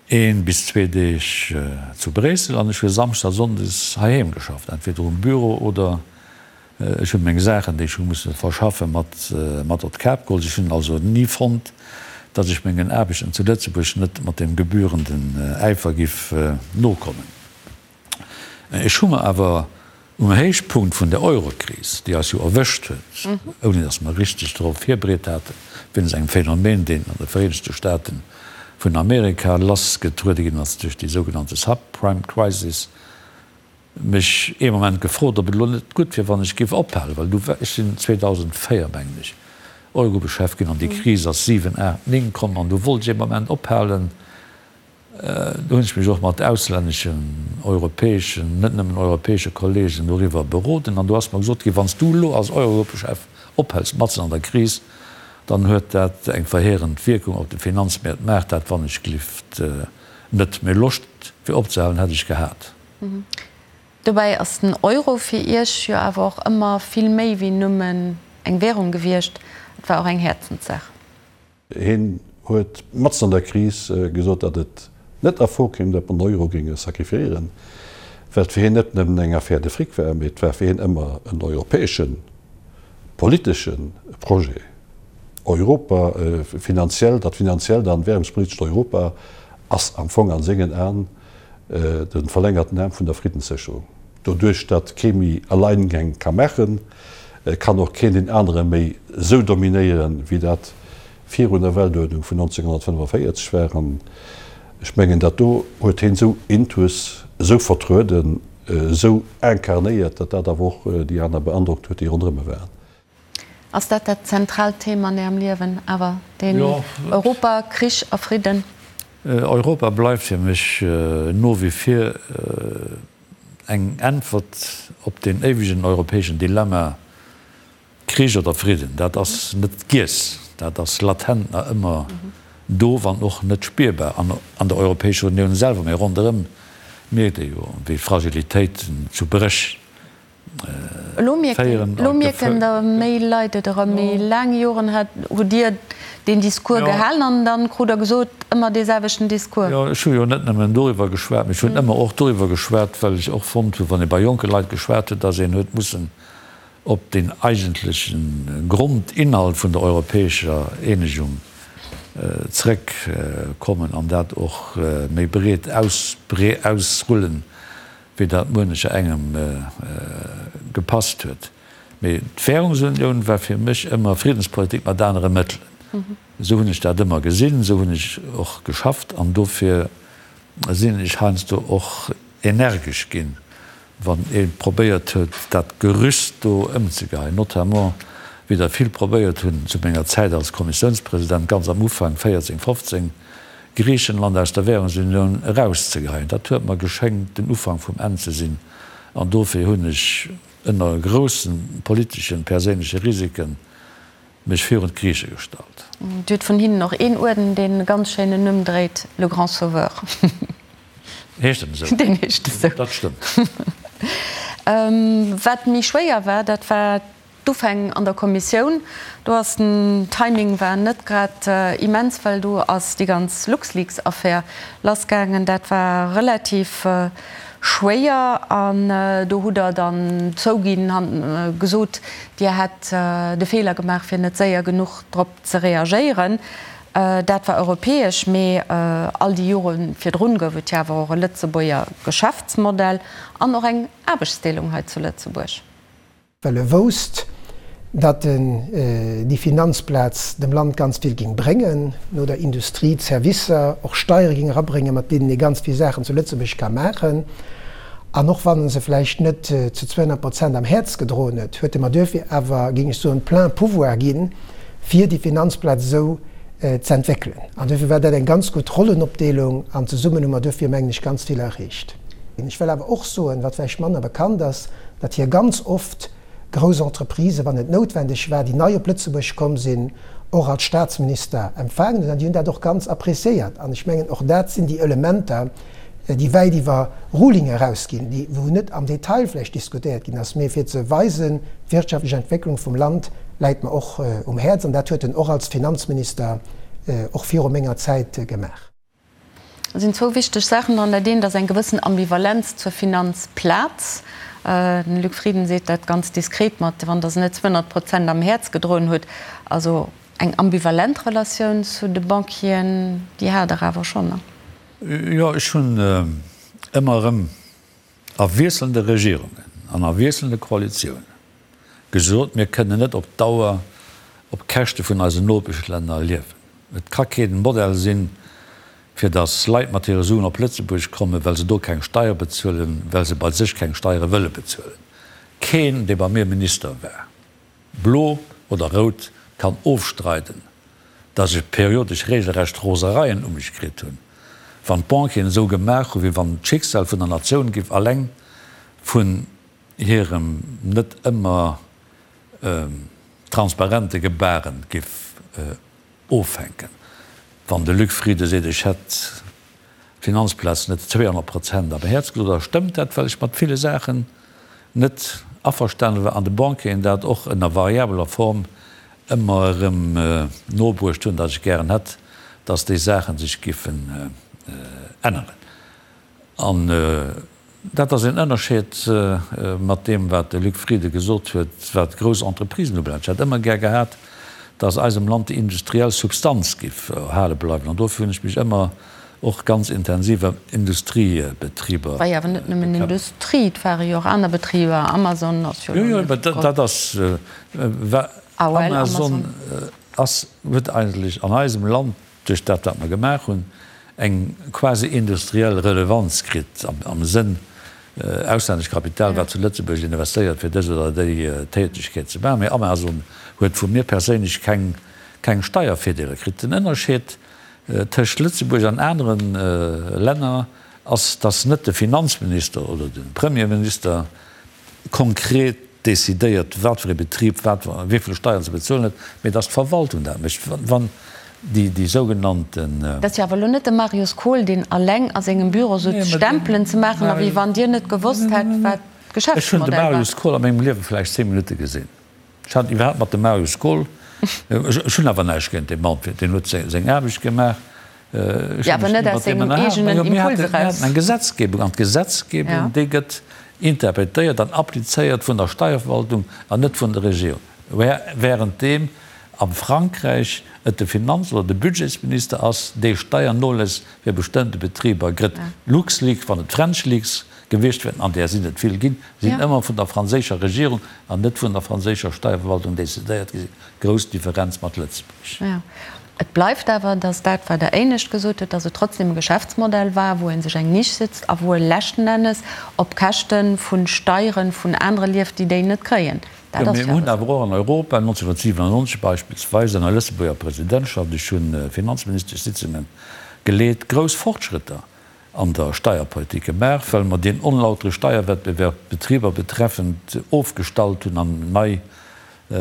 een bis zwee Deeg zu Bréissel an ech hu Samschdes a Sonndes heiheem geschafft, entweder um Büro oder Ech hunn meng Saachen, déi ech hu musse verschaffen, mat mat op d'Kap geholl. Ech hunn also ni fonnt, datt ech mengen Aarbechten zu Lëtzebuerg net mat deem gebührenden Äifer giff nokommen. Ech hu mer awer um Héichpunkt vun der Eurokris, déi eis jo erwëscht huet, ouni datt mer richteg dorop virbereet haten, wéinst engem Phänomen, deen an de Vereenegte Staaten vun Amerika lassgetruede ginn ass duerch déi sougenannte Subprime Crisis, mech ee Moment gefrot, ob et elo net gutt wier, wann ech géif ophalen, well du war, ech sinn 2004, mengen ech, Eurogruppechef ginn an déi Kris ass 7, 8, 9 komm an du wollt ech ee Moment ophalen. Do hunn ech mech och mat auslänneschen, europäeschen, net nëmmen europäesche Kollegen doriwwer beroden an do ass mer gesot ginn, wann s du elo als Eurogruppechef ophëls matzen an der Kris, dann huet dat eng verheerend Wierkung op de Finanzmäert. Maach dat wann ech glift net. Mee Loscht fir opzehalen hätt ech gehat. Dobäi ass den Euro fir Iech jo awer och ëmmer vill méi wéi nëmmen eng Währung gewiescht, et war och eng Häerzenssaach. Hien huet matzen an der Kris gesot, datt et net a Fro kéim, datt mer den Euro géinge sacrifiéieren, well et fir hien net nëmmen eng Affaire de fric war, mee et war fir hien ëmmer en europäesche politesche Projet. Europa finanziell, dat finanziellt an währungspolitescht Europa ass am Fong an sengen Aen de verlängerten Aarm vun der Friddenssécherung. Doduerch datt kee méi Alleingäng ka maachen, kann och keen deen anere méi esou dominéieren, wéi dat virun der Weltuerdnung vun 1945 war. An ech mengen, dat do huet heen esou intus, esou vertrueden, esou incarnéiert, datt dat awer och déi aner beandrockt huet, déi ronderëm e waren. Ass dat dat zentraalt Thema an Ärem Liewen awer, deen Europa, Krich a Fridden? Europa bleift fir mech no wie vir eng Äntwert op deen éiwegen europäeschen Dilemma Krich oder Fridden. Dat ass net giess, dat ass latent nach ëmmer do, wann och net spierbar an der Europäescher Unioun selwer. Mee ronderëm mierkt ee jo, wéi Fragilitéiten zu Bréch Elo mierken der méi Leit et erëm. Méi laang Joren hutt Dir deen Discours gehalen an dann krut Der gesot, ëmmer dee selwechten Discours. Jo, ech hu jo net nëmmen doriwwer geschwat, mee ech hunn ëmmer och doriwwer geschwat, well ech och fonnt hunn, wann ee bei jonke Leit geschwat huet, datt een huet mussen op deen eigentleche Grondinhalt vun der europäescher Eenegung zrëckkommen an dat och méi breet ausrullen, wéi dat muenecher engem gepasst huet. Mee d'Währungsunioun war fir mech ëmmer Friddenspolitik mat anere Mëttelen. Esou hunn ech dat ëmmer gesinn, esou hunn ech och geschafft an dofir sinn ech heiansdo och energesch ginn, wann ee probéiert huet, dat Gerüst do ëmzegeheien, notamment wéi der vill probéiert hunn zu menger Zäit als Kommissiounspresident, ganz am Ufank, 14, 15, Griichenland aus der Währungsunioun erauszegeheien. Dat huet mer geschéngt den Ufank vum Enn ze sinn an dofir hunn ech ënner groussen politeschen, perséinleche Risiken mech virun d'Griiche gestallt. Dir hutt vun hinnen och een Uerden, deen e ganz schéinen Numm dréit, Le Grand Sauveur. Heescht en esou? Deen heescht esou. Dat stëmmt. Wat méi schwéier war, dat war D'Ufäng an der Kommissioun, do ass den Timing war net grad immens, well do ass déi ganz LuxLeaks-Affär lassgaangen. Dat war relativ schwéier an do hutt Der dann zouginn, gesot, Dir hätt de Feeler gemaach, fir net séier genuch drop ze reagéieren. Dat war europäesch, mee all déi Jore virdrun gouf et jo awer och e Lëtzebuerger Geschäftsmodell an och eng Aarbechtsdeelung hei zu Lëtzebuerg. Well e wousst, datt en déi Finanzplaz dem Land ganz vill géing bréngen, no der Industrie, d'Servicer, och Steiere géing erabréngen, mat deenen ee ganz vill Saachen zu Lëtzebuerg ka maachen. An och wann en se vläicht net zu 200 Prozent am Häerz gedroen huet, huet e mer duerfir awer, géing ech soen, plein pouvoir ginn, fir déi Finanzplaz esou z'entwéckelen. An duerfir war dat eng ganz gutt Rollenopdeelung an zesummen hu mer duerfir, mengen ech, ganz vill erreecht. Ech wëll awer och soen, wat vläicht manner bekannt ass, datt hie ganz oft grouss Entreprisen, wann et noutwendeg war, déi nei op Lëtzebuerg komm sinn, och als Staatsminister empfaangen huet. An déi hunn dat och ganz appréciéiert. An ech mengen, och dat sinn déi Elementer, déi wäit iwwer Ruling erausginn, déi, wou net am Detail vläicht diskutéiert ginn ass, mee fir ze weisen, d'wirtschaftlech Entwécklung vum Land läit mer och um Häerz. An dat huet en och als Finanzminister och viru menger Zäit gemaach. Et sinn zwou wichteg Saachen dran. Dat eent ass eng gewëssen Ambivalenz zur Finanzplaz. Den Luc Frieden seet dat ganz diskret mat, wann Der se net 200 Prozent am Häerz gedroen hutt. Also eng ambivalent Relatioun zu de Banquieren, déi hat Der awer schonn, ne? Jo, ech hunn ëmmer erëm a wiesselnde Regierungen an a wiesselnde Koalitiounen gesot, mir kënnen net op Dauer op Käschte vun eisen Nopeschlänner liewen. Et ka kee Modell sinn, fir datt Leit mat hire Suen op Lëtzebuerg kommen, well se do keng Steier bezuelen, well se bei sech keng Steiere wëlle bezuelen. Keen, dee bei mir Minister war, blo oder rout, Kann ofstreiden, datt ech periodesch regelrecht Rosereien u mech kritt hunn, wann d'Banquieren esou gemaach hu wéi wann d'Schicksal vun der Natioun giff alleng vun hirem net ëmmer transparente Gebaren giff ofhänken. Wann de Luc Frieden seet, ech hätt d'Finanzplaz net 200 Prozent am Häerz gesot, da stëmmt dat, well ech mat ville Saachen net averstane war an de Banquieren dat och ënner variabeler Form ëmmer erëm nobruecht hunn, datt ech gären hätt, datt déi Saache sech giffen änneren. An dat ass een Ënnerscheed mat deem, wat de Luc Frieden gesot huet, wat grouss Entreprisen ubelaangt. Ech hätt ëmmer gär gehat, datt eisem Land déi industriell Substanz géif erhale bleiwen. An dofir hunn ech mech ëmmer och ganz intensiv ëm Industriebetriber War jo awer net nëmmen bekëmmert. Industrie, et ware jo och aner Betriber. Amazon ass jo Jo, elo jo, net mä dat ass, AOL, Amazon Amazon. ass, huet eigentlech an eisem Land, duerch dat wat mer gemaach hunn, eng quasi industriell Relevanz kritt am Sënn auslännescht Kapital wat zu Lëtzebuerg investéiert fir dës oder déi Tätegkeet ze maachen. Mee Amazon huet vu mir perséinlech keng keng Steiervirdeeler kritt. Den Ënnerscheed tëscht Lëtzebuerg an anere Länner ass, datt net de Finanzminister oder de Premierminister konkret decidéiert, wat fir ee Betrib wat wéi vill Steieren ze bezuelen huet, mee datt d'Verwaltung dat mécht. Wann déi déi sougenannten. Dat ass jo awer elo net de Marius Kohl, deen alleng a sengem Büro sot, Stempelen ze maachen, a wéi wann Dir net gewosst hätt, wat Ech hunn de d'Geschäftsmodell war. Marius Kohl a mengem Liewe vläicht 10 Minutte gesinn. Ech hat iwwerhaapt mat dem Marius Kohl, ech hunn awer näischt géint dee Mann, deen huet seng Aarbecht gemaach, ech Jo, hunn awer mech net ni aus mat deem sengem ënnerhalen. eegenen Mä jo, mir Impuls haten, mir eraus. haten eng Gesetzgebung, an d'Gesetzgebung, déi gëtt interpretéiert an applizéiert vun der Steierverwaltung an net vun der Regierung. Währenddeem am Frankräich et de Finanz oder de Budgetsminister ass, dee Steiernoläss fir bestëmmte Betriber gëtt. LuxLeaks, wann et FrenchLeaks gewiescht wären, an där sinn et vill ginn, sinn ëmmer vun der franséischer Regierung an net vun der franséischer Steierverwaltung decidéiert gi sinn. Grouss Differenz mat Lëtzebuerg. Jo. Et bleift awer, datt dat, wat Der éinescht gesot hutt, datt et trotzdem e Geschäftsmodell war, wou ee sech eng Nisch sitzt a wou e leschten Ennes op Käschte vu Steiere vun anere lieft, déi déi net kréien. Dat Jo, ass mir jo hunn awer awer och an Europa 1997 beispillsweis ënner Lëtzebuerger Presidentschaft, ech hunn Finanzministeschsitzunge geleet, grouss Fortschrëtter an der Steierpolitik gemaach, well mer deen onlautere Steierwettbewerb d'Betriber betreffend ofgestallt hunn an nei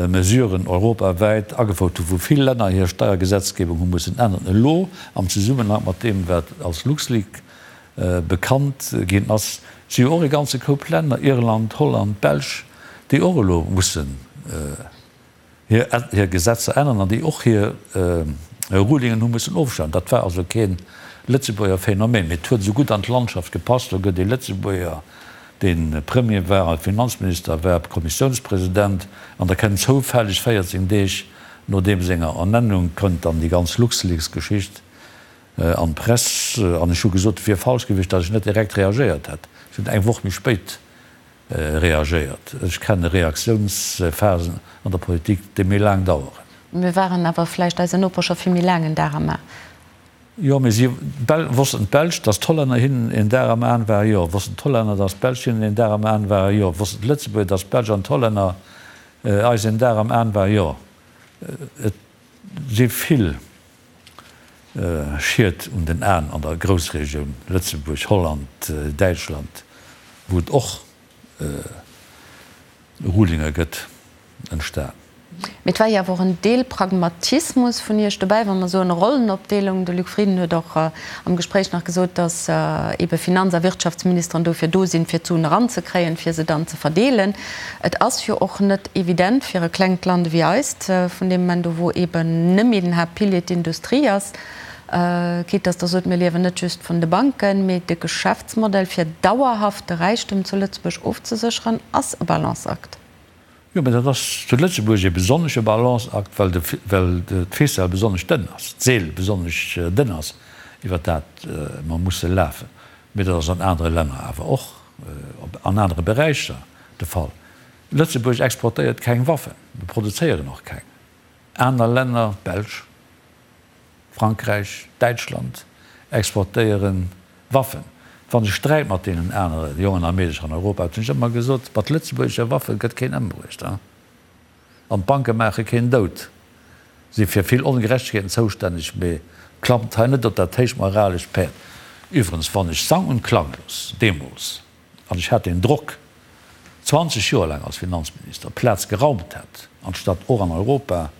Mesuren europawäit agefouert hunn, wou vill Länner hir Steiergesetzgebung hu mussen änneren. Elo am Zesummenhang mat deem, wat als LuxLeak bekannt ginn ass, si jo och e ganze Koup Länner, Irland, Holland, d'Belsch, déi och elo mussen hir Gesetzer änneren an déi och hir Rulingen hu mussen ofstellen. Dat war also kee Lëtzebuerger Phänomen, mee et huet esou gutt an d'Landschaft gepasst. Do gëtt ee Lëtzebuerger, dee Premier war a Finanzminister war, Kommissiounspresident, an da kënnt zoufälleg 14 Deeg no deem senger Ernennung kënnt dann déi ganz LuxLeaks-Geschicht an d'Press. An ech hu gesot, et wier falsch gewiescht, datt ech net direkt reagéiert hätt. Ech hunn eng Woch méi spéit reagéiert. Ech kenne Reaktiounsphasen an der Politik, déi méi laang daueren. Mir waren awer vläicht eisen Noper scho vill méi laang en Dar am A. Jo, mee si wossten d'Belsch, datt d'Hollänner hinnen en Dar am Aen waren? Jo. Wossten d'Hollänner, datt d'Belsch hinnen en Dar am Aen waren? Jo. Wossten d'Lëtzebuerger, datt d'Belsch an d'Hollänner eis en Dar am Aen waren? Jo. Et si vill Schied un den Aen an der Groussregioun Lëtzebuerg, Holland, Däitschland, wou et och Rulinge gëtt, entstan. Mee et war jo awer och en Deel Pragmatismus vun Iech dobäi, wa mer soen Rollenopdeelung. De Luc Frieden huet och am Gespréich nach gesot, datt eebe Finanz a Wirtschaftsministeren dofir do sinn, fir d'Suen eranzekréien, fir se dann ze verdeelen. Et ass jo och net evident fir e klengt Land ewéi eist, vun deem Moment u wou eeben nëmme den Haaptpilier d'Industrie ass, quitte dass Der sot, mir liewen net just vun de Banken, mee de Geschäftsmodell fir dauerhaft de Räichtum zu Lëtzebuerg ofzesécheren ass e Balanceakt. Jo, mä dat ass zu Lëtzebuerg e besonnesche Balanceakt, well de, well d'Ficelle besonnesch dënn ass, d'Seel besonnesch dënn ass, iwwer dat mer musse lafen. Mee dat ass an anere Länner awer och, an anere Beräicher de Fall. Lëtzebuerg exportéiert keng Waffen, mir produzéieren och keng. Aner Länner, d'Belsch, Frankräich, Däitschland, exportéiere Waffen. Wann ech sträit mat deenen anere Jongen a Meedercher an Europa, hunn ech ëmmer gesot, mat lëtzebuergesche Waffe gëtt keen ëmbruecht an d'Banke maache keen dout. Si fir vill Ongerechtegkeeten zoustänneg, mee klammt hei net op dat héicht moralescht Päerd. Iwwerens, wann ech sang und klanglos deemools, an ech hat deen Drock 20 Joer laang als Finanzminister, d'Plaz geraumt hätt, anstatt och an Europa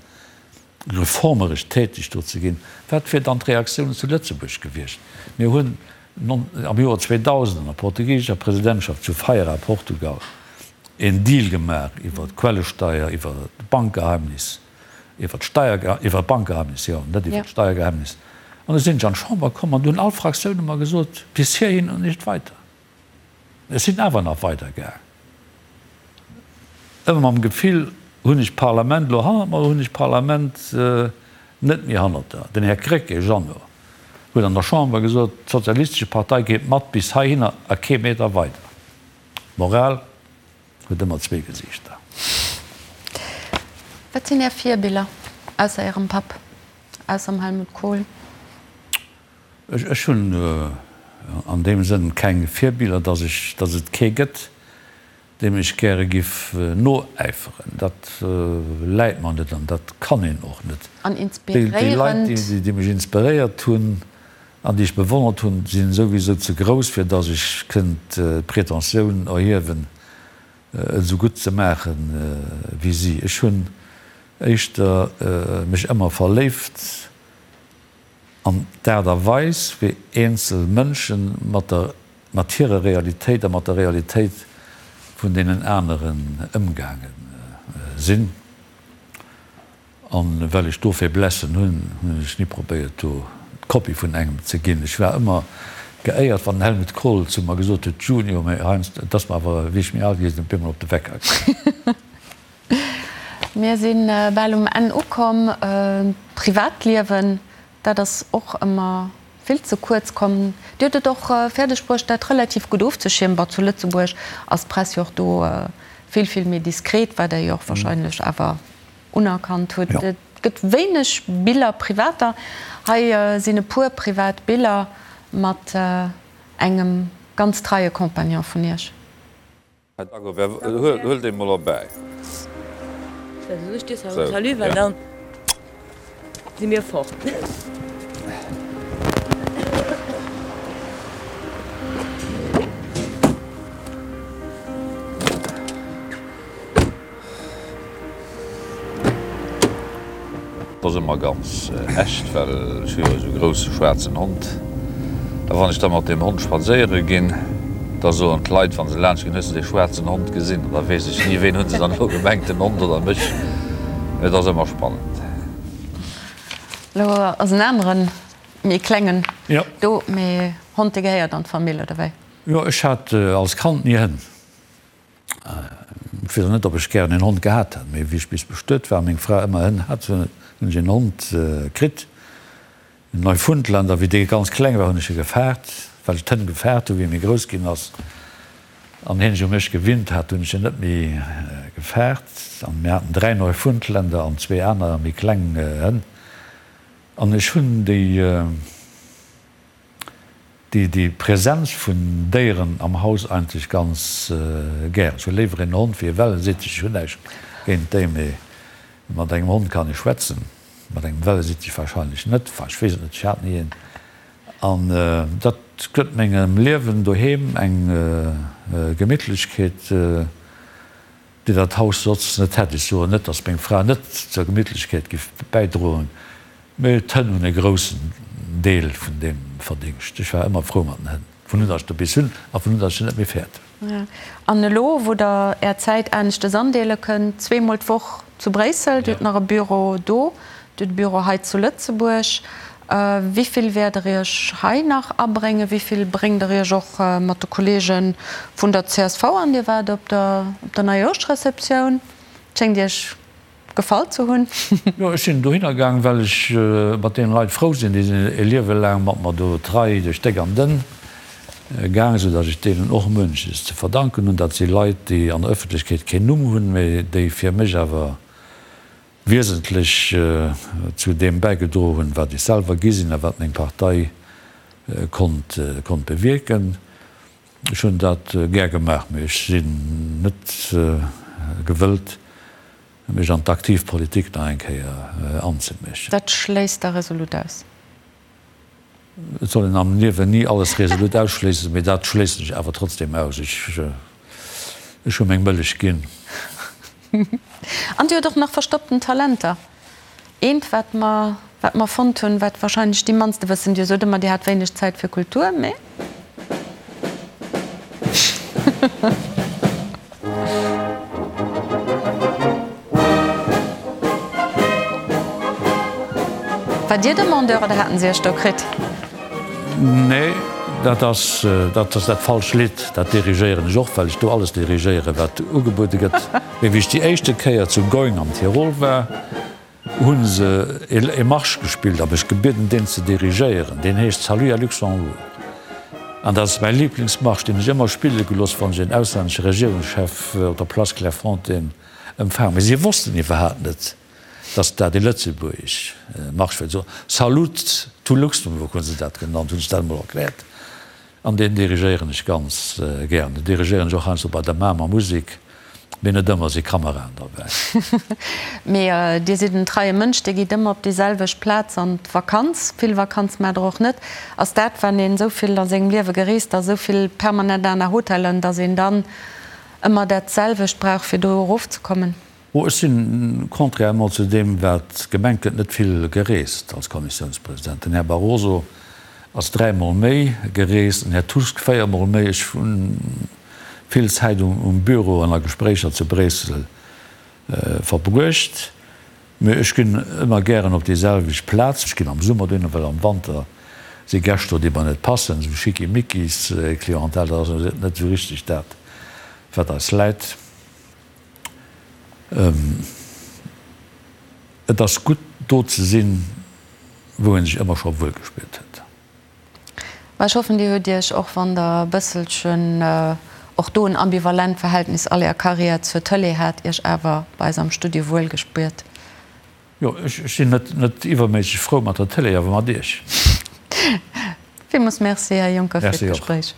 reformeresch täteg do ze ginn, wat wier dann d'Reaktioun zu Lëtzebuerg gewiescht? Mir hunn am Joer 2000 an der portugiesescher Presidentschaft zu Feira, Portugal, een Deal gemaach iwwer d'Quellesteier, iwwer d'Bankgeheimnis, iwwer d'Steier, iwwer d'Bankgeheimnis, jo, net iwwer d'Steiergeheimnis. An du sinn ech an d'Chamber komm an du hunn all Fraktioune mer gesot, bis hierhin und nicht weiter. Ech sinn awer nach weidergaang, ëmmer mam Gefill, hunn ech d'Parlament elo hannert mer oder hunn ech d'Parlament net méi hannert der? Den Här Krecké Jeannot huet an der Chamber gesot, d'Sozialistesche Partei geet mat bis heihinner a kee Meter weider. D'Moral huet ëmmer zwee Gesiichter. Wat sinn Är Virbiller, ausser Ärem Papp, ausser dem Helmut Kohl? Ech hunn an deem Sënn keng Virbiller, datt ech, datt et kee gëtt, deem ech gäre giff noäiferen. Dat läit mer net an dat kann een och net. An Déi Leit, inspiréierend? déi mech inspiréiert hunn an déi ech bewonnert hunn, sinn souwisou ze grouss, fir datt ech kënnt d'Pretentioun erhiewen, et esou gutt ze maache wéi si. Ech hunn éischter mech ëmmer verléift An d'Aart a Weis, wéi eenzel Mënsche mat der, mat hirer Realitéit a mat der Realitéit vun deenen aneren ëmgaange sinn. A well ech do Faiblesse hunn, hunn ech ni probéiert, do d'Kopie vun engem ze ginn. Ech war ëmmer geéiert, wann den Helmut Kohl zu mer gesot huet, Junior, mä heiansdo, et ass mer awer, wéi ech méi al gi sinn, op eemol op de Wecker gaangen. Mir si bal um Enn ukomm. D'Privatliewen, dat ass och ëmmer vill ze kuerz komm. Dir hutt et och fäerdeg bruecht, dat relativ gutt ofzeschiermen. Bon, zu Lëtzebuerg ass d'Press jo och do vill, vill méi diskret, wat Der jo och wahrscheinlech awer unerkannt hutt. Et gëtt wéineg Biller, privater. Hei sinn e puer privat Biller mat engem ganz treie Compagnon vun Iech. Huel dee mol erbäi. Salut, well dann si mir fort. Dat ass ëmmer ganz echt, well ech hu jo esou e grousse schwaarzen Hond. A wann ech da mat deem Hond spadséiere ginn, da soen d'Leit, wa se laanscht ginn, Hues de dee schwaarzen Hond gesinn? An da weess ech ni, ween hu se dann elo gemengt, den Hond oder mech. Mee et ass ëmmer spannend. Elo ass en aneren, méi klengen do, mee Hond, dee gehéiert an d'Famill, oder wéi? Jo, ech hat als Kand ni Hënn. Ech weess och net, ob ech gären een Hond gehat hätt, mee wéi ech bis bestuet war a meng Fra ëmmer Hënn hat, hunn ech een Hond kritt, en Neufundländer. Wéi dee ganz kleng war, hunn ech e gefaart, well ech d'Hënn gefaart hunn. Wéi e méi grouss ginn ass an hien sech u mech gewinnt hat, hunn ech en net méi gefaart. An mir haten 3 Neufundländer an zwee aner méi kleng Hënn. An ech hunn déi. Déi Präsenz vun Déieren am Haus eigentlech ganz gären. Ech hu léiwer een Hond wéi e Wellesittich. Ech hunn näischt géint déi, mee mat engem Hond kann ee schwätzen, mat engem Wellesittich wahrscheinlech net. Enfin, ech weess et net, ech hat ni een. An dat gëtt mengem Liewen doheem eng Gemittlechkeet. Déi dat Haus soss net hätt. Ech soen net, datt meng Fra net zur Gemittlechkeet giff bäidroen, mee d'Hënn hunn e groussen Deel vun deem Verdingscht. Ech war ëmmer frou mat den Hënn, vun un datt ech der bis hunn a vun un datt ech se net méi fäert hunn. An elo, wou Der Är Zäit aneschtes andeele kënnt, zweemol d'Woch zu Bréissel, Dir hutt nach e Büro do, Dir hutt e Büro hei zu Lëtzebuerg, Wéi vill wäert Der Iech hei nach abréngen? Wéi vill bréngt Der Iech och mat de Kolleege vun der csv an? Dir waart op der Neijoerschreceptioun. Et schéngt Iech gefall ze hunn. Jo, ech sinn dohinner gaang, well ech mat deene Leit frou sinn. Déi sinn e Liewe laang mat mer do trei duerch déck an dënn gaang, esou datt ech deenen och munches ze verdanken hunn. Dat si Leit, déi an der Ëffentlechkeet keen Numm hunn, mee déi fir mech awer wiesentlech zu deem bäigedroe hunn, wat ech selwer gi sinn a wat meng Partei konnt konnt bewierken. Ech hunn dat gär gemaach, mee ech sinn net gewëllt. Mech an d'aktiv Politik nach eng Kéier anzeméschen. Dat schléisst Der resolut aus? Et soll een am Liewen ni alles resolut ausschléissen, mee dat schléissen ech awer trotzdem aus. Ech, ech hu meng Mëllech ginn. An Dir hutt och nach verstoppten Talenter. Eent, wat mer, wat mer fonnt hunn, wat wahrscheinlech déi mannste wëssen, Dir sot ëmmer, Dir hat wéineg Zäit fir Kultur, mee. War Dir Demandeur oder haten se Iech do kritt? Nee, dat ass, dat ass dat falscht Lidd. Dat dirigéieren ech och, well ech do alles dirigéieren, wat ugebuede gëtt. Mee wéi ech déi éischte Kéier zu Going am Tirol war, hu se e Marsch gespillt a mech gebieden, deen ze dirigéieren. Deen heescht Salut à Luxembourg. An dat ass mäi Liblingsmarsch, deen ech ëmmer spille gelooss, wann ech en auslännesche Regierungschef op der Place Clairefontaine empfaangen. Mee si wossten iwwerhaapt net, datt dat e lëtzebuergesch Marsch wär. Salut to Luxembourg hu se dat genannt, hunn ech dat emol erkläert. An deen dirigéieren ech ganz gären. Deen dirigéieren ech och heiansdo bei der Mamer Musik, mee net ëmmer si Kameraen derbäi. Mee Dir sidd en treie Mënsch, Dir gitt ëmmer op déi selwecht Plaz an d'Vakanz. Vill Vakanz maacht Der och net. Ass dat, wann een esou vill a sengem Liewe gereest ass, esou vill permanent aner Hotellen, datt een dann ëmmer dat selwecht brauch, fir do erofzekommen? Oh, ech sinn, contrairement zu deem wat gemengt gëtt, net vill gereest als Kommissiounspresident. Den Här Barroso ass dräimol méi gereest, den Här Tusk véiermol méi. Ech hu vill Zäit um Büro an a Gespréicher zu Bréissel verbruecht. Mee ech ginn ëmmer gären op déi selwecht Plaz. Ech ginn am Summer dohinner, well am Wanter si Gäscht do, déi mer net passen, esou Schickimickis-Clientèle. Dat ass net esou richteg dat, wat eis läit. Et ass gutt, do ze sinn, wou ee sech ëmmer scho wuel gespiert huet. Mä ech hoffen, Dir hutt Iech, och wann Der e bësselchen och do en ambivalent Verhältnis all Är Karriär zur Tëlee hat, Iech awer bei eis am Studio wuel gespuert. Jo, ech sinn net iwwerméisseg frou mat der Tëlee, awer mat Iech. Villmools Merci, Här Juncker, fir Merci och. d'Gespréich.